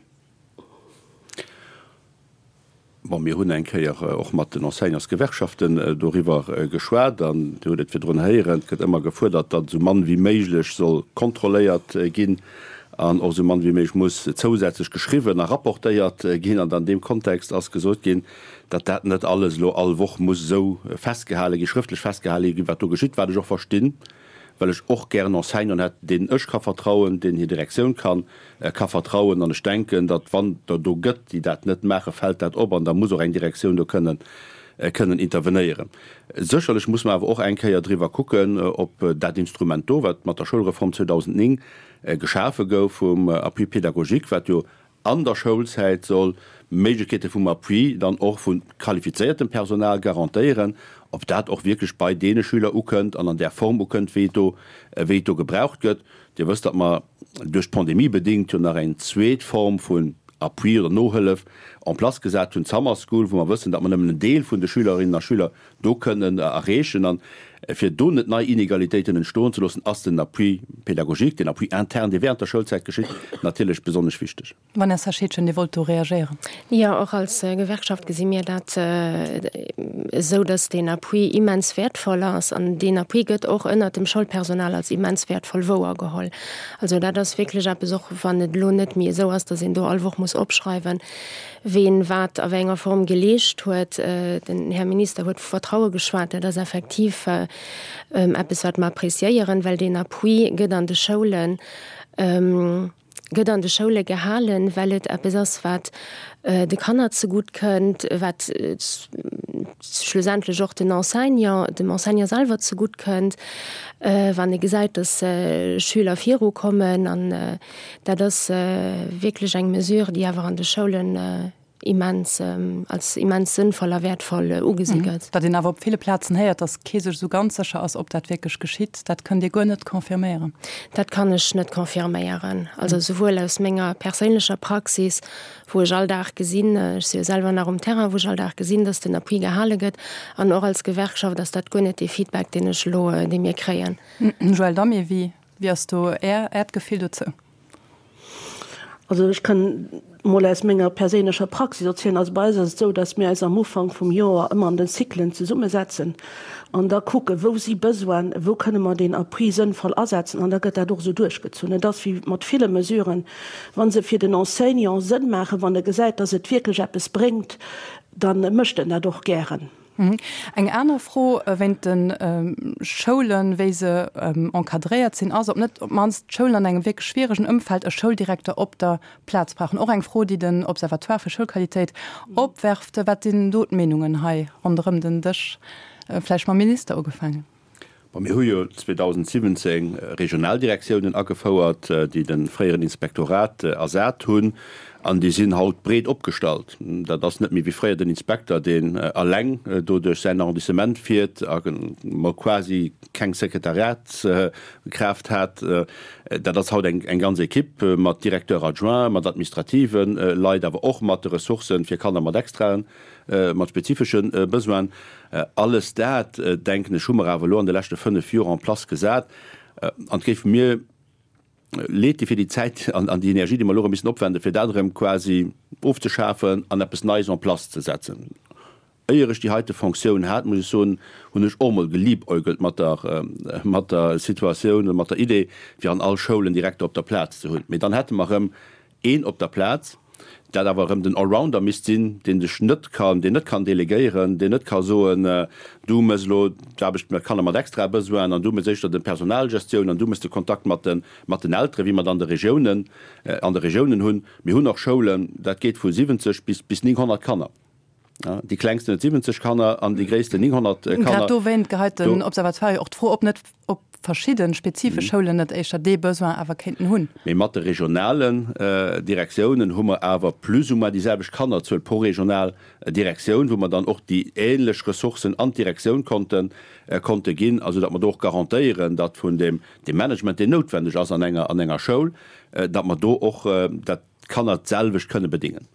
Bon, mir hunn eng Kéier och mat den Enseignantsgewerkschaften doriwwer geschwat an Dir hutt et virdrun héieren, et gëtt ëmmer gefuerdert, datt esou mann wéi méiglech soll kontrolléiert ginn an och esou mann wéi méiglech muss zousätzlech geschriwwen a rapportéiert ginn. An an deem Kontext ass gesot ginn, datt dat net alles elo all Woch muss esou festgehale ginn, schrëftlech festgehale ginn, wat do geschitt, wat ech och verstinn. well ech och gären Enseignanten hätt, deenen ech ka vertrauen, deenen hir Direktioun kann ka vertrauen. An ech denken, datt wann der do gëtt, déi dat net maachen, fält dat op an da muss och eng Direktioun do kënnen kënnen intervenéieren. Sécherlech muss mer awer och eng Kéier driwwer kucken, ob dat Instrument do, wat mat der Schoulreform 2009 geschafe gouf vum Appui pédagogique, wat jo an der Schoulzäit soll Méiglechkeete vum Appui dann och vu qualifizéiertem Personal garantéieren, ob dat och wierklech bei deene Schüler ukënnt an an där Form ukënnt, wéi et do, wéi et do gebraucht gëtt. Dir wësst, datt mer duerch d'Pandemie bedéngt jo nach eng zweet Form vun Appui oder Nohëllef en place gesat hunn, d'Summer School, wou mer wëssen, datt mer nëmmen en Deel vun de Schülerinnen a Schüler do kënnen erreechen. An fir do net nei Inegalitéiten entstoen ze loossen, ass den Appui pédagogique, den Appui interne, dee während der Schoulzäit geschitt, natierlech besonnesch wichteg. Vanessa Scheedgen, Dir wollt do reagéieren. Jo, och als Gewerkschaft gesi mir dat esou, datt deen Appui immens wäertvoll ass. An deen Appui gëtt och ënnert dem Schoulpersonal als immens wäertvoll wouergeholl. Also dat ass wierklech eppes, och wann et elo net méi esou ass, datt een do all Woch muss opschreiwen, ween wat a wéi enger Form geleescht huet. Den Här Minister huet vu Vertraue geschwat. Dat ass effektiv eppes, wat mer appréciéieren, well deen Appui gëtt an de Schoulen, gëtt an de Schoule gehalen, well et eppes ass, wat de Kanner zegutt kënnt, wat schlussendlech och den Enseignant, dem Enseignant selwer zegutt kënnt, wann e gesäit, dass Schüler virukommen. An Dat ass wierklech eng Mesure, déi awer an de Schoulen immens, als immens sënnvoll a wäertvoll ugesi gëtt. Datt een awer op ville Plazen héiert, datt kee sech esou ganz sécher ass, ob dat wierklech geschitt, dat kënnt Dir guer net confirméieren? Dat kann ech net confirméieren. Also souwuel aus menger perséinlecher Praxis, wou ech all Dag gesinn, ech si jo selwer nach um Terrain, wou ech all Dag gesinn, datt den Appui gehale gëtt, an och als Gewerkschaft ass dat guer net dee Feedback, deen ech elo, dee mir kréien. Joëlle Damé, Wéi Wéi ass do Är, Äert Gefill dozou? Also ech kann mol aus menger perséinlecher Praxis erzielen. Also bei eis ass et esou, datt mir eis am Ufank vum Joer ëmmer an den Cyclen zesummesetzen an da kucken, wou si Besoinen, wou kënne mer deen Appui sënnvoll asetzen an da gëtt dat och esou duerchgezunn. Et ass wéi mat ville Mesuren, wa se fir den Enseignant Sënn maachen, wann e gesäit, datt et wierklech eppes bréngt, da mécht en dat och gären. Eng aner Fro wéint de Schoulen, wéi se encadréiert sinn, ass, ob net op d'mannst d'Schoulen an engem wierklech schwieregen Ëmfeld e Schouldirekter op der Plaz brauchen. Och eng Fro, déi den Observatoire fir Schoulqualitéit opwerft. Wat sinn do d'Meenungen hei ronderëm den Dësch? Vläicht mam Minister ugefaangen. Bon, mir hu jo 2017 Regionaldirektiounen agefouert, déi de fréieren Inspektorat ersat hunn. An déi sinn haut breet opgestallt. Dat ass net méi wéi fréier den Inspekter, deen eleng do duerch säin Arrondissement fiert a mol quasi keng Sekretariatskraaft hat. Dat ass haut eng ganz Equipe mat Directeur adjoint, mat administrative Leit, awer och mat de Ressourcen fir Kanner mat extraen, mat spezifesche Besoinen. Alles dat, denken ech, hu mer awer elo an de leschte 5 Joer en place gesat. An et géif mir Leed di fir déi Zäit an déi Energie, déi mer elo erëm missen opwenden, fir dat erëm quasi ofzeschafen an eppes Neies en place ze setzen. Éier ech déi heite Fonctioun hat, muss ech soen, hunn ech och emol geliebäugelt mat der, mat der Situatioun oder mat der Idee, fir an all Schoul en Direkter op der Plaz ze hunn. Mee dann hätte mer erëm een op der Plaz, dat awer erëm den Allrounder misst sinn, deen sech net kann, deen net kann delegéieren, deen net ka soen, du méchs elo d'Aarbecht mat Kanner mat extrae Besoinen an du méchs éischter de Personalgestioun an du méchs de Kontakt mat de, mat den Elteren, wéi mer et an de Regiounen, an de Regiounen hunn. Mir hunn och Schoulen, dat geet vu 70 bis, bis 900 Kanner. Déi klengsten huet 70 Kanner an déi gréissten 900 Kanner. Grad dowéint geheit den Observatoire jo och d'Fro op, net ob verschidde spezifesch Schoulen net éischter dee Besoin awer kéinten hunn. Mee mat de regionalen Direktiounen hu mer awer plus ou moins déi selwecht Kannerzuel pro regional Direktioun, wou mer dann och déi ähnlech Ressourcen an d'Direktioun konnte konnte ginn, a soudatt mer do och garantéieren, datt vun deem Management, deen noutwendeg ass an enger an enger Schoul, datt mer do och dat d'Kanner d'selwecht kënne bedingen.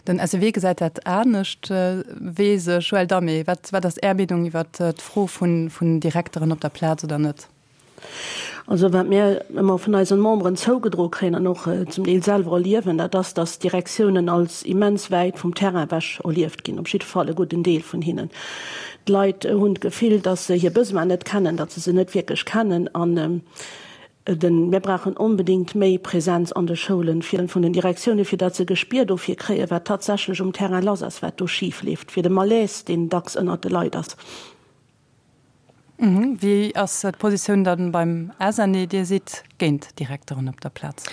Den SEW gesäit dat anescht, weess ech. Joël Damé, wat wat ass Är Meenung iwwer d'Fro vun vun Direkteren op der Plaz oder net? Also wat mir ëmmer vun eisen Memberen zougedroe kréien an och zum Deel selwer erliewen, dat ass, datt d'Direktiounen als immens wäit vum Terrain ewech erlieft ginn, op jidde Fall e gudden Deel vun hinnen. D'Leit hunn d'Gefill, datt se hir Besoinen net kennen, datt se se net wierklech kennen an Den, Mir brauchen onbedéngt méi Präsenz an de Schoulen fir vun den Direktiounen, fir datt se e Gespier dofir kréien, wat tatsächlech um Terrain lass ass, wat do schif leeft, fir de Malaise, deen dacks ënnert de Leit ass. Wéi ass d'Positioun dann beim SNE? Dir sidd géint Direkteren op der Plaz.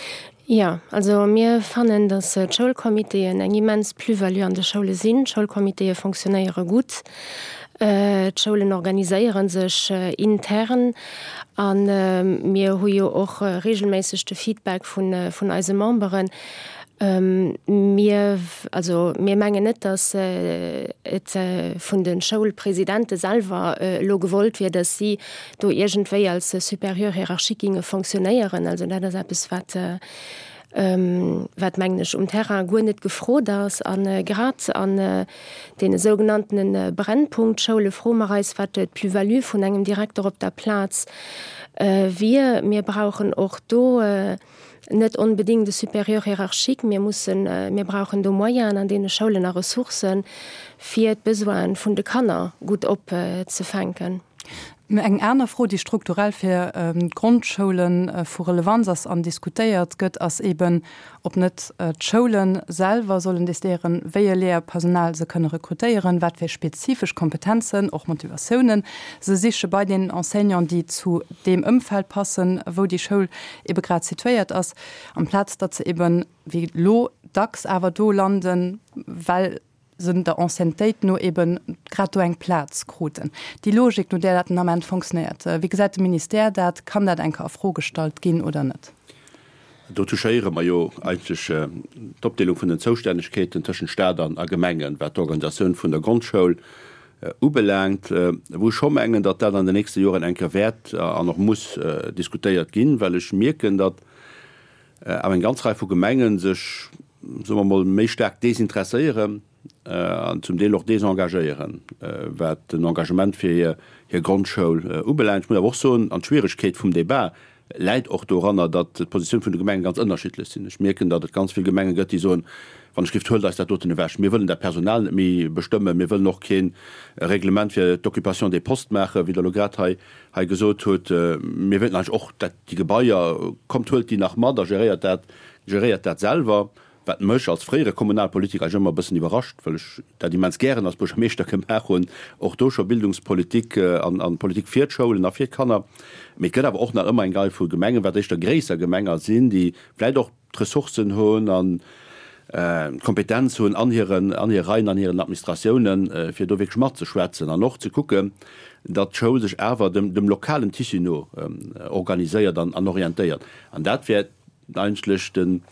Jo, also mir fannen, datt d'Schoulcomitéen eng immens Plus-value an de Schoule sinn. D'Schoulcomitéë fonctionnéiere gutt. D'Schoulen organiséiere sech intern a mir hu jo och reegelméisseg de Feedback vun eise Memberen. Mir, also mir mengen net, datt et vun de Schoulpresidente selwer elo gewollt wier, datt si do iergendwéi als Supérieur hiérarchique ginge fonctionnéieren. Also dat ass eppes, wat, wat mengen ech, um Terrain guer net gefrot ass. A grad an deene sougenanntene Brennpunktschoule froe mer eis, wat d'Plus-value vun engem Direkter op der Plaz wier. Mir brauchen och do net onbedéngt e Supérieur hiérarchique. Mir mussen, mir brauchen do Moyenen an deene Schoulen a Ressourcen, fir d'Besoine vun de Kanner gutt opzefänken. Eng aner Fro, déi strukturell fir d'Grondschoule vu Relevanz ass an diskutéiert gëtt, ass eben, ob net d'Schoule selwer sollen decidéieren, wéi e Léierpersonal se kënne rekrutéieren, wat fir spezifesch Kompetenzen, och Motivatiounen se siche bei deenen Enseignanten, déi zu deem Ëmfeld passen, wou déi Schoul ebe grad situéiert ass, amplaz datt se eben, wéi elo dacks, awer do landen, well se der Anciennetéit no eben grad do eng Plaz kruten. Déi Logik, no där dat den Ament fonctionnéiert, wéi gesäit de Ministère dat? Kann dat eng Kéier a Fro gestallt ginn oder net? Do touchéiere mer jo eigentlech d'Opdeelung vun den Zoustännegkeeten tëschent Stat an a Gemengen, wat d'Organisatioun vun der Grondschoul ubelaangt, wou ech scho mengen, datt dat an den nächste Joren eng Kéier wäert an och muss diskutéiert ginn, well ech mierken, datt awer eng ganz Rei vu Gemengen sech, soe mer emol, méi staark desinteresséieren an zum Deel och desengagéieren, wat den Engagement fir hir Grondschoul ubelaangt. Ech muss awer och soen, an d'Schwieregkeet vum Débat läit och doranner, datt d'Positioun vun de Gemengen ganz ënnerschiddlech sinn. Ech mierken, datt et ganz vill Gemenge gëtt, déi soen, Wann ech gift, huelt eis dat doten ewech, mir wëllen dat Personal net méi bestëmmen, mir wëllen och kee Reglement fir d'Occupation des postes maachen, wéi Der elo grad hei hei gesot hutt. Mir wéilten eigentlech och dat déi Gebaier, kommt huelt déi nach mat a geréiert dat, geréiert dat selwer, wat mech als fréiere Kommunalpolitiker eigentlech ëmmer e bëssen iwwerrascht, well ech dat immens gären als Buergermeeschter gemaach hunn, och do scho Bildungspolitik an an Politik fir d'Schoulen a fir d'Kanner. Mee et gëtt awer och nach ëmmer eng Rei vu Gemengen, wat éischter gréisser Gemenger sinn, déi vläicht och d'Ressourcen hunn an d'Kompetenz hunn an hiren, an hire Reien, an hiren Administratiounen, fir do wierklech matzeschwätzen an och ze kucken, datt d'Schoul sech awer dem, dem lokalen Tissu no organiséiert an, an orientéiert. An dat wär eigentlech den,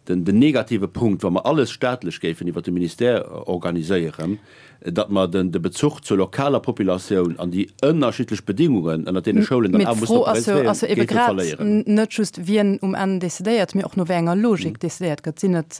den negative Punkt, wa mer alles staatlech géifen iwwert de Ministère organiséieren, datt mer de Bezuch zur lokaler Populatioun an déi ënnerschiddlech Bedingungen, ënnert deene Schoulen dann Mee awer mussen d'Fro ass jo, operéieren, ass jo ebe géife grad verléieren. net just, wien um Enn decidéiert, mee och no wéi enger Logik decidéiert gëtt. Sinn et,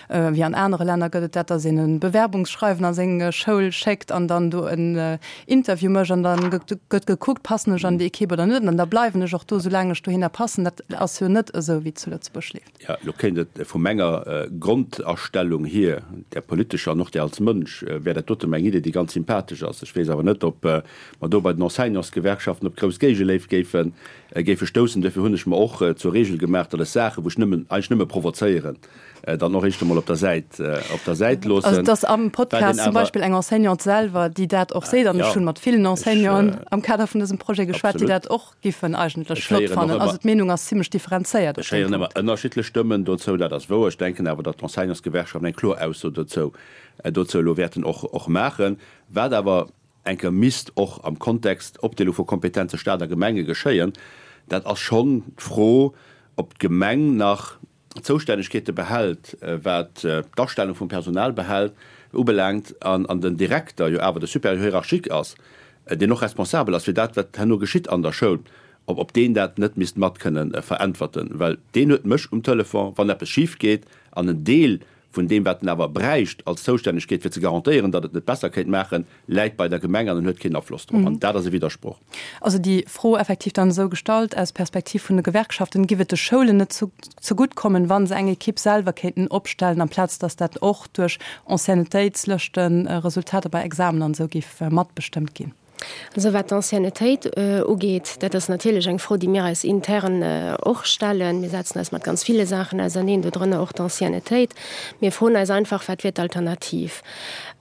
wéi an anere Länner gëtt et dat, datt een e Bewerbungsschreiwen a seng Schoul schéckt an dann do en Interview mécht an dann gëtt gekuckt, passen ech an déi Ekipp oder net, an da bleiwen ech och do, soulaang ech dohinner passen. Dat ass jo net esou, wéi et zu Lëtzebuerg leeft. Jo, elo kéint et vu menger Grondastellung hier, där politescher an och där als Mënsch, wär dat dote meng Idee, déi ganz sympathesch ass. Ech weess awer net, ob mer do bei den Enseignantsgewerkschaften op grouss Géigeléift géife géife stoussen. Duerfir hunn ech mer och zur Regel gemaach, datt ech Saachen, wou ech nëmmen, eigentlech nëmme provozéieren, dann och éischt emol op der Säit, op der Säit loossen. Also et ass am Podcast zum Beispill eng Enseignante selwer, déi dat och seet, an ech hunn mat villen Enseignanten am Kader vun dësem Projet geschwat, déi dat och giffen eigentlech flott fannen. Also d'Meenung ass zimlech differenzéiert op deem Punkt. Ech héieren ëmmer ënnerschiddlech Stëmmen dozou, dat ass wouer. Ech denken awer, datt d'Enseignantsgewerkschaften eng kloer Ausso dozou dozou elo wäerten och och maachen. Wat awer eng Kéier misst och am Kontext Opdeelung vu Kompetenze Stat a Gemenge geschéien, dat ass schonn d'Fro, ob d'Gemeng nach Zoustännegkeete behält, wat d'Astellung vum Personal behält, ubelaangt, an den Direkter jo awer de Supérieur hiérarchique ass, deen och responsabel ass fir dat, wat herno geschitt an der Schoul, ob ob deen dat net misst mat kënnen veräntwerten, well deen huet mech um Telefon, wann eppes schif geet, an en Deel vun deem, wat en awer bräicht als Zoustännegkeet, fir ze garantéieren, datt et net besser kéint maachen, läit bei der Gemeng an en huet keen Afloss drop. An dat ass e Widdersproch. Also déi Fro effektiv dann esou gestallt, aus Perspektiv vun de Gewerkschaften, Giff et de Schoulen net zegutt kommen, wa se eng Ekipp selwer kéinten opstellen, amplaz datt dat och duerch Anciennetéitslëschten, Resultater bei Examen an esou giff matbestëmmt ginn? Also wat d'Anciennetéit ugeet, dat ass natierlech eng Fro, déi mir eis intern och stellen. Mir setzen eis mat ganz ville Saachen auserneen, dodrënner och d'Anciennetéit. Mir froen eis einfach, Wat wier d'Alternativ?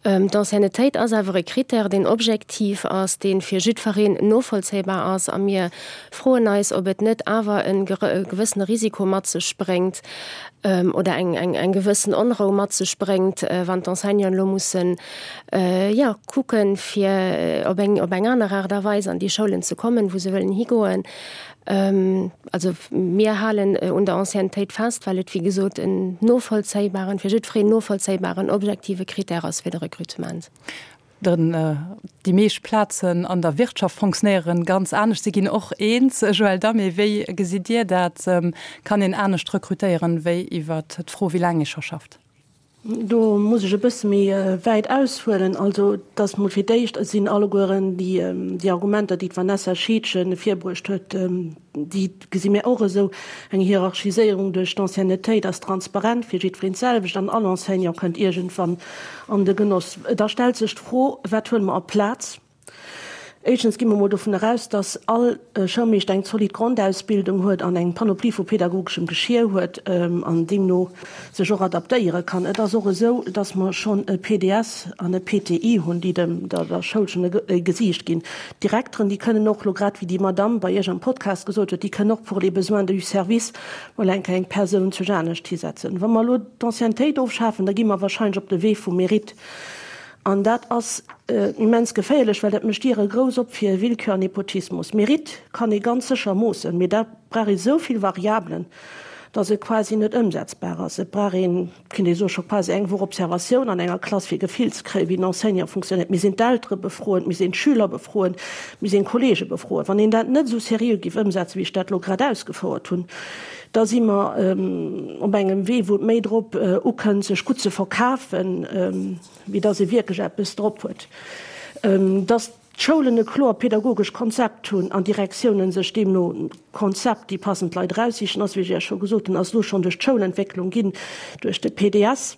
D'Anciennetéit ass awer e Critère, deen objektiv ass, dee fir jiddfereen novollzéibar ass. A mir froen eis, ob et net awer e gewëssene Risiko mat sech bréngt oder eng gewëssen Onrou mat sech bréngt, wann d'Enseignanten elo mussen jo, kucken, fir op eng, op eng aner Aart a Weis an déi Schoulen ze kommen, wou se wëllen higoen. Also mir halen un der Anciennetéit fest, well et, wéi gesot, en novollzéibaren, fir jiddwereen novollzéibaren, objektive Critère ass fir de Recrutement. Den, déi meescht Plazen an der Wirtschaft fonctionnéieren ganz anescht. Si ginn och eens. Joël Damé, wéi gesitt Dir dat? Kann een anescht rekrutéieren, wéi iwwert d'Fro, wéi laang ee scho schafft? Do muss ech e bësse méi wäit aushuelen. Also, et ass mol fir d'éischt sinn allegueren déi Argumenter, déi d'Vanessa Scheedgen virbruecht huet, déi gesi mir och esou. Eng Hierarchiséierung duerch d'Anciennetéit ass transparent fir jiddwereen d'selwecht an all Enseignant kënnt iergendwann an de Genoss. Da stellt sech d'Fro, Wat huele mer a Plaz? Éischtens gi mer mol dovun eraus, dass all Schoulmeeschter eng zolidd Grondausbildung huet an eng Panoplie vu pedagogeschem Geschier huet an deemno sech och adaptéiere kann. Et ass och esou, dass mer schonn e PDS an e PTI hunn, déi dem der Schoul schonn e Gesiicht ginn. D'Direkteren, déi kënnen och elo, grad wéi déi Madamm bei Iech am Podcast gesot huet, déi kënnen och pour les besoins du service mol eng Kéier eng Persoun zu anescht hisetzen. Wa mer elo d'Anciennetéit ofschafen, da gi mer wahrscheinlech op de Wee vum Mérite. An dat ass immens geféierlech, well dat mécht Diere grouss op fir Willkür an Nepotismus. Mérite kann ee ganz sécher moossen, mee da brauch ee sou vill Variabelen, datt et quasi net ëmsetzbar ass. Et brauch een, kéint ee soen, scho quasi eng Woch Observatioun an enger Klass, fir e Gefill ze kréien, wéi den Enseignant funktionéiert. Mir sinn d'Eltere befroen, mir sinn d'Schüler befroen, mir sinn d'Kollege befroen. Wann een dat net esou seriö géif ëmsetzen, wéi ech dat elo grad ausgefouert hunn, da si mer op engem Wee, wou et méi drop ukënnt, sech gutt ze verkafen, wéi dass ee wierklech eppes drop huet. Dass d'Schoulen e kloer pedagogescht Konzept hunn an d'Direktiounen sech deemno Konzept déi passend Leit eraussichen, ass, wéi ech Iech scho gesot hunn, ass elo schonn duerch d'Schoulentwécklung ginn, duerch de PDS.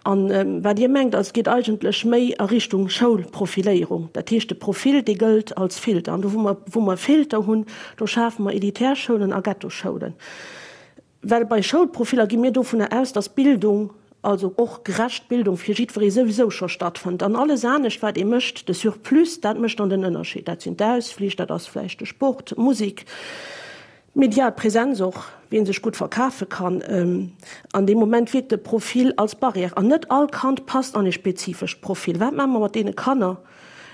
An wat Dir mengt, also et geet eigentlech méi a Richtung Schoulprofiléierung. Dat heescht, de Profil, dee gëllt als Filter. An do, wou mer, wou mer Filter hunn, do schafe mer elitär Schoulen a Ghettoschoulen. Well bei Schoulprofiller gi mir dovunner aus, dass Bildung, also och gerecht Bildung fir jiddweree souwisou scho stattfënnt. An alles anescht, wat ee mécht, de Surplus, dat mécht dann den Ënnerscheed. Dat sinn d'Ausflich, dat ass vläicht de Sport, d'Musek. Medial Präsenz och, wien sech gutt verkafe kann. An deem Moment wierkt de Profil als Barrière. An net all Kand passt an e spezifescht Profil. Wat maache mer mat deene Kanner,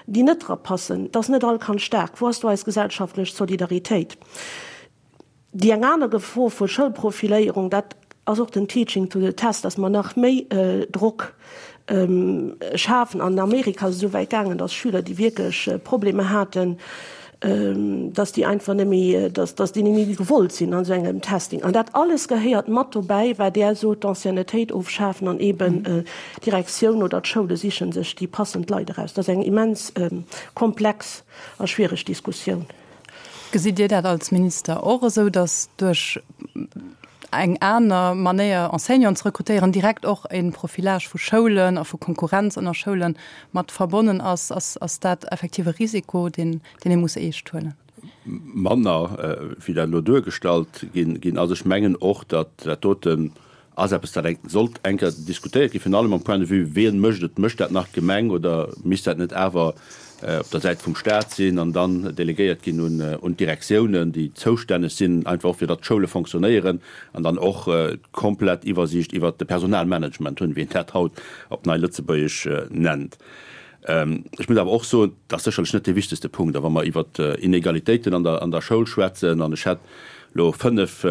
déi net dra passen? Et ass net all Kand staark. Wou ass do eis gesellschaftlech Solidaritéit? Déi eng aner Gefor vu Schoulprofiléierung, dat. ass och den Teaching to the test, dass mer nach méi Drock schafen. An Amerika ass et esou wäit gaangen, dass Schüler, déi wierklech Problemer haten, dass déi einfach net méi, dass déi net méi gewollt sinn an esou engem Testing. An dat alles gehéiert mat dobäi, wat Där sot, d'Anciennetéit ofschafen an eeben d'Direktioun oder d'Schoule siche sech déi passend Leit eraus. Dat ass eng immens komplex a schwiereg Diskussioun. Gesitt Dir dat als Minister och esou, datt duerch eng aner Manéier Enseignanten ze rekrutéieren direkt och e Profilage vu Schoulen a vu Konkurrenz ënner Schoule mat verbonnen ass? Ass dat effektiv e Risiko, deen ee muss eescht huelen? Manner wéi dat elo duergestallt ginn ass. Ech mengen och, datt dat doten ass eppes, dat eng sollt eng Kéier diskutéiert ginn, virun allem am Point de vue, wien mécht et? Mécht dat nach d'Gemeng oder misst dat net awer op der Säit vum Stat sinn an dann delegéiert ginn un d'Direktiounen, déi zoustänneg sinn, einfach och fir datt d'Schoule fonctionnéieren an dann och d'komplett Iwwersiicht iwwert de Personalmanagement hunn, wéi een dat haut op nei Lëtzebuergesch nennt. Ech muss awer och soen, dat ass sécherlech net dee wichtegste Punkt. A wa mer iwwert Inegalitéiten an der Schoul schwätzen, an ech hätt elo fënnf,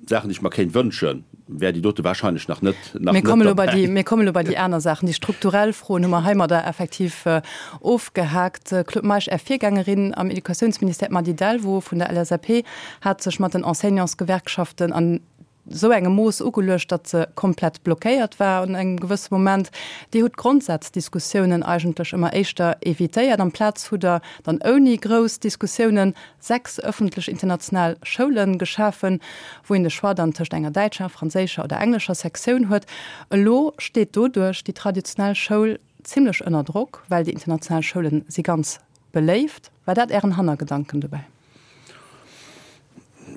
Saachen, déi ech mer kéint wënschen, wär déi dote wahrscheinlech nach net, nach Mir net derbäi. Mir kommen elo bei déi aner Saachen. Déi strukturell Froen hu mer heimadder effektiv ofgehaakt. Claude Meisch, Är Virgängerin am Educatiounsministère, d'Mady Delvaux vun der LSAP, hat sech mat den Enseignantsgewerkschaften an esou engem Mooss ugeluecht, datt se komplett blockéiert war an engem gewësse Moment. Dir hutt d'Grondsaazdiskussiounen eigentlech ëmmer éischter evitéiert. Amplaz hutt Der dann ouni grouss Diskussiounen 6 ëffentlech international Schoule geschafen, wou een de Choix dann tëscht enger däitscher, franséischer oder englescher Sektioun huet. Elo steet doduerch déi traditionell Schoul zimlech ënner Drock, well déi international Schoule si ganz beléift. War dat Ären Hannergedanken dobäi?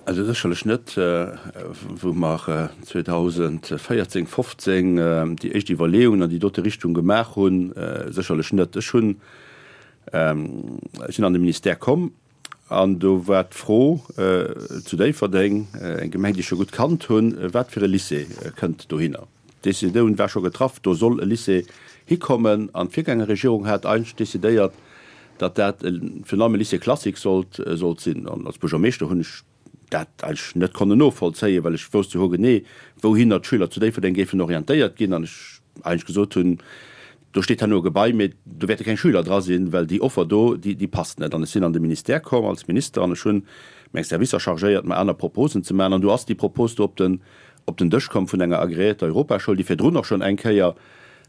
Also sécherlech net. Wou mer 2014, 15 déi éischt Iwwerleeungen an déi dote Richtung gemaach hunn, sécherlech net. Ech hunn Ech sinn an de Ministère komm an do war d'Fro zu Déifferdeng, eng Gemeng, déi ech scho gutt kannt hunn, wat fir e Lycée kënnt dohinner. D'Decisioun war scho getraff, do soll e Lycée hikommen an d'Virgängerregierung hat eigentlech decidéiert, datt dat virun allem e Lycée classique sollt sinn. An als Buergermeeschter hunn ech dat eigentlech net konnen novollzéien, well ech wousst jo hogenee, wouhinner d'Schüler zu Déifferdeng géifen orientéiert ginn an ech eigentlech gesot hunn, do steet herno e Gebai, mee do wäerte keng Schüler dra sinn, well déi Offer do, déi, déi passt net. An ech sinn an de Ministère komm als Minister an ech hunn meng Servicer chargéiert, mer aner Proposen ze maachen. An du ass déi Propos do op den, op den Dësch komm vun enger agreéierter Europaschoul, déi virdrun och schonn eng Kéier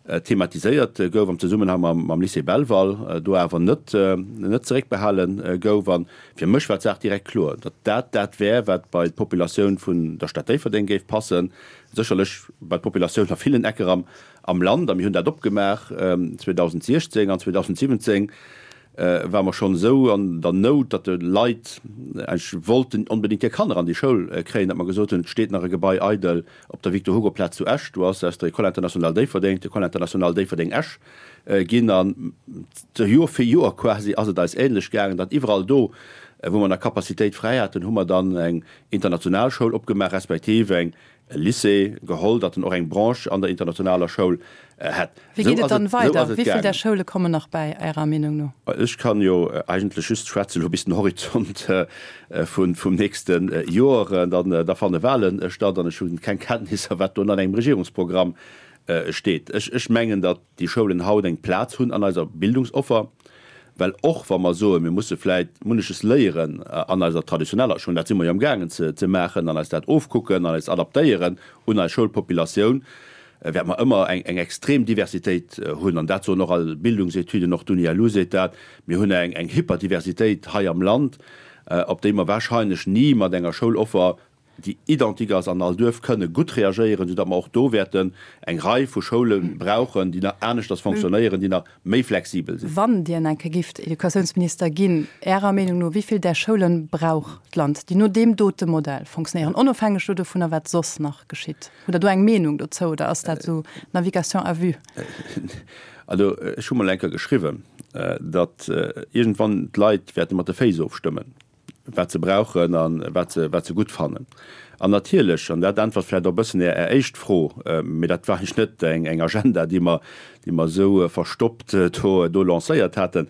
thematiséiert gouf am Zesummenhang mam Lycée Belval, do awer net net zeréckbehale gouf. A fir mech war d'Saach direkt kloer, datt dat dat wär, wat bei d'Populatioun vun der Stad Déifferdeng géif passen, sécherlech bei d'Populatioun a villen Ecker am am Land. A mir hunn dat opgemaach 2016 an 2017 ware mer schonn esou an der Nout, datt de Leit eigentlech wollten onbedéngt hir Kanner an déi Schoul kréien, datt mer gesot hunn, et steet nach e Gebai eidel Op der Victor-Hugo-Plaz zu Esch, do ass aus der École internationale Déifferdeng d'École internationale Déifferdeng-Esch ginn. An Joer fir Joer quasi ass et eis ähnlech gaangen, datt iwwerall do, wou mer nach Capacitéit fräi haten, hu mer dann eng international Schoul opgemaach, respektiv eng e Lycée geholl, datt en och eng Branche an der internationaler Schoul hätt. Wéi geet et dann weider? Wéi vill där Schoule kommen nach bäi, Ärer Meenung no? Ech kann jo eigentlech just schwätzen elo bis den Horizont vum nächste Joer. Dann da fanne Wahlen statt an ech hunn keng Kenntnisser, wat do an engem Regierungsprogramm steet. Ech mengen, datt déi Schoulen haut eng Plaz hunn an eiser Bildungsoffer, well och wa mer soen, mir musse vläit munneches léieren an eiser traditioneller Schoul, dat si mer jo amgaangen ze maachen, an eis dat ofkucken an eis adaptéieren un eis Schoulpopulatioun, wäerte mer ëmmer eng extrem Diversitéit hunn, an dat soen och all Bildungsetüden, och d'UNILU seet dat, mir hunn eng Hyperdiversitéit hei am Land, op déi mer wahrscheinlech ni mat enger Schouloffer, déi identique ass an all Duerf, kënne gutt reagéieren, soudatt mer och do wäerten eng Rei vu Schoule brauchen, déi nach aneschters fonctionnéieren, déi nach méi flexibel sinn. Wann Dir eng Kéier gifft Educatiounsminister ginn, Ärer Meenung no, wéi vill där Schoulen brauch d'Land, déi no deem dote Modell fonctionnéieren, onofhängeg do dovunner, wat soss nach geschitt? Hutt Der do eng Meenung dozou oder ass dat esou Navigation à vue? Also ech hu mol eng Kéier geschriwwen, datt iergendwann d'Leit wäerte mat de Féiss ofstëmmen, wat se brauchen a wat se, wat se gutt fannen. An natierlech, an dat äntwert vläicht och e bëssen Är éischt Fro, mee dat war eigentlech net eng Agenda, déi mer, déi mer esou verstoppt do, do lancéiert haten,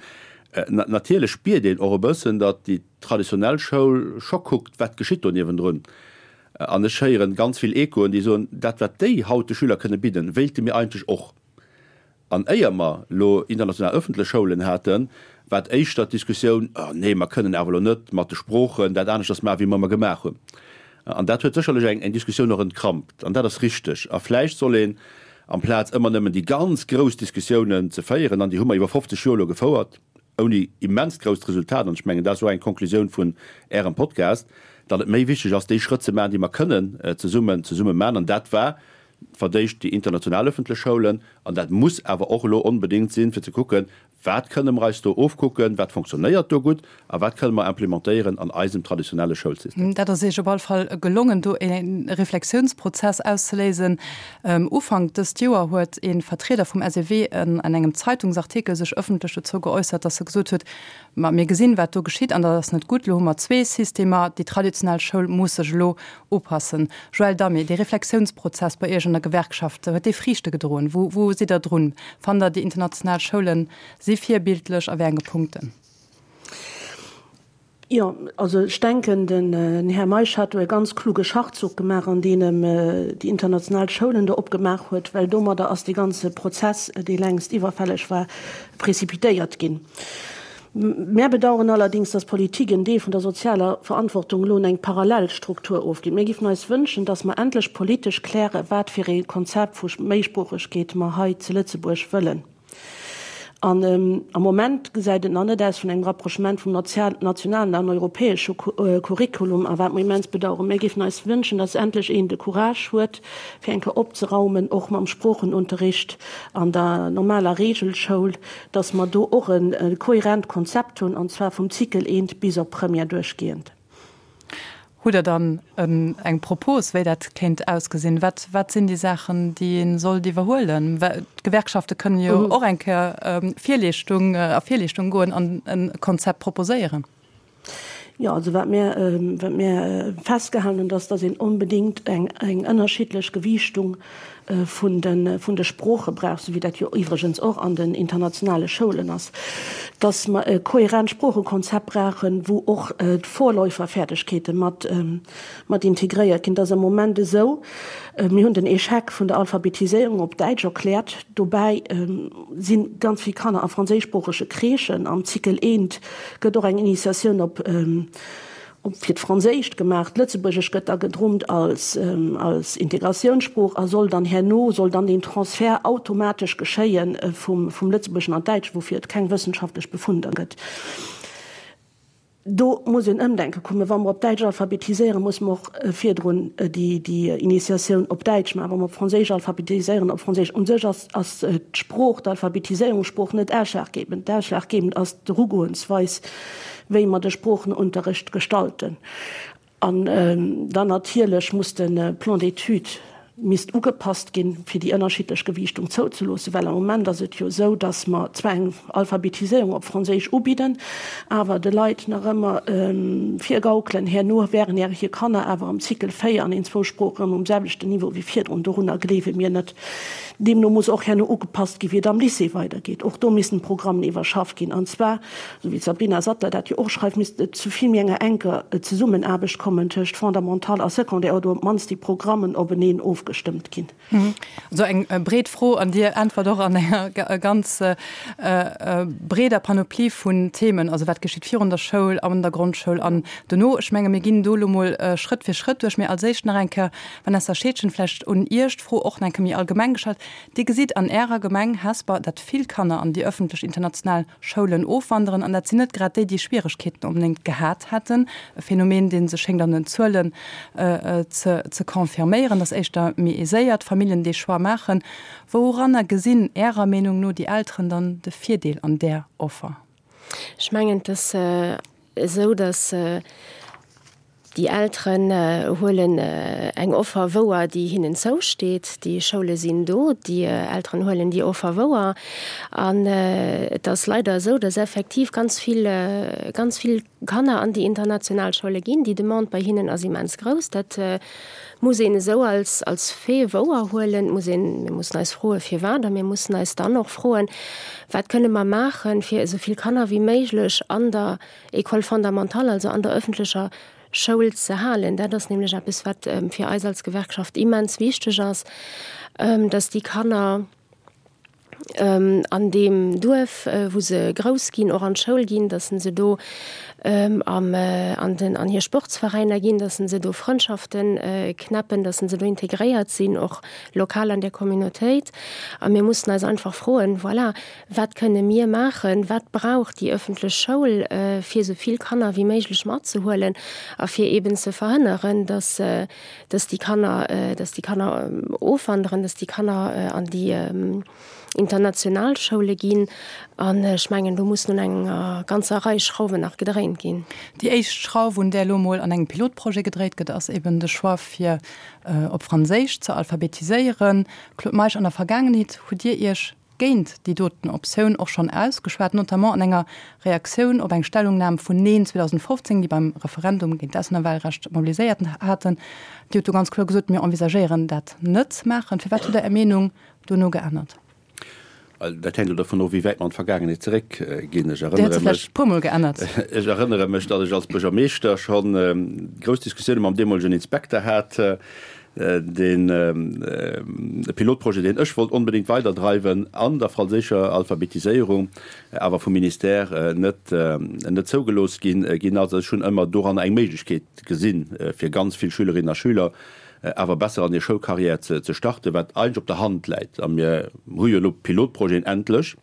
natierlech spiert een och e bëssen, datt déi traditionell Schoul scho kuckt, wat geschitt do niewendrun. An ech héieren ganz vill Echoen, déi soen, dat wat déi haut de Schüler kënne bidden, wéilte mir eigentlech och. An éier mer elo international ëffentlech Schoulen haten, war et éischter d'Diskussioun, Oh nee, mer kënnen awer elo net mat de Sproochen dat aneschters maachen, wéi mer ëmmer gemaach hunn. An dat huet sécherlech eng eng Diskussioun och entkrampt. An dat ass richteg. A vläicht soll een, amplaz ëmmer nëmmen déi ganz grouss Diskussiounen ze féieren, an déi hu mer iwwer 50 Joer elo gefouert, ouni immenst grousst Resultat, an ech mengen, dat ass och eng Konklusioun vun Ärem Podcast, datt et méi wichteg ass, déi Schrëtt ze maachen, déi mer kënnen zesummen zesumme maachen. An dat war verdéischt déi international öffentlech Schoulen, an dat muss awer och elo onbedéngt sinn, fir ze kucken, Wat kënne mer eis do ofkucken, wat fonctionnéiert do gutt a wat kënne mer implementéieren an eisem traditionelle Schoulsystem? Dat ass Iech op all Fall gelongen, do e Reflexiounsprozess auszeléisen. Ufank dëst Joer huet ee Vertrieder vum SEW an engem Zeitungsartikel sech ëffentlech dozou geäussert, datt e gesot huet, Ma mir gesinn, wat do geschitt, an dat ass net gutt. Elo hu mer zwee Systemer. Déi traditionell Schoul muss sech elo upassen. Joël Damé, dee Reflexiounsprozess bei Iech an der Gewerkschaft, huet dee Friichte gedroen? Wou, wou sidd Der drun? Fannt Der, déi international Schoule si virbildlech a wéi enge Punkten? Jo, also ech denken, den Här Meisch hat do e ganz kluge Schachzuch gemaach, an deem em déi international Schoulen do opgemaach huet, well domadder ass dee ganze Prozess, dee längst iwwerfälleg war, précipitéiert ginn. Mär bedauern allerdings, dass d'Politik en Deel vun der sozialer Verantwortung elo un eng Parallelstruktur ofgitt. Mir giffen eis wënschen, dass mer endlech politesch klären, wat fir ee Konzept vu Méisproochegkeet mer hei zu Lëtzebuerg wëllen. An am Moment gesäit et nach net aus vun engem Rapprochement vum nationalen an europäesche Curriculum, a wat mer immens bedauern. Mir giffen eis wënschen, dass endlech een de Courage huet, fir eng Kéier opzeraumen, och mam Sproochenunterricht an der normaler Regelschoul, dass mer do och e kohärent Konzept hunn, an zwar vum Cycle eent bis op Première duerchgehend. Hutt Der dann eng Propos, wéi dat kéint ausgesinn? Wat, wat sinn déi Saachen, déi ee sollt iwwerhuelen? Well d'Gewerkschafte kënnen jo och eng Kéier Virleeschtung, a Virleeschtung goen an e Konzept proposéieren. Jo, also wat mir, wat mir festgehalen hunn, dass, dass een onbedéngt eng, eng ënnerschiddlech Gewiichtung vun de, vun de Sprooche brauch, esou wéi dat jo iwwregens och an den internationale Schoulen ass, dass mer e kohärent Sproochekonzept brauchen, wou och d'Vorläuferfäerdegkeete mat, mat integréiert ginn. Et ass am Moment esou, mir hunn den Échec vun der Alphabetiséierung op Däitsch erkläert, dobäi si ganz vill Kanner a franséischsproochege Crèchen am Cycle eent, Gëtt och eng Initiatioun op op fir d'Franséischt gemaach. D'Lëtzebuergesch gëtt da gedrummt als als Integratiounssprooch a soll dann herno soll dann deen Transfert automatesch geschéie vum vum Lëtzebuergeschen an d'Däitscht, woufir et keng wëssenschaftlech Befunder gëtt. Do muss een Ëmdenke kommen. Wa mer op Däitsch alphabetiséieren, musse mer och virdrun déi déi Initiatioun op Däitsch maachen. Wa mer op Franséisch alphabetiséieren, op Franséisch. U sech ass ass d'Sprooch, d'Alphabetiséierungssprooch net ausschlaggebend. Ausschlaggebend ass d'Erugoensweis, wéi mer de Sproochenunterrecht gestalten. An dann natierlech muss de Plan d'études misst ugepasst ginn, fir déi ënnerschiddlech Gewiichtung zouzeloossen, well am Moment ass et jo esou, dass mer zwar eng Alphabetiséierung op Franséisch ubidden, awer de Leit nach ëmmer virgaukelen, herno wären hir Kanner awer am Cycle 4 an den zwou Sproochen um selwechten Niveau wéi virdrun. Dorunner gleewe mir net. Deemno muss och herno ugepasst ginn, wéi et am Lycée weidergeet. Och do missten d'Programmen iwwerschafft ginn. An zwar, esou wéi d'Sabrina Sattler dat jo och schreift, misst et zu vill méi enger enker Zesummenaarbecht kommen tëscht Fondamental a Secondaire, oder op d'mannst déi Programmen openeen ofgestëmmt ginn. Esou eng breet Fro, an Dir äntwert och an enger ganz breeder Panoplie vun Themen. Also wat geschitt virun der Schoul, an der Grondschoul an dono? Ech menge mir ginn do elo mol Schrëtt fir Schrëtt duerch. Mee als éischt nach eng Kéier Vanessa Scheedgen, vläicht un Iech d'Fro och nach eng Kéier méi allgemeng gestallt. Dir gesitt an Ärer Gemeng Hesper, datt vill Kanner an déi ëffentlech international Schoulen ofwanderen, an dat sinn net grad déi, déi Schwieregkeeten onbedéngt gehat hätten. E Phänomen, dee sech schéngt an den Zuelen ze confirméieren, datt éischter méi aiséiert Familljen dee Choix maachen. Wouranner gesinn Ärer Meenung no déi Elteren dann de Virdeel an där Offer? Ech mengen, et ass esou, datt Déi Elteren huelen eng Offer wouer, déi hinnen zousteet. Déi Schoule sinn do, déi Elteren huelen déi Offer wouer. An et ass leider esou, dass effektiv ganz vill, ganz vill Kanner an déi international Schoule ginn. Déi Demande bei hinnen ass immens grouss. Dat muss een esou als, als Fait wouer huelen. Et muss een, mir mussen eis froen, firwat. A mir mussen eis dann och froen, Wat kënne mer maachen, fir esou vill Kanner wéi méiglech an der École fondamentale, also an der öffentlecher. Schoul ze halen. Dat ass nämlech eppes, wat fir eis als Gewerkschaft immens wichteg ass, dass déi Kanner an deem Duerf, wou se grouss ginn, och an d'Schoul ginn, dass se do am an den an hir Sportsveräiner ginn, dass se do Frëndschaften knäppen, dass se do integréiert sinn, och lokal an der Communautéit. A mir mussen eis einfach froen, voilà, Wat kënne mir maachen, wat brauch déi ëffentlech Schoul, fir esou vill Kanner wéi méiglech matzehuelen a fir eeben ze verhënneren, dass, dass déi Kanner, dass déi Kanner ofwanderen, dass déi Kanner an déi international Schoule ginn. An ech mengen, do mussen un enger ganzer Rei Schrauwen nach gedréint ginn. Déi éischt Schrauf, un där elo emol an engem Pilotprojet gedréit gëtt, ass eeben de Choix, fir op Franséisch ze alphabetiséieren. Claude Meisch, an der Vergaangenheet hutt Dir Iech géint déi doten Optioun och schonn ausgeschwat, notamment an enger Reaktioun op eng Stellungnam vun Neen 2015, déi beim Referendum géint d'Auslännerwahlrecht mobiliséiert haten. Dir hutt do ganz kloer gesot, Mir envisagéieren dat net ze maachen. Firwat hutt Der Är Meenung dono geännert? Dat hänkt elo dovun of, wéi wäit mer an d'Vergaangenheet zeréckginn. Ech Dir hutt se vläicht e puermol geännert. Ech erënnere mech, datt ech als Buergermeeschter scho grouss Diskussioune mam deemolegen Inspekter hat, Deen Pilotprojet, deen ech wollt onbedéngt weiderdreiwen an der franséischer Alphabetiséierung, awer vum Ministère net net zougelooss ginn ginn ass. Ech hunn ëmmer doranner eng Méiglechkeet gesinn, fir ganz vill Schülerinnen a Schüler awer besser an hir Schoulcarrière ze starten, wat eigentlech op der Hand läit. A mir hu jo elo Pilotprojeten endlech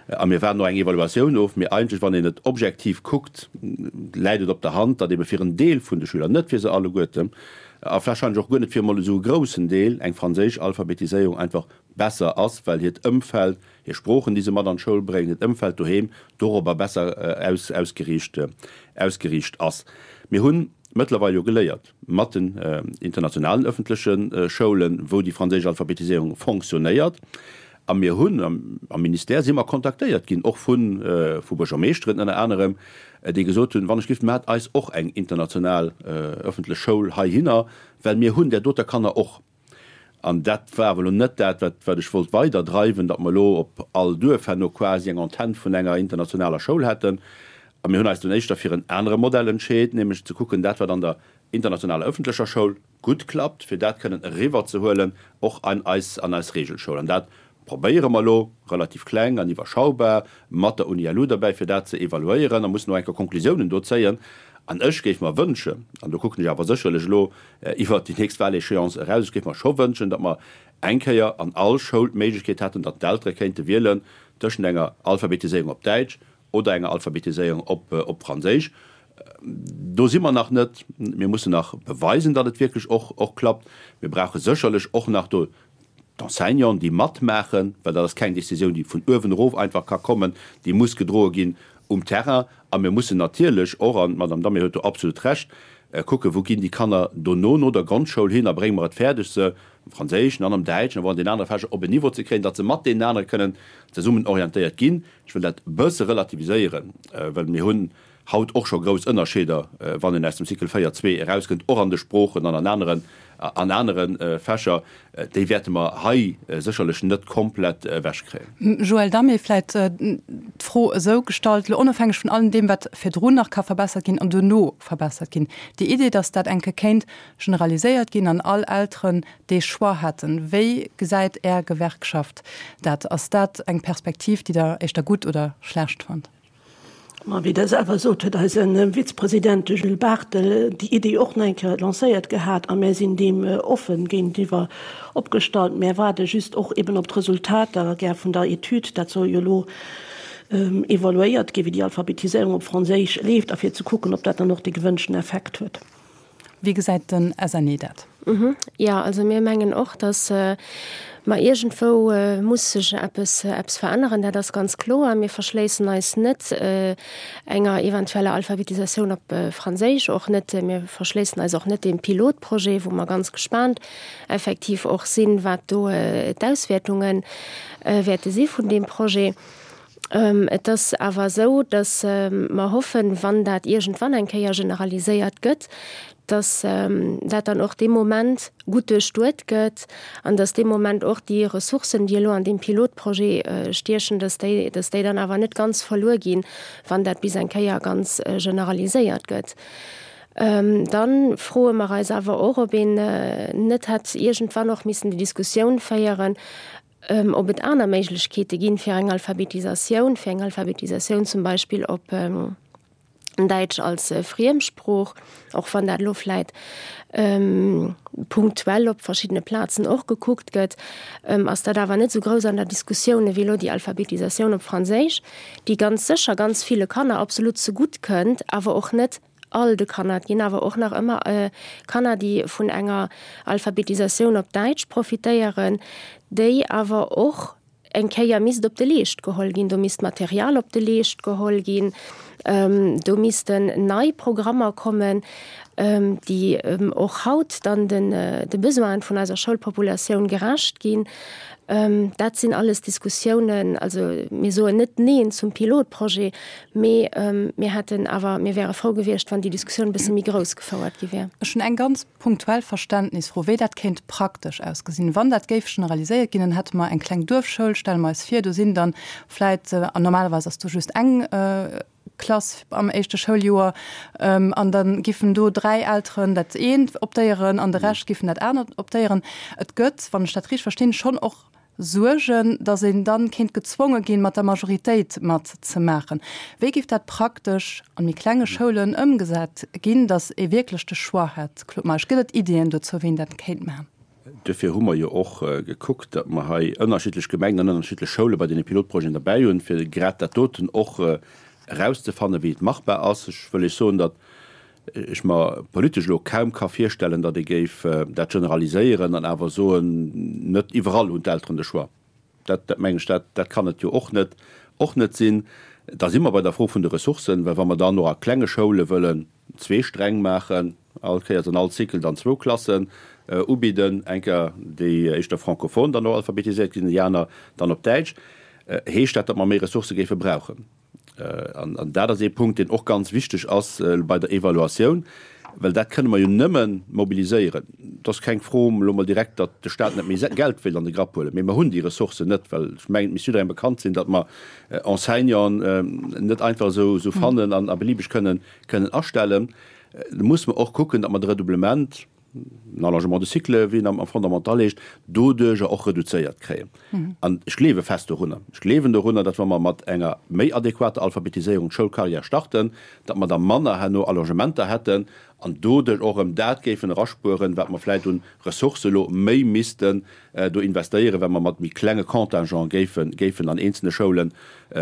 a mir waarden och eng Evaluatioun of. Mee eigentlech, wann een et objektiv kuckt, läit et op der Hand, datt ebe fir en Deel vun de Schüler, net fir se alleguerten, a warscheinlech och guer net fir emol esou e groussen Deel, eng franséisch Alphabetiséierung einfach besser ass, well hiert Ëmfeld, hir Sproochen, déi se mat an d'Schoul bréngen, hiert Ëmfeld doheem dorobber besser ausgeriicht ausgeriicht ass. Mir hu mëttlerweil jo geléiert mat den internationalen ëffentleche Schoulen, wou déi franséisch Alphabetiséierung fonctionnéiert, a mir hunn am Ministère si mer kontaktéiert ginn, och vu vu Buergermeeschteren ënner anerem, déi gesot hunn, wann ech giff, maacht eis och eng international ëffentlech Schoul heihinner, well mir hunn där doter Kanner och. An dat war awer elo net dat, wat, wat ech wollt weiderdreiwen, datt mer elo op all Duerf herno quasi eng Antenn vun enger internationaler Schoul hätten. A mir hunn eis dunn éischter fir en anere Modell entscheet, nämlech ze kucken, dat wat an der internationaler ëffentlecher Schoul gutt klappt, fir dat kënnen eriwwerzehuelen och an eis, an eis Regelschoul. An dat probéiere mer elo, relativ kleng an iwwerschaubar, mat der UNILU derbäi, fir dat ze evaluéieren a mussen och eng Kéier Konklusiounen do zéien. An ech géif mer wënschen, an do kucken ech awer sécherlech elo iwwert déi nächst Wahléchéance eraus, ech géif mer scho wënschen, datt mer eng Kéier an all Schoul d'Méiglechkeet hätten, datt d'Eltere kéinte wielen tëschent enger Alphabetiséierung op Däitsch oder enger Alphabetiséierung op Franséisch. Do si mer nach net. Mir mussen nach beweisen, datt et wierklech och klappt. Mir brauche sécherlech och nach do d'Enseignanten, déi matmaachen, well dat ass keng Décisioun, déi vun uewen erof einfach ka kommen, déi muss gedroe ginn um Terrain. A mir mussen natierlech och, an d'Madame Damé huet do absolut Recht, kucken, wou ginn déi Kanner dono no der Grondschoul hin a brénge mer et fäerdeg, se am Franséischen an am Däitschen, awer och an den anere Fächer op en Niveau ze kréien, datt se mat deenen anere kënnen zesummen orientéiert ginn. Ech wëll dat e bësse relativiséieren, well mir hunn haut och scho grouss Ënnerscheeder, wann een aus dem Cycle 4, 2 erauskënnt, och an de Sproochen an an aneren, an anere Fächer. Déi wäerte mer hei sécherlech net komplett ewechkréien. Joël Damé, Vläicht d'Fro esou gestallt, elo onofhängeg vun allem deem, wat virdrun nach ka verbessert ginn an duerno verbessert ginn, déi Idee, datt dat eng Kéier kéint generaliséiert ginn an all Elteren dee Choix hätten, wéi gesäit Är Gewerkschaft dat? Ass dat eng Perspektiv, déi Der éischter gutt oder schlecht fannt? Ma wéi Der selwer sot, huet eise Vizepresident, de Jules Barthel, déi Iddi och nach eng Kéier lancéiert gehat a mär sinn deem offen géintiwwer opgestallt. Mär waarde just och eben op d'Resultater gär vun der Etüd. Dat soll jo elo evaluéiert ginn, wéi déi Alphabetiséierung op Franséisch leeft a fir ze kucken, ob dat dann och dee gewënschten Effekt huet. Wéi gesäit den SNE dat? Jo, also mir mengen och, datt mer iergendwou muss sech eppes, eppes veränneren, dat ass ganz kloer. Mir verschléissen eis net enger eventueller Alphabetisatioun op Franséisch, och net, mir verschléissen eis och net deem Pilotprojet, wou mer ganz gespaant effektiv och sinn, wat do d'Auswäertunge wäerte si vun deem Projet. Et ass awer esou, datt mer hoffen, wann dat iergendwann eng Kéier generaliséiert gëtt, datt dat dann och dee Moment gutt duerchduet gëtt an datt dee Moment och déi Ressourcen, déi elo an deem Pilotprojet stiechen, datt déi, datt déi dann awer net ganz verluer ginn, wann dat bis eng Kéier ganz generaliséiert gëtt. Dann froe mer eis awer och, ob een net hätt iergendwann och missen déi Diskussioun féieren, ob et aner Méiglechkeete ginn, fir eng Alphabetisatioun, fir eng Alphabetisatioun zum Beispill op Däitsch als Friemsprooch, och wann dat elo vläit punktuell op verschiddene Plazen och gekuckt gëtt, ass dat awer net esou grouss an der Diskussioun ewéi elo déi Alphabetisatioun op Franséisch, déi ganz sécher ganz ville Kanner absolut zegutt kënnt, awer och net all de Kanner. Et ginn awer och nach ëmmer Kanner, déi vun enger Alphabetisatioun op Däitsch profitéieren, déi awer och eng Kéier misst op de Leescht geholl ginn. Do misst Material op de Leescht geholl ginn, do missten nei Programmer kommen, déi och haut dann de Besoinen vun eiser Schoulpopulatioun gerecht ginn. Dat sinn alles Diskussiounen. Also mir soen net Neen zum Pilotprojet, mee mir hätten awer, mir wäre frou gewiescht, wann déi Diskussioun e bësse méi grouss gefouert gi wär. Ech hunn eng ganz punktuell Verständnisfro, wéi dat kéint praktesch ausgesinn. Wann dat géif generaliséiert ginn, dann hätte mer eng kleng Duerfschoul, stelle mer eis vir, do sinn dann vläit, an normalerweis ass do just eng Klass am éischte Schouljoer, an da giffen do 3 Elteren dat eent optéieren an de Rescht giffen dat anert optéieren. Et gëtt, wann ech dat richteg verstinn, schonn och Suergen, datt een dann kéint gezwonge ginn, mat der Majoritéit mat ze maachen. Wéi géif dat praktesch an méi klenge Schoulen ëmgesat ginn, datt ee wierklech de Choix hätt? Claude Meisch, Gëtt et Iddien dozou, wéi een dat kéint maachen? Duerfir hu mer jo och gekuckt, datt mer hei ënnerschiddlech Gemengen an ënnerschiddlech Schoule bei deene Pilotprojeten derbäi hunn, fir grad dat doten och erauszefannen, wéi et machbar ass. Ech wëll Iech soen, datt ech mer politesch elo kaum ka virstellen, datt ee géif dat generaliséieren an awer soen, net iwwerall hunn d'Elteren de Choix. Dat, dat mengen ech, dat, dat kann et jo och net, och net sinn. Da si mer bei der Fro vun de Ressourcen, well wa mer dann och a klenge Schoule wëllen zwee Sträng maachen, all Kéiers an all Cycle dann zwou Klassen ubidden, eng Kéier déi éischter francophone dann och alphabetiséiert ginn, déi aner dann op Däitsch, heescht dat, datt mer méi Ressourcë géife brauchen. An dat ass ee Punkt, deen och ganz wichteg ass bei der Evaluatioun, well dat kënne mer jo nëmme mobiliséieren. Et ass keng Fro elo mol direkt, datt de Stat net méi Geld wéilt an de Grapp huelen, mee mer hunn déi Ressourcen net, well ech mengen, et misst jidderengem bekannt sinn, datt mer Enseignanten net einfach esou fannen an a beliebeg kënnen astellen. Da musse mer och kucken, datt mer de Redoublement, den Allongement de cycle, wéi en am Fondamental heescht, doduerjer och reduzéiert kréien. An ech gleewe fest dorunner, ech gleewen dorunner, datt wa mer mat enger méi adequater Alphabetiséierung d'Schoulcarrière starten, datt mer da manner herno Allongementer hätten an doduerch och erëm dat géifen eraspueren, wat mer vläicht un Ressourcë elo méi missten do investéieren, well mer mat méi klenge Contingent géifen, géifen an eenzelne Schoule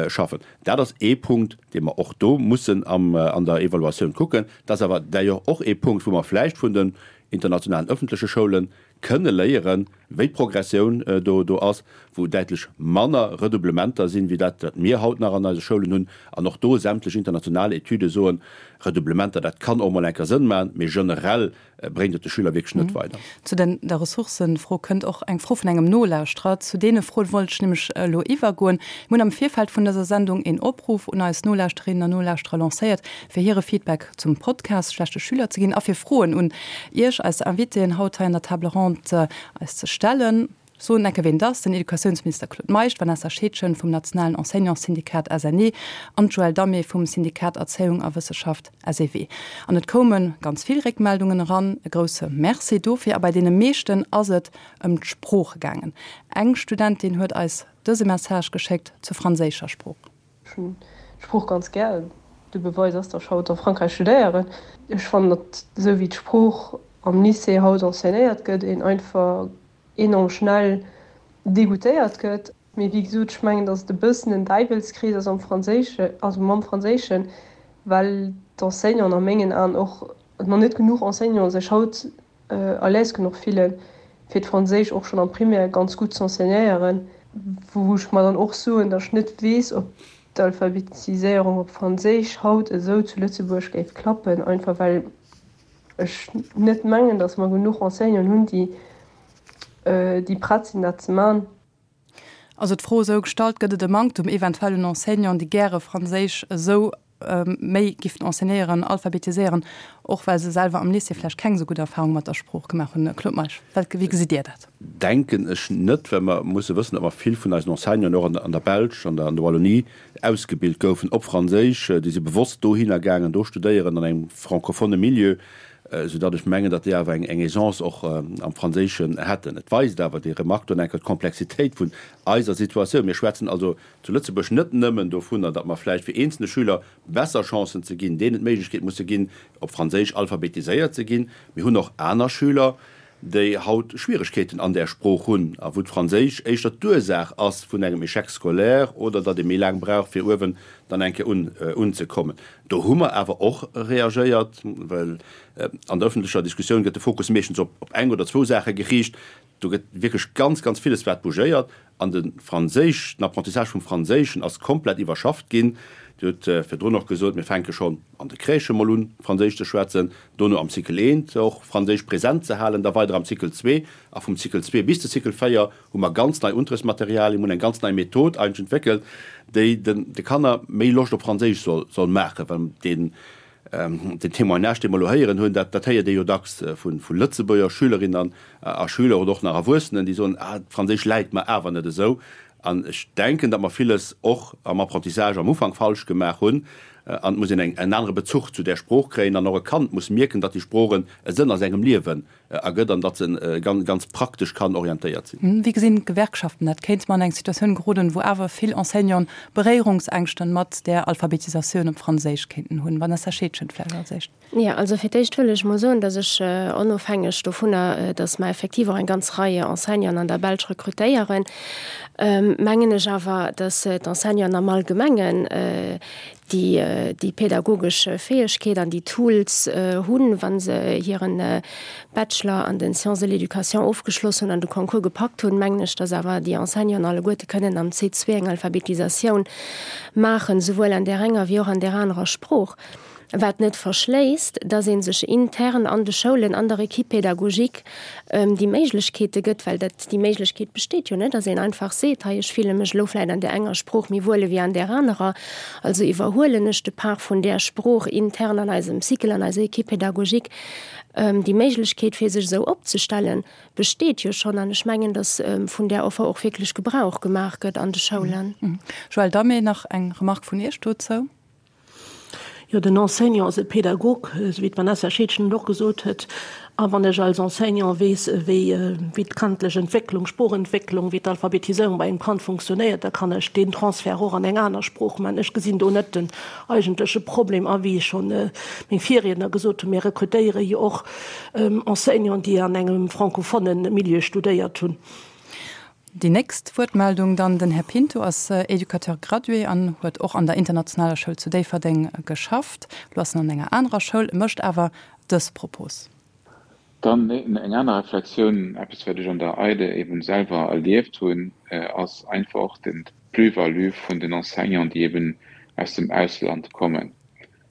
schaffen. Dat ass ee Punkt, dee mer och do mussen am, an der Evaluatioun kucken. Dat ass awer d'ailleurs och ee Punkt, wou mer vläicht vun den internationalen öffentleche Schoule kënne léieren, wéi d'Progressioun do do ass, wou däitlech manner Redoublementer sinn, wéi dat, wat mir haut nach an eise Schoulen hunn. An och do sämtlech international Etüde soen, Redoublementer, dat kann och mol eng Kéier Sënn maachen, mee generell bréngt et de Schüler wierklech net weider. Zu den der Ressourcëfro kënnt och eng Fro vun engem Nolauschterer. Zu deene Froen wollt ech nämlech elo iwwergoen. Mir hunn am Virfeld vun dëser Sendung een Opruff un eis Nolauschterinnen an Nolauschterer lancéiert, fir hire Feedback zum Podcast Schlechte Schüler ze ginn a fir Froen un Iech, eis Invitéen haut hei an der Table ronde, eis ze stellen. Soen enke ween et ass, den Educatiounsminister Claude Meisch, d'Vanessa Scheedgen vum nationalen Enseignantssyndikat SNE an d'Joëlle Damé vum Syndikat Erzéiung a Wësseschaft SEW. An et koume ganz vill Réckmeldungen eran, e grousse Merci dofir. A bei deene meeschten ass et ëm d'Sprooch gaangen. Eng Studentin huet eis dëse Message geschéckt zur franséischer Sprooch. Ech hunn d'Sprooch ganz gär. De Beweis ass, datt ech haut a Frankräich studéieren. Ech fannen, datt esou wéi d'Sprooch am Lycée haut enseignéiert gëtt, een einfach enorm schnell degoutéiert gëtt. Mee wéi gesot, ech mengen, datt et e bëssen en Däiwelskrees ass am Franséischen, also mam Franséischen, well d'Enseignanten a mengen Aen och, nach net genuch Enseignanten sech haut à l'aise genuch fillen, fir d'Franséisch och schonn am Primaire ganz gutt z'enseignéieren, wou ech mer dann och soen, datt ech net weess, ob d'Alphabetiséierung op Franséisch haut esou zu Lëtzebuerg géif klappen, einfach well ech net mengen, datt mer genuch Enseignanten hunn, déi déi prett sinn, dat ze man. Also d'Fro esou gestallt, Gëtt et e Manktum eventuell un Enseignanten, déi gäre Franséisch esou. méi giffen enseignéieren, alphabetiséieren, och well se selwer am Lycée vläicht keng esou gutt Erfahrung mat der Sprooch gemaach hunn. Claude Meisch, wat, wéi gesitt Dir dat? Denken ech net, well mer musse wëssen, datt mer vill vun eisen Enseignanten och an der Belsch, an der Wallonie ausgebilt goufen op Franséisch. Déi si bewosst dohinner gaangen, do studéieren an engem francophone Milieu, soudatt ech mengen, datt déi awer eng Aisance och am Franséischen hätten. Et weist awer déi Remarque do enker d'Komplexitéit vun eiser Situatioun. Mir schwätzen also zu Lëtzebuerg net nëmmen dovunner, datt mer vläicht fir eenzelne Schüler besser Chancen ze ginn, deenen d'Méiglechkeet musse ginn, op Franséisch alphabetiséiert ze ginn. Mir hunn och aner Schüler, déi haut Schwieregkeeten an där Sprooch hunn a wou d'Franséisch éischter d'Ursaach ass vun engem Échec scolaire oder datt ee méi laang brauch, fir uewen dann eng Kéier unzekommen. Do hu mer awer och reagéiert, well an der öffentlecher Diskussioun gëtt de Fokus meeschtens op eng oder zwou Saache geriicht. Do gëtt wierklech ganz, ganz villes wat bougéiert. An de Franséisch, den Apprentissage vum Franséischen ass komplett iwwerschafft ginn. Dir hutt virdrun och gesot, mir fänke schonn an de Crèchë mol un, Franséisch ze schwätzen, dono am Cycle eent och Franséisch present ze halen, da weider am Cycle zwee. A vum Cycle zwee bis de Cycle véier hu mer ganz nei Unterrichtsmaterialien, mir hunn eng ganz nei Method eigentlech entwéckelt, déi den de Kanner méi Loscht op Franséisch soll soll maachen, well deen Den Témoignage, dee mer elo héieren hunn, dat, dat héiert ee jo dacks vu, vu Lëtzebuerger Schülerinnen a Schüler oder och nach Erwuessenen, déi soen, Ah, d'Franséisch läit mer awer net esou. An ech denken, datt mer villes och am Apprentissage am Ufank falsch gemaach hunn. An et muss een eng, en anere Bezuch zu där Sprooch kréien. An och e Kand muss mierken, datt déi Sprooch e Sënn a sengem Liewen ergëtt an datt se ganz, ganz praktesch kann orientéiert sinn. Wéi gesinn d'Gewerkschaften dat? Kéinte mer an eng Situatioun geroden, wou awer vill Enseignanten Beréierungsängschten mat där Alphabetisatioun op Franséisch kéinten hunn? Vanessa Scheedgen vläicht als éischt. Jo, also fir d'éischt wëll ech mol soen, datt ech, onofhängeg dovunner, datt mer effektiv och eng ganz Rei Enseignanten an der Belsch rekrutéieren, mengen ech awer, datt d'Enseignanten am Allgemengen déi déi pädagogesch Fäegkeet an déi Tools hunn, wa se hiren Bachelor an den Sciences de l'éducation ofgeschloss hunn an de Concours gepackt hunn, mengen ech, dass awer déi Enseignanten alleguerte kënnen am C2 eng Alphabetisatioun maachen, souwuel an där enger wéi och an där anerer Sprooch. Wat net verschléisst, dass ee sech intern an de Schoulen, an der Équipe pédagogique déi Méiglechkeete gëtt, well dat, déi Méiglechkeet besteet jo, net, dass een einfach seet, hei ech fille mech elo vläicht an där enger Sprooch méi wuel ewéi an där anerer, also iwwerhuelen ech de Part vun där Sprooch intern an eisem Cycle, an eiser Équipe pédagogique. Déi Méiglechkeet fir sech esou opzestellen, besteet jo schonn an ech mengen, dass vun där Offer och wierklech Gebrauch gemaach gëtt an de Schoulen. Joëlle Damé, nach eng Remarque vun Iech dozou? Jo, den Enseignant ass e Pädagog, esou wéi d'Vanessa Scheedgen et och gesot huet. A wann ech als Enseignant weess, wéi d'kandlech Entwécklung, Sproochentwécklung, wéi d'Alphabetiséierung bei engem Kand funktionéiert, da kann ech deen Transfert och an eng aner Sprooch maachen. Ech gesinn do net den eigentleche Problem. A wéi schonn meng Virriedner gesot hunn, mir rekrutéiere jo och Enseignanten, déi an engem francophone Milieu studéiert hunn. Déi nächst Wuertmeldung dann, den Här Pinto ass Éducateur gradué an huet och an der internationaler Schoul zu Déifferdeng geschafft. Elo ass en an enger anerer Schoul, mécht awer dës Propos. Dann eng aner Reflexioun, eppes wat ech an der EIDE eben selwer erlieft hunn, ass einfach och den d'Plus-value vun den Enseignanten, déi eben aus dem Ausland kommen.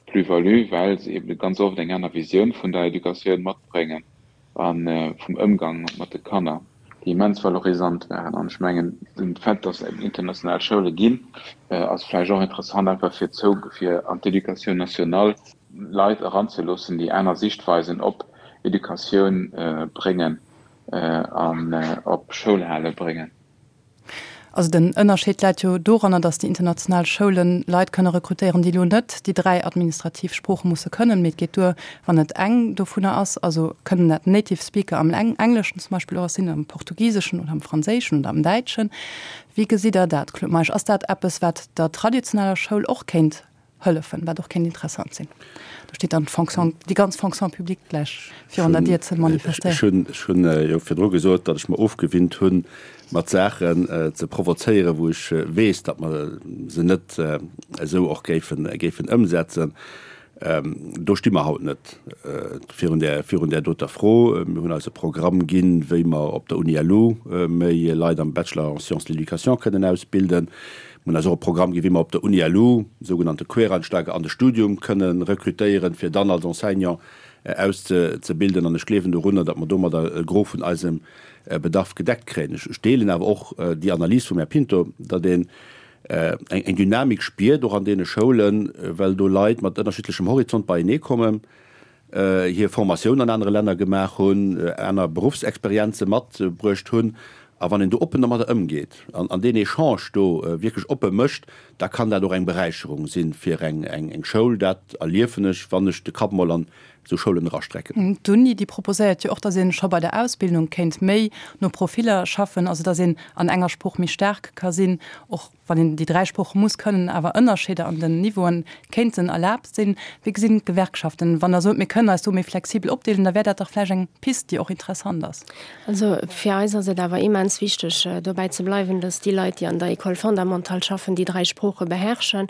Plus-value, well se eben ganz oft eng aner Visioun vun der Educatioun matbréngen a vum Ëmgang mat de Kanner, déi immens valorisant waren. An ech mengen, den Fait, dass et eben international Schoule ginn, ass vläicht och interessant einfach fir zou, fir an d'Éducation nationale Leit eranzeloossen, déi aner Sichtweisen op Educatioun bréngen an op Schoulhale bréngen. Also den Ënnerscheed läit jo doranner, datt déi international Schoulen Leit kënne rekrutéieren, déi elo net déi 3 administrativ Sprooche musse kënnen, mee et geet duer, wann et eng dovunner ass. Also kënnen dat Native Speaker am Engleschen zum Beispill och sinn, am Portugiseschen oder am Franséischen oder am Däitschen. Wéi gesitt Der dat, Claude Meisch? Ass dat eppes, wat der traditioneller Schoul och kéint hëllefen, wat och kéint interessant sinn. Do steet dann d'Fonction, déi ganz Fonction publique gläich virun der Dier ze manifestéieren. Ech hunn jo virdru gesot, datt ech mer ofgewinnt hunn, mat Saachen ze provozéieren, wou ech weess, datt mer se net esou och géifen, géifen ëmsetzen. Do sti mer haut net virun där, virun där doter Fro. Mir hunn eis e Programm ginn, wéi mer op der Uni LU méi Leit am Bachelor en sciences de l'éducation kënnen ausbilden. Mir hunn eis och e Programm ginn, wéi mer op der Uni LU sougenannte Quereinsteiger an de Studium kënne rekrutéieren, fir dann als Enseignant auszebilden. An ech gleewen dorunner, datt mer domadder e Gros vun eisem Bedarf gedeckt kréien. Ech deelen awer och déi Analys vum Här Pinto, datt een. Eng Dynamik spiert och an deene Schoulen, well do Leit mat ënnerschiddlechem Horizont beienee kommen, hir Formatioun an anere Länner gemaach hunn, aner Beruffsexperienze matbruecht hunn. A wann een do oppen domadder ëmgeet an deen Echange do wierklech oppe mécht, da kann dat och eng Beräicherung si fir eng Schoul. Dat erliefen ech, wann ech de Kapp mol an esou Schoulen erastrecken. D'Uni, déi proposéiert jo och, datt ee scho bei der Ausbildung kéint méi no Profiller schaffen, also datt een an enger Sprooch méi staark ka sinn, och wann een déi 3 Sprooche muss kënnen, awer Ënnerscheeder an den Niveauen kéinten erlaabt sinn. Wéi gesinn d'Gewerkschaften, wann Der sot, mir kënnen eis do méi flexibel opdeelen, da wär dat dach vläicht eng Pist, déi och interessant ass. Also fir eis ass et awer immens wichteg, dobäi ze bleiwen, dass déi Leit, déi an der École fondamentale schaffen, déi 3 Sprooche beherrschen.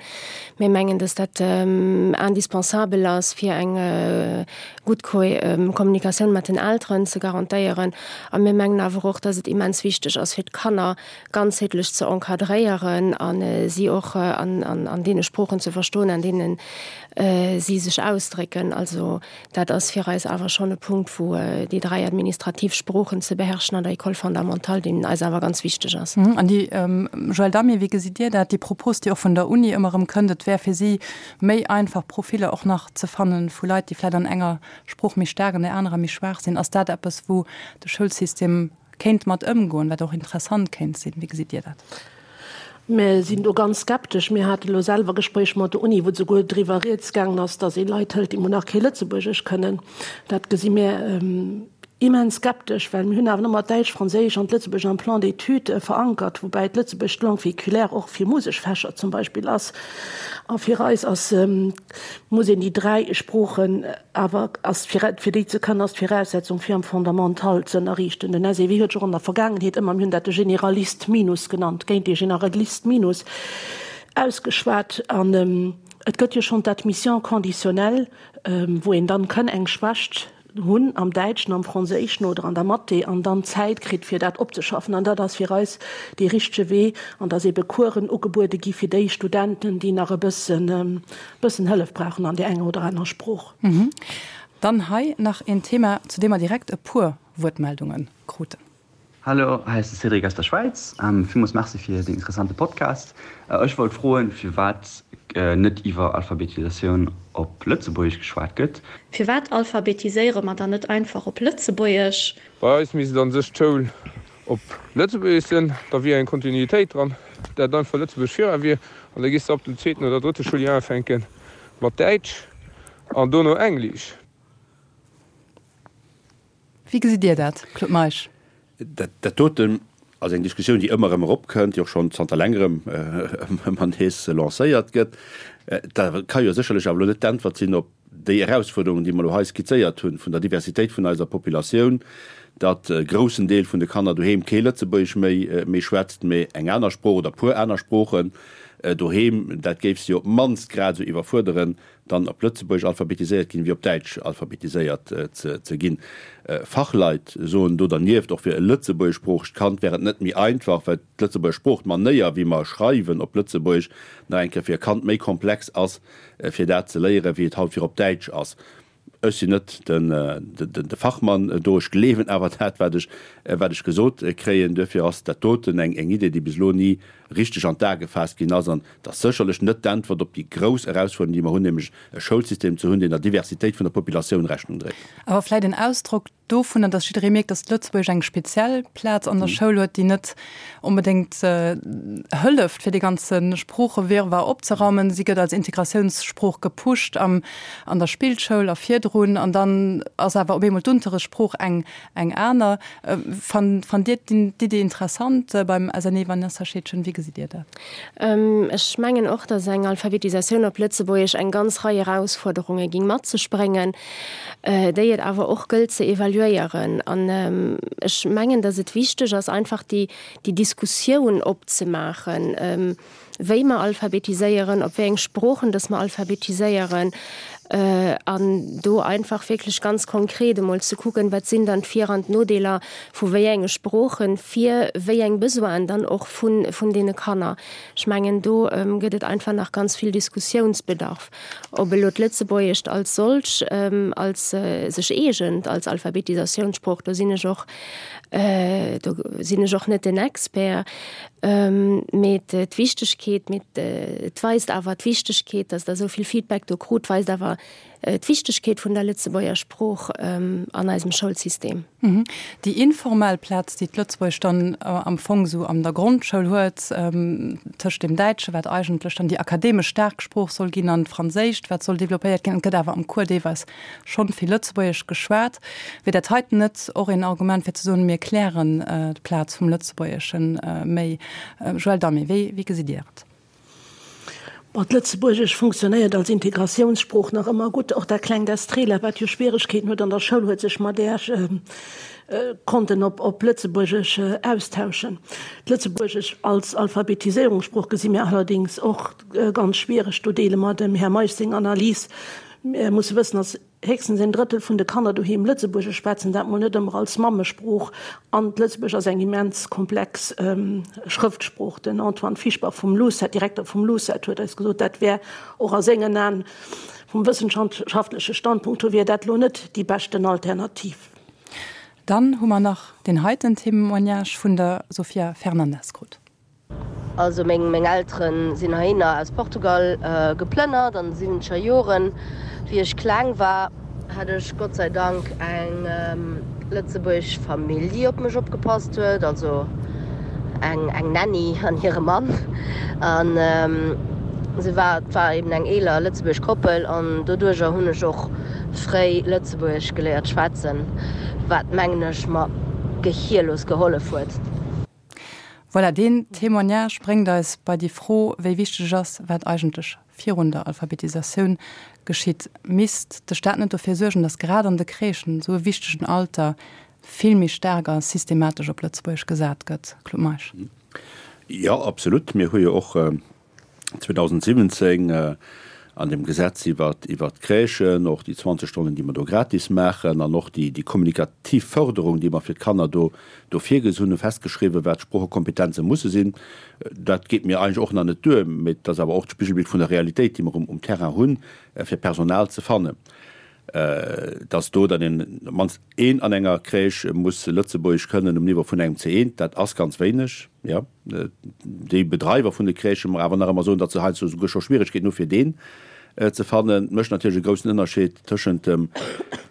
Mir mengen, dass dat indispensabel ass, fir eng gutt Kommunikatioun mat den Elteren ze garantéieren. A mir mengen awer och, dass et immens wichteg ass, fir d'Kanner ganzheetlech ze encadréieren a si och an deene Sproochen ze verstoen, an deene si sech ausdrécken. Also Dat ass fir eis awer schonn e Punkt, wou déi 3 administrativ Sproochen ze beherrschen an der École fondamentale, deen eis awer ganz wichteg ass. An déi, Joëlle Damé, wéi gesitt Dir dat, déi Propos, déi och vun der Uni ëmmer erëm kënnt, et wär fir si méi einfach, Profiller och nach ze fanne vu Leit, déi vläicht an enger Sprooch méi staark, an där anerer méi schwaach sinn. Ass dat eppes, wou de Schoulsystem kéint mat ëmgoen, wat och interessant kéint sinn? Wéi gesitt Dir dat? Mir sinn do ganz skeptesch. Mir hate lo selwer Gespréich mat der Uni, wou souguer driwwer rieds gaangen ass, datt ee Leit hëlt, déi mol nach kee Lëtzebuergesch kënnen. Dat gesi mir immens skeptesch, well mir hunn awer ëmmer d'Däitsch, d'Franséisch an d'Lëtzebuergesch am Plan d'études verankert, woubäi d'Lëtzebuergesch d'Langue véhiculaire och fir Museksfächer zum Beispill ass. A fir eis ass, muss een déi 3 Sproochen Awer ass fir fir déi ze kënnen, ass d'Viraussetzung fir am Fondamental ze ënnerriichten. Den SEW huet sech och an der Vergaangenheet ëmmer, mir hunn dat de Généraliste minus genannt, géint dee Généraliste minus ausgeschwat. An et gëtt jo schonn d'Admission conditionnelle, wou een dann kënn eng Schwächt hunn am Däitschen, am Franséischen oder an der Mathé an dann Zäit kritt fir dat opzeschaffen. An dat ass fir eis dee richtege Wee an dass ebe Coursen ugebuede gi fir déi Studenten, déi nach e bëssen Bëssen Hëllef brauchen an där enger oder anerer Sprooch. Dann hei nach een Thema, zu deem mer direkt e puer Wuertmeldunge kruten. Hallo, hei ass de Cédric aus der Schwäiz. Villmools Merci fir deen interessante Podcast. Ech wollt froen, firwat net iwwer Alphabetisatioun op Lëtzebuergesch geschwat gëtt. Firwat alphabetiséiere mer dann net einfach op Lëtzebuergesch? Bei eis misst an sech d'Schoul op Lëtzebuergesch sinn, da wier eng Kontinuitéit dran, dat einfach Lëtzebuergesch vira wier, an da gees de ab dem zweeten oder drëtte Schouljoer ufänke mat Däitsch an dono Englisch. Wéi gesitt Dir dat, Claude Meisch? Dat doten ass eng Diskussioun, déi ëmmer erëm eropkënnt, déi och schonn zanter längerem ëmmer nees lancéiert gëtt. Dat ka jo sécherlech awer elo net d'Äntwert sinn op déi Erausfuerderungen, déi mer elo hei skizzéiert hunn, vun der Diversitéit vun eiser Populatioun, datt e groussen Deel vun de Kanner doheem kee Lëtzebuergesch méi méi schwätzt, mee eng aner Sprooch oder puer aner Sproochen doheem, dat géif se jo op d'mannst grad esou iwwerfuerderen, dann op Lëtzebuergesch alphabetiséiert ginn, wéi op Däitsch alphabetiséiert ze ginn. Fachleit soen do dernieft, och fir e lëtzebuergeschsproochegt Kand wär et net méi einfach, well d'Lëtzebuerger Sprooch, d'Manéier wéi mer schreiwen op Lëtzebuergesch, nach eng Kéier fir e Kand méi komplex ass, fir dat ze léieren, wéi et haut fir op Däitsch ass. Ech sinn net de Fachmann do, ech gleewen awer dat, wat ech, wat ech gesot kréien. Duerfir ass dat doten eng Idee, déi bis elo ni richteg an d'A gefaasst ginn ass. An et ass sécherlech net d'Äntwert op déi grouss Erausfuerderung, déi mer hunn, nämlech e Schoulsystem ze hunn, deen der Diversitéit vun der Populatioun Rechnung dréit. Awer vläicht en Ausdrock dovunner, dass jidderee mierkt, dass Lëtzebuergesch eng speziell Plaz an der Schoul huet, déi net onbedéngt hëlleft, fir dee ganze Sproochewirrwarr opzeraumen. Si gëtt als Integratiounssprooch gepusht am, an der Spillschoul a virdrun, an dann ass awer op eemol d'Unterrichtssprooch eng, eng aner. Fannt, fannt Dir d'Idee interessant beim SNE, Vanessa Scheedgen? Wéi gesitt Dir dat? Ech mengen och, dass eng Alphabetisatioun op Lëtzebuergesch eng ganz Rei Erausfuerderunge ging mat sech bréngen. déi et awer och gëllt ze evaluéieren. An ech mengen, datt et wichteg ass, einfach déi, déi Diskussioun opzemaachen, wéi mer alphabetiséieren, op wéi eng Sproochen datt mer alphabetiséieren. An do einfach wierklech ganz konkret emol ze kucken, wat sinn dann d'Vir an d'Nodeeler vu wéi enge Sproochen fir wéi eng Besoinen dann och vun, vun deene Kanner. Ech mengen, do gëtt et einfach nach ganz vill Diskussiounsbedarf, ob elo d'Lëtzebuergescht als solch, als sech eegent als Alphabetisatiounssprooch. Do sinn ech och, do sinn ech och net den Expert. Mee d'Wichtegkeet, mee et weist awer d'Wichtegkeet, datt Der esou vill Feedback do krut, weist awer d'Wichtegkeet vun der Lëtzebuerger Sprooch an eisem Schoulsystem. Déi informell Plaz, déi d'Lëtzebuergescht dann am Fong esou an der Grondschoul huet, tëscht dem Däitsche, wat eigentlech dann déi akademesch staark Sprooch soll ginn, an d'Franséischt, wat soll developpéiert ginn, et gëtt awer am Cours deelweis schonn vill Lëtzebuergesch geschwat. Wier dat heiten net och een Argument fir ze soen, mir klären d'Plaz vum Lëtzebuergesche méi? Joëlle Damé, wéi wéi gesitt Dir et? Bon, d'Lëtzebuergesch funktionéiert als Integratiounssprooch nach ëmmer gutt. Och dat klengt Estrela, wat jo Schwieregkeeten huet an der Schoul, huet sech mat där konnten op op Lëtzebuergesch austauschen. D'Lëtzebuergesch als Alphabetiséierungssprooch gesi mir allerdéngs och ganz schwiereg. Do deele mer dem Här Meisch seng Analys. Mir musse wëssen, dass héchstens een Drëttel vun de Kanner doheem Lëtzebuergesch schwätzen, dat mol net ëmmer als Mammesprooch. An d'Lëtzebuergesch ass eng immens komplex Schrëftsprooch. Den Antoine Fischbach vum LUCET, Direkter vum LUCET, huet eis gesot, dat wär och a sengen Aen, vum wëssenschaftleche Standpunkt hier, wier dat elo net déi beschten Alternativ. Dann hu mer nach deen heiten Témoignage vun der Sofia Fernandes krut. Also meng meng Elteren sinn heihinner aus Portugal geplënnert an de siwwenzeger Joren. Wéi ech kleng war, hat ech Gott sei Dank eng lëtzebuergesch Famill déi op mech opgepasst huet, also eng eng Nanny an hire Mann. An se war et war eben eng eeler lëtzebuergesch Koppel an doduercher hunn ech och fréi lëtzebuergesch geléiert schwätzen, wat mengen ech mer gehierlos gehollef huet. Voilà, deen Témoignage bréngt eis bei déi Fro, wéi wichteg ass, wat eigentlech virun der Alphabetisatioun geschitt. Misst de Staat net dofir suergen, datt grad an de Crèchen, esou e wichtegen Alter, vill méi staark a systematesch op Lëtzebuergesch gesat gëtt? Claude Meisch. Jo, absolut. Mir hu jo och 2017 an dem Gesetz iwwert d'Crèchen, och déi 20 Stonnen, déi mer do gratis maachen, an och déi kommunikativ Förderung, déi mer fir d'Kanner do do virgesinn hunn, festgeschriwwen, wat d'Sproochekompetenze musse sinn. Dat geet mir eigentlech och nach net duer, mee et ass awer och d'Spigelbild vun der Realitéit, déi mer um Terrain hunn, fir Personal ze fannen. Dass do dann een, op d'mannst een an enger Crèche muss Lëtzebuergesch kënnen um Niveau vun engem C1, dat ass ganz wéineg, jo. Déi Bedreiwer vun de Crèchen mer awer nach ëmmer soen, datt se heiansdo souguer scho Schwieregkeeten hu fir deen ze fannen. Et mécht natierlech e groussen Ënnerscheed tëschent dem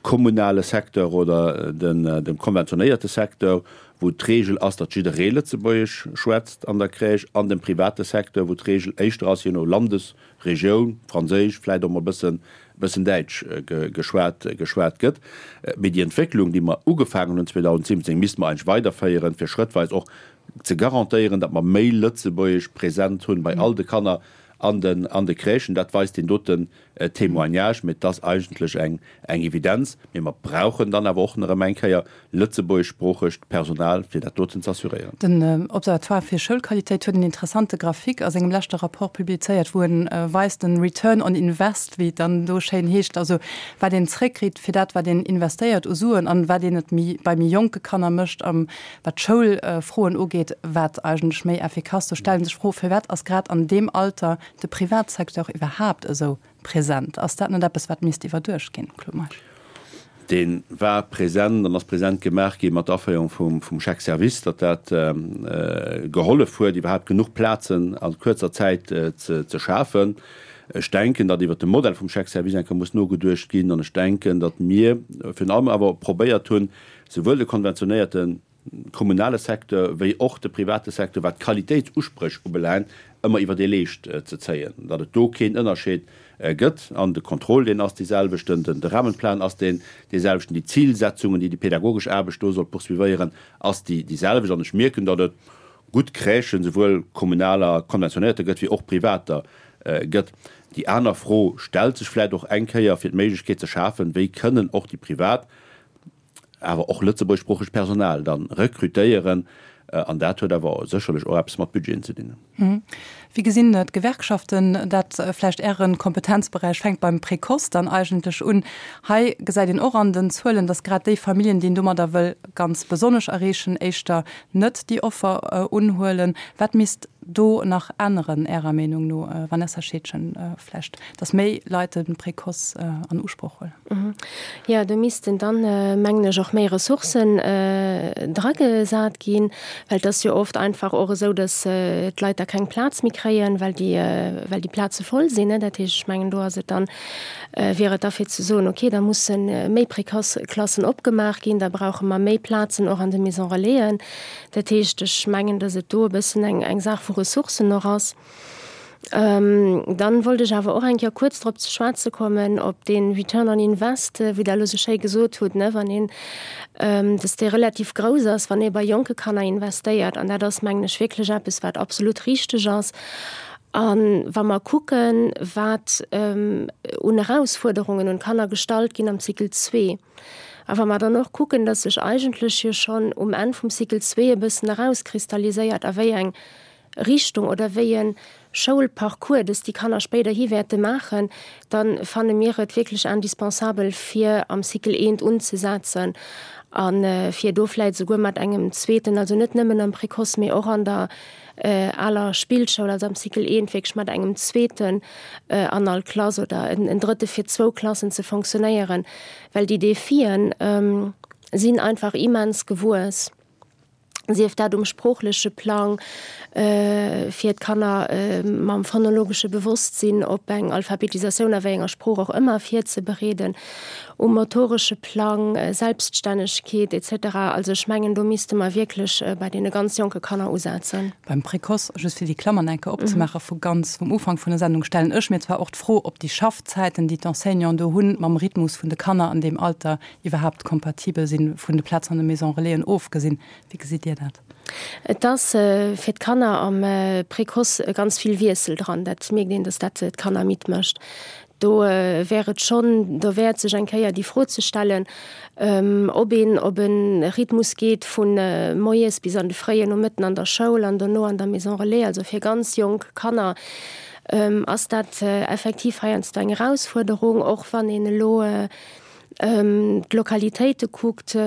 kommunale Secteur oder dem konventionéierte Secteur, wou d'Regel ass, datt jidderee Lëtzebuergesch schwätzt an der Crèche, an dem private Secteur, wou d'Regel éischter ass, je no Landesregioun, Franséisch, vläicht och mol e bëssen, bëssen Däitsch geschwat, geschwat gëtt. Mee déi Entwécklung, déi mer ugefaangen hunn 2017, misste mer eigentlech weiderféieren, fir schrëttweis och ze garantéieren, datt mer méi Lëtzebuergesch present hunn bei all de Kanner an den an de Crèchen. Dat weist deen doten Témoignage. Mee et ass eigentlech eng eng Evidenz. Mee mer brauchen dann awer och nach ëm eng Kéier lëtzebuergeschsproochegt Personal, fir dat doten ze assuréieren. Den Observatoire fir Schoulqualitéit huet en interessante Graphique a sengem leschte Rapport publizéiert, wou en weist, den Return on Invest, wéi et dann do schéin heescht, also wat een zréckkritt fir dat, wat een investéiert u Suen an wat een et méi bei méi jonke Kanner mécht am Wat d'Schoulfroen ugeet, wat eigentlech méi effikass, do stelle sech d'Fro, Firwat ass grad an deem Alter de Privatsecteur iwwerhaapt esou present? Ass dat net eppes, wat misst iwwerduecht ginn, Claude Meisch? Dee war present an ass present gemaach gi mat der Aféierung vum Chèque service, datt dat gehollef huet, iwwerhaapt genuch Plazen a kuerzer Zäit ze schafen. Ech denken, datt iwwert de Modell vum Chèque service eng Kéier muss nogeduecht ginn. An ech denken, datt mir virun allem awer probéiert hunn, Souwuel de konventionéierte kommunale Secteur wéi och de private Secteur, wat d'Qualitéitsuspréch ubelaangt, ëmmer iwwer ee Leescht ze zéien, datt et do keen Ënnerscheed gëtt. An de Contrôle, deen ass deeselwechten, de Rahmenplan ass deen deeselwechten, déi Zilsetzungen, déi déi pädagogesch Aarbecht do soll poursuivéieren, ass déi déiselwecht. An ech mierken, datt et gutt Crèchen, souwuel kommunaler, konventionéierter gëtt, wéi och privater gëtt. Déi aner Fro stellt sech vläicht och eng Kéier, fir d'Méiglechkeet ze schafen, wéi kënnen och déi privat awer och lëtzebuergeschsproochegt Personal dann rekrutéieren. An dat huet awer sécherlech och eppes mat Budgeten ze dinn. Wéi gesinn d'Gewerkschaften dat? Vläicht Äre Kompetenzberäich fänkt beim Précoce dann eigentlech un. Hei gesäit een och an den Zuelen, datt grad déi Familljen, déi een domadder wëll ganz besonnesch erreechen, éischter net déi Offer unhuelen. Wat misst do nach änneren, Ärer Meenung no, Vanessa Scheedgen, vläicht, datt méi Leit de Précoce an Usproch huelen? Jo, do missten dann, mengen ech, och méi Ressourcen dragesat ginn, well et ass jo oft einfach och esou, datt d'Leit da keng Plaz méi kréien, well déi, well déi Plaze voll sinn. Dat heescht, ech mengen, do ass et dann, wier et da fir ze soen, okay, da musse méi Précoce-Klassen opgemaach ginn, da brauche mer méi Plazen och an de Maison-relaisen. Dat heescht, ech mengen, datt et do e bëssen eng, eng Saach vu Ressourcen och ass. Dann wollt ech awer och eng Kéier kuerz drop ze schwätze kommen, op dee Return on Invest, wéi Der elo esou schéi gesot hutt, ne, wann een, dass dee relativ grouss ass, wann ee bei jonke Kanner investéiert. An dat ass, mengen ech, wierklech eppes, wat absolut richteg ass. A wa mer kucken, wat un Erausfuerderungen un d'Kanner gestallt ginn am Cycle zwee, a wa mer dann och kucken, dass sech eigentlech jo schonn um Enn vum Cycle zwee e bëssen erauskristalliséiert, a wéi eng Richtung oder wéi e Schoulparcours dass déi Kanner spéiderhi wäerte maachen, da fanne mir et wierklech indispensabel, fir am Cycle eent unzesetzen a fir do vläicht esouguer mat engem zweeten, also net nëmmen am Précoce, mee och an der aler Spillschoul, also am Cycle eent wierklech mat engem zweeten an all Klass oder en drëtte fir zwou Klassen ze fonctionnéieren, well déi Defien sinn einfach immens gewuess. sief dat um sproochleche Plang, fir d'Kanner mam phonologesche Bewosstsinn op eng Alphabetisatioun a wéi enger Sprooch och ëmmer virzebereeden, um motoresche Plang, Selbststännegkeet etc. Also ech mengen, do misste mer wierklech bei deene ganz jonke Kanner usetzen. Beim Précoce, just fir déi Klammern eng Kéier opzemaachen, vu ganz vum Ufank vun der Sendung, stellen ech mir zwar och d'Fro, ob déi Schaffzäiten, déi d'Enseignanten do hunn, mam Rhythmus vun de Kanner an deem Alter iwwerhaapt kompatibel sinn, vun de Plazen an de Maisons Relaisen ofgesinn. Wéi gesitt Dir dat? Et ass fir d'Kanner am Précoce ganz vill Wiessel dran. Dat mierkt een, datt dat d'Kanner midd mécht. Do wär et schonn derwäert, sech eng Kéier déi Fro ze stellen, ob een op e Rhythmus geet vu moies bis an de fréien Nomëtten an der Schoul an dono an der Maison Relais. Also fir ganz jonk Kanner ass dat effektiv heiansdo eng Erausfuerderung, och wann een elo d'Lokalitéite kuckt,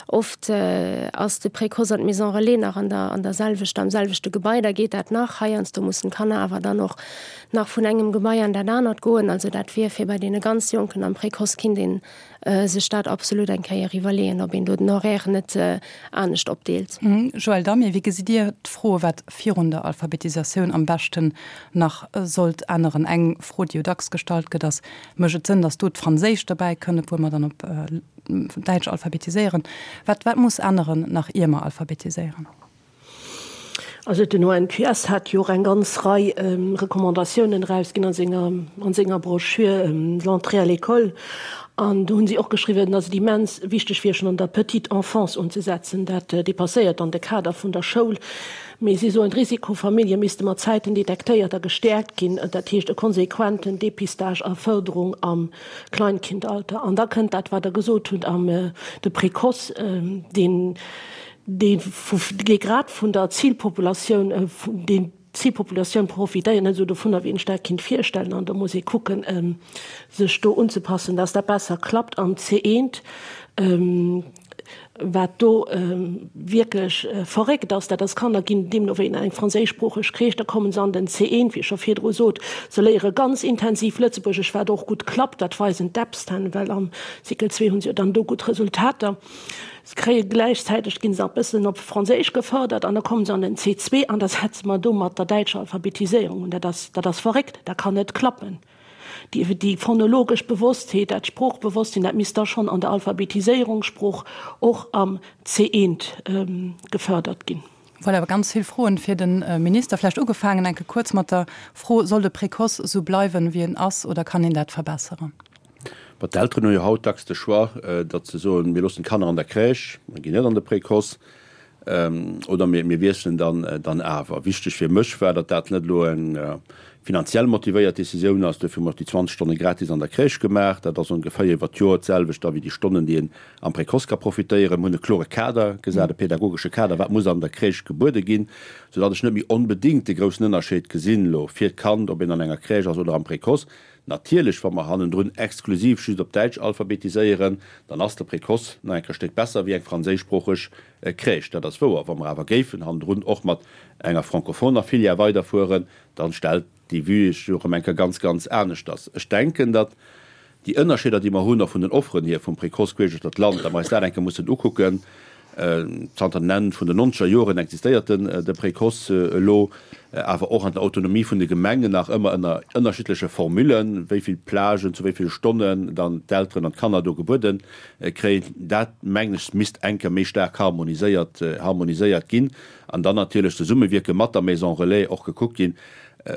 oft ass de Précoce an d'Maison Relais nach an der an der selwechter, am selwechte Gebai, da geet dat nach. Heiansdo mussen d'Kanner awer dann och nach vun engem Gebai an dat anert goen. Also dat wier fir bei deene ganz Jonken am Précoce kinnt ee sech dat absolut eng Kéier iwwerleeën, ob een do den Horaire net anescht opdeelt. Joël Damé, wéi gesitt Dir d'Fro, wat virun der Alphabetisatioun am beschten nach sollt änneren? Eng Fro, déi jo dacks gestallt gëtt, ass, Mécht et Sënn, datt do d'Franséisch derbäi kënnt, obwuel mer dann op Däitsch alphabetiséieren? Wat, wat muss änneren, nach ier mer alphabetiséieren? Also den ONQS hat jo och eng ganz Rei Recommandatiounen erausginn a senger, an senger Broschür L'entrée à l'école. An do hunn si och geschriwwen, datt et immens wichteg wier, schonn an der petite enfance unzesetzen. Dat dépasséiert dann de Kader vun der Schoul. Mee si soen, d'Risikofamillje misste mat Zäiten detektéiert a gestäerkt ginn, dat heescht e konsequenten Dépistage a Fërderung am Kleinkindalter. An da kënnt dat, wat Der gesot hutt, am de Précoce, deen, dee vu, dee grad vun der Zilpopulatioun, deen d'Zilpopulatioun profitéiert net esou dovunner, wéi een sech dat kinnt virstellen. An do muss ee kucken, sech do unzepassen, dass dat besser klappt am C1. Wat do wierklech verréckt ass, dat ass, Kanner ginn deemno wéi eng franséischsproocheg Crèche, da kommen se an den C1, wéi ech scho virdru sot, se léiere ganz intensiv Lëtzebuergesch, wat och gutt klappt, dat weisen d'Epsten, well am Cycle 2 hu se jo dann do gutt Resultater. Se kréie gläichzäiteg, ginn se nach e bëssen op Franséisch gefërdert an da kommen se an den C2 an da setze mer do mat der däitscher Alphabetiséierung un. Dat ass, dat ass verréckt, dat kann net klappen. Déi phonologesch Bewosstheet, dat Sproochbewosstsinn, dat misst da schonn an der Alphabetiséierung, Sprooch och am C1 gefërdert ginn. Voilà, ganz vill Froen fir de Minister. Vläicht ugefaangen enke kuerz mat der Fro, Soll de Précoce esou bleiwen, wéi en ass, oder kann een dat verbesseren? Bon, d'Elteren hu jo haut dacks de Choix, datt se soen, mir loossen d'Kanner an der Crèche, mer ginn net an de Précoce. Oder mir wiesselen dann awer. Wichteg fir mech war, datt dat net elo eng finanziell motivéiert Decisioun ass. Duerfir hu mer och déi 20 Stonne gratis an der Crèche gemaach. Dat ass ongeféier iwwer d'Joer d'selwecht da wéi déi Stonnen, déi een am Précoce ka profitéieren. Mir hunn e klore Kader gesat, e pedagogesche Kader, wat muss an der Crèche gebuede ginn, soudatt ech net méi onbedéngt de groussen Ënnerscheed gesinn elo fir d'Kand, ob een an enger Crèche ass oder am Précoce. Natierlech, wa mer hannendrun exklusiv just op Däitsch alphabetiséieren, dann ass de Précoce nach eng Kéier Stéck besser wéi eng franséischsproocheg Crèche. Dat ass wouer. Wa mer awer géifen hannendrun och mat enger francophoner Filière weiderfueren, dann stellt déi Vue sech jo erëm eng Kéier ganz, ganz aneschters. Ech denken, datt déi Ënnerscheeder, déi mer hunn, och vun den Offeren hier vum Précoce queesch duerch dat Land, datt mer eis dat eng Kéier mussen ukucken. Zanter den Enn vun den nonzeger Joren existéiert den de Précoce elo, awer och an der Autonomie vun de Gemengen nach ëmmer ënner ënnerschiddleche Formullen, wéi vill Plagen zu wéi ville Stonnen dann d'Elteren an d'Kanner do gebuede kréien. Dat, mengen ech, misst eng Kéier méi staark harmoniséiert harmoniséiert ginn an dann natierlech zesummewierke mat der Maison Relais och gekuckt ginn,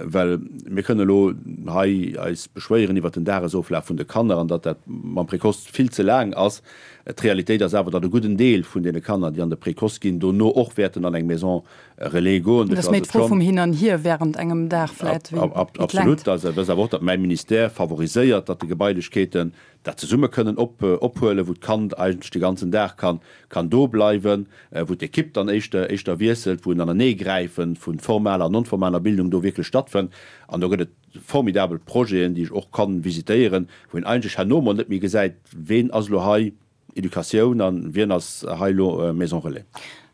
well mir kënnen elo hei eis beschwéieren iwwert den Dagesoflaf vun de Kanner an datt dat mam Précoce vill ze laang ass. D'Realitéit ass awer, datt e gudden Deel vun deene Kanner, déi an de Précoce ginn, dono och wäerten an eng Maison Relais goen. Dat ass méi d'Fro vum Hin an Hier während engem Dag vläit wéi d'Längt. Absolut. Dat ass awer och, datt mäi Ministère favoriséiert, datt de Gebailechkeeten dat zesumme kënnen ophuelen, wou d'Kand eigentlech de ganzen Dag kann kann do bleiwen, wou d'Ekipp dann éischter éischter wiesselt, wou en Aneneegräife vu formaler an non-formaler Bildung do wierklech stattfënnt. An do gëtt et formidabel Projeten, déi ech och kann visitéieren, wou een eigentlech herno mol net méi gesäit, ween ass elo hei Educatioun an wien ass hei elo Maison Relais.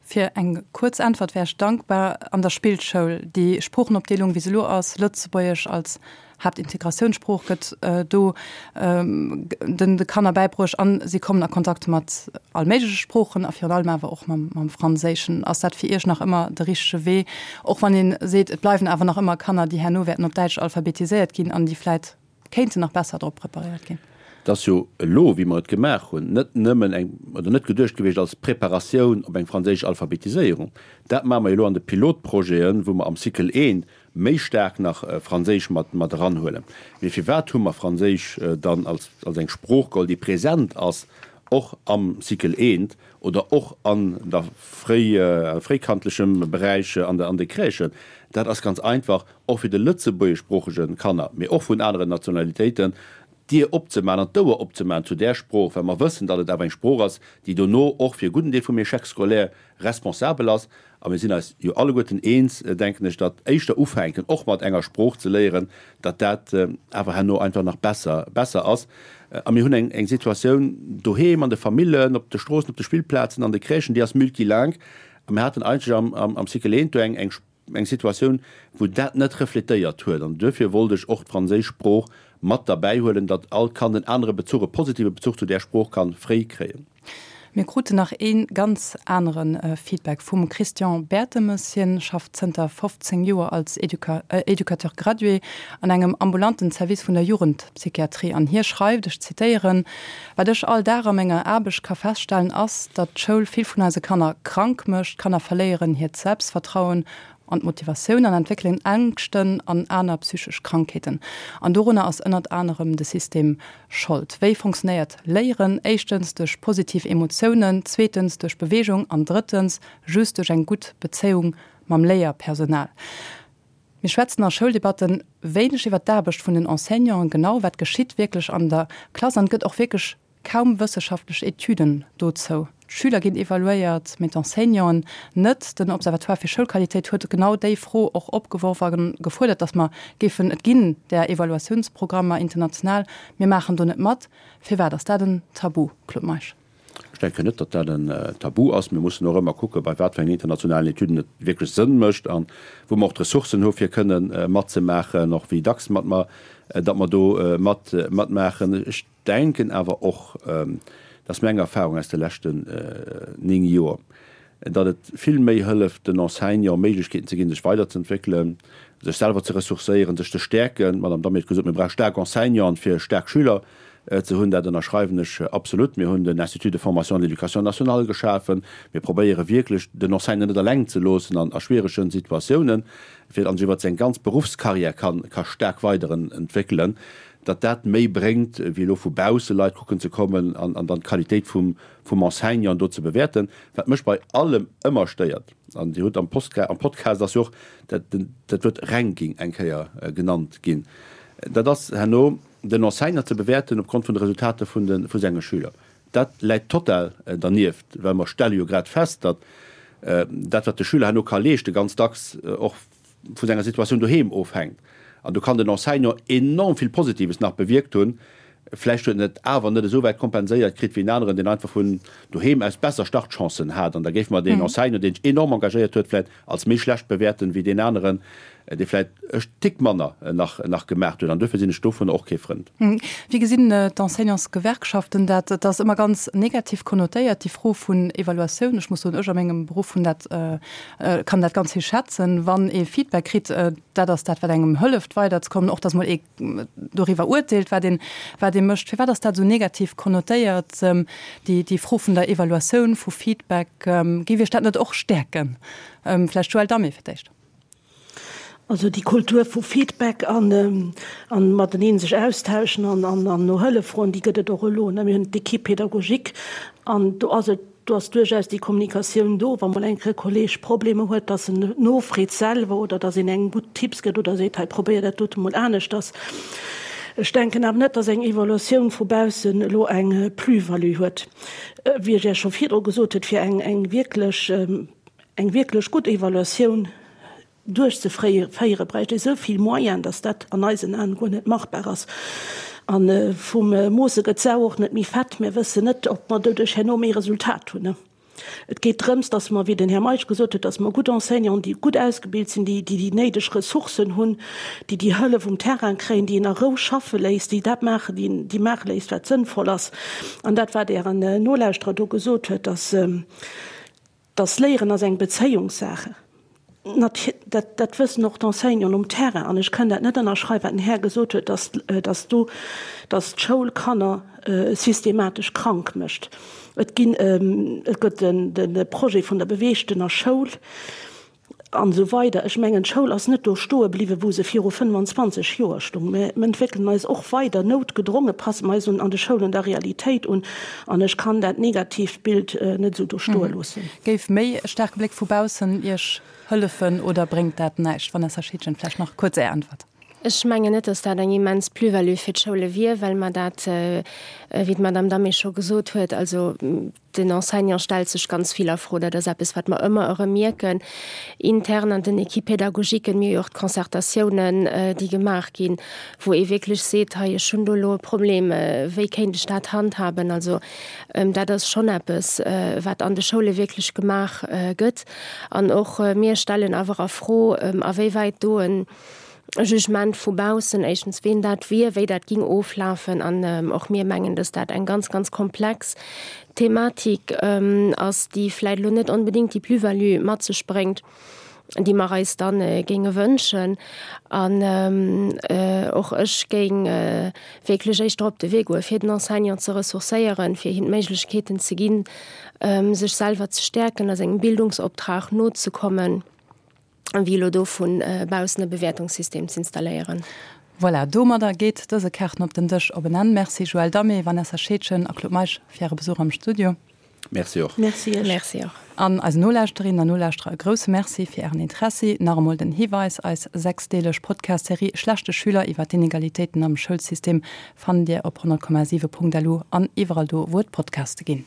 Fir eng kuerz Äntwert wär ech dankbar. An der Spillschoul, déi Sproochenopdeelung, wéi se elo ass, Lëtzebuergesch als Haaptintegratiounssprooch gëtt do den de Kanner bäibruecht an si kommen a Kontakt mat all méigleche Sproochen a virun allem awer och mam mam Franséischen. Ass dat fir Iech nach ëmmer de richtege Wee, och wann ee seet, et bleiwen awer nach ëmmer Kanner, déi herno wäerten op Däitsch alphabetiséiert ginn an déi vläit kéinten nach besser drop preparéiert ginn? Et ass jo elo, wéi mer et gemaach hunn, net nëmmen eng, oder net geduecht gewiescht als Preparatioun op eng franséisch Alphabetiséierung. Dat maache mer jo elo an de Pilotprojeten, wou mer am Cycle I méi staark nach Franséisch mat mat eranhuelen. Mee firwat hu mer Franséisch dann als als eng Sprooch geholl, déi present ass och am Cycle I oder och an der fréi fréikandlechem Beräich an de an de Crèchen? Dat ass ganz einfach, och fir de lëtzebuergeschsproochege Kanner, mee och vun aneren Nationalitéiten, d'Dier opzemaachen an d'Ouer opzemaachen zu där Sprooch, well mer wëssen, datt et awer eng Sprooch ass, déi dono och fir e gudden Deel vum Échec scolaire responsabel ass. A mir sinn eis jo alleguerten eens, denken ech, datt éischter ufänken, och mat enger Sprooch ze léieren, datt dat awer herno einfach nach besser, besser ass. A mir hunn eng, eng Situatioun doheem, an de Famillen, op de Stroossen, op de Spillplazen, an de Crèchen, déi ass multilingue. A mir haten eigentlech am, am, am Cycle I do eng, eng, eng Situatioun, wou dat net refletéiert huet. An duerfir wollt ech och d'franséisch Sprooch mat derbäihuelen, datt all Kand en anere Bezuch, e positive Bezuch zu där Sprooch ka fréi kréien. Mir kruten nach ee ganz anere Feedback vum Christian Bertemes. Hien schafft zënter 15 Joer als Educateur gradué an engem ambulanten Service vun der Jugendpsychiatrie an hie schreift, ech zitéieren, Wat ech all Dag a menger Aarbecht ka feststellen ass, datt d'Schoul vill vun eise Kanner krank mécht. D'Kanner verléieren hiert Selbstvertrauen an d'Motivatioun an entwéckelen Ängschten an aner psychesch Krankheeten. An dorunner ass ënnert anerem de System Schold. Wéi fonctionnéiert Léieren? Éischtens duerch positiv Emotiounen, zweetens duerch Beweegung an drëttens just duerch eng gutt Bezéiung mam Léierpersonal. Mir schwätzen a Schouldebatten wéineg iwwer d'Aarbecht vun den Enseignanten, genau wat geschitt wierklech an der Klass an et gëtt och wierklech kaum wësseschaftlech Etüden dozou. D'Schüler ginn evaluéiert, mee d'Enseignanten net. Den Observatoire fir Schoulqualitéit huet genau déi Fro och opgeworf a gefuerdert, datt mer géifen, et ginn där Evaluatiounsprogrammer international, mir maachen do net mat. Firwat ass dat en Tabu, Claude Meisch? Ech denken net, datt dat en Tabu ass. Mir mussen och ëmmer kucken, bei wat fir engen internationalen Etüden et wierklech Sënn mécht a wou mer och d'Ressourcen hu fir kënnen matzemaachen, och wéi dacks mat mer, datt mer do mat matmaachen. Ech denken awer och, dat ass meng Erfahrung aus de leschten 9 Joer, datt et vill méi hëlleft, den Enseignant Méiglechkeeten ze ginn, sech weiderzeentwéckelen, sech selwer ze ressourcéieren, sech ze stäerken. D'Madame Damé huet gesot, mir brauche staark Enseignanten, fir staark Schüler ze hunn. Dat ënnerschreiwen ech absolut. Mir hunn den Institut de formation de l'éducation nationale geschafen. Mir probéiere wierklech, den Enseignant net eleng ze loossen an a schwieregen Situatiounen, fir datt en sech iwwert seng ganz Beruffscarrière ka staark weiderentwéckelen. datt dat méi bréngt, wéi elo vu bausse Leit kucken ze kommen an dann d'Qualitéit vum Enseignant do ze bewäerten. Wat mech bei allem ëmmer stéiert, an Dir hutt am Podcast ass jo och dat Wuert Ranking eng Kéier genannt ginn, dat ass herno den Enseignant ze bewäerten opgrond vun de Resultater vu senge Schüler. Dat läit total dernieft, well mer stelle jo grad fest, datt dat, wat de Schüler herno ka leeschten, ganz dacks och vu senger Situatioun doheem ofhänkt. An do kann den Enseignant enorm vill Positives nach bewierkt hunn, vläicht huet en et awer net esou wäit kompenséiert kritt wéi en aneren, deen einfach vun doheem aus besser Startchancen hat. An da géife mer deen Enseignant, deen sech enorm engagéiert huet, vläicht als méi schlecht bewäerten, wéi deen aneren, dee vläicht e Tick manner nach nach gemaach huet. An duerfir sinn ech dovunner och kee Frënd. Wéi gesinn d'Enseignantsgewerkschaften dat? Et ass ëmmer ganz negativ konnotéiert, déi Fro vun Evaluatioun. Ech muss soen, ech a mengem Beruff hunn dat, kann dat ganz héich schätzen, wann ee Feedback kritt. Dat ass dat, wat engem hëlleft weiderzekommen, och datt mol ee doriwwer urteelt, wat een, wat ee mécht. Firwat ass dat esou negativ konnotéiert, déi, déi Fro vun der Evaluatioun, vu Feedback? Géif Iech dat net och stäerken? Vläicht Joëlle Damé fir d'éischt. Also déi Kultur vu Feedback an mateneen sech austauschen an no Hëllef froen, déi gëtt et och elo. Mir hunn d'Équipe pédagogique an do ass et, do ass duerchaus déi Kommunikatioun do, wa mol eng Kéier e Kolleeg Problemer huet, dass en nofreet selwer oder dass een engem gutt Tipps gëtt oder seet, hei probéier dat dote mol aneschters. Ech denken awer net, dass eng Evaluatioun vu baussen elo eng Plus-value huet. Wéi ech Iech scho virdru gesot huet, fir eng wierklech Eng wierklech gutt Evaluatioun duerchzeféiere bräicht ee sou vill Moyen, datt dat an eisen Aen guer net machbar ass. A vum Moosse gëtt d'Sau och net méi fett. Mir wëssen net, ob mer doduerch herno méi Resultat hunn. Et geet drëms, datt mer, wéi den Här Meisch gesot huet, datt mer gutt Enseignanten, déi gutt ausgebilt sinn, déi déi néideg Ressourcen hunn, déi déi Hëllef um Terrain kréien, déi een a Rou schaffe léisst, déi dat maachen, déi maache léisst, wat sënnvoll ass. An dat, wat Ären Nolauschterer do gesot huet, datt, Dass Léieren ass eng Bezéiungssache, dat, dat wëssen och d'Enseignanten um Terrain. An ech kënn dat net ënnerschreiwen, wat den Här gesot huet, dass, dass do, dass d'Schoul Kanner systematesch krank mécht. Et ginn, et gëtt den, de Projet vun der beweegtener Schoul. An esou weider. Ech mengen, d'Schoul ass net do stoe bliwwen, wou se viru 25 Joer stung. Mä mir entwéckelen eis och weider, noutgedronge passe mer eis un an de Schoulen der Realitéit un. An ech kann dat negatiivt Bild net esou do stoe loossen. Géif méi e staarke Bléck vu baussen Iech hëllefen oder bréngt dat näischt? Vanessa Schiedgen, vläicht nach kuerz Är Äntwert. Ech mengen net, dass dat eng immens Plus-value fir d'Schoule wier, well mer dat, wéi d'Madame Damé scho gesot huet, also Den Enseignant stellt sech ganz vill a Fro. Dat ass eppes, wat mer ëmmer erëm mierken, intern an den Équipes pédagogiques. Mir hu jo och d'Concertatiounen, déi gemaach ginn, wou ee wierklech seet, hei, ech hunn do elo e Problem, wéi kéint ech dat handhaben? Also dat ass schonn eppes, wat an de Schoule wierklech gemaach gëtt. An och mir stellen awer a Fro, awéiwäit do e Jugement vu baussen, éischtens ween dat wier, wéi dat ging oflafen an och mir mengen, dass dat eng ganz, ganz komplex Thematik ass, déi vläicht elo net onbedéngt déi Plus-value mat sech bréngt, déi mer eis dann géinge wënschen. An och ech géing wierklech éischter op de Wee goe fir den Enseignant ze ressourcéieren, fir him d'Méiglechkeeten ze ginn, sech selwer ze stäerken, a sengem Bildungsoptrag nozekommen. wéi elo do vu baussen e Bewäertungssystem z'installéieren. Voilà, domadder geet dëse Kaarten op den Dësch op en Enn. Merci Joël Damé, Vanessa Scheedgen a Claude Meisch fir Äre Besuch am Studio. Merci och. Merci Iech. Merci och. An eisen Nolauschterinnen an Nolauschterer e grousse Merci fir Ären Interessi. Nach emol den Hiweis, Eis sechsdeeleg Podcast-Serie Schlechte Schüler iwwer d'Inegalitéiten am Schoulsystem fannt Dir op 100,7.lu an iwwerall do, wou et Podcaste ginn.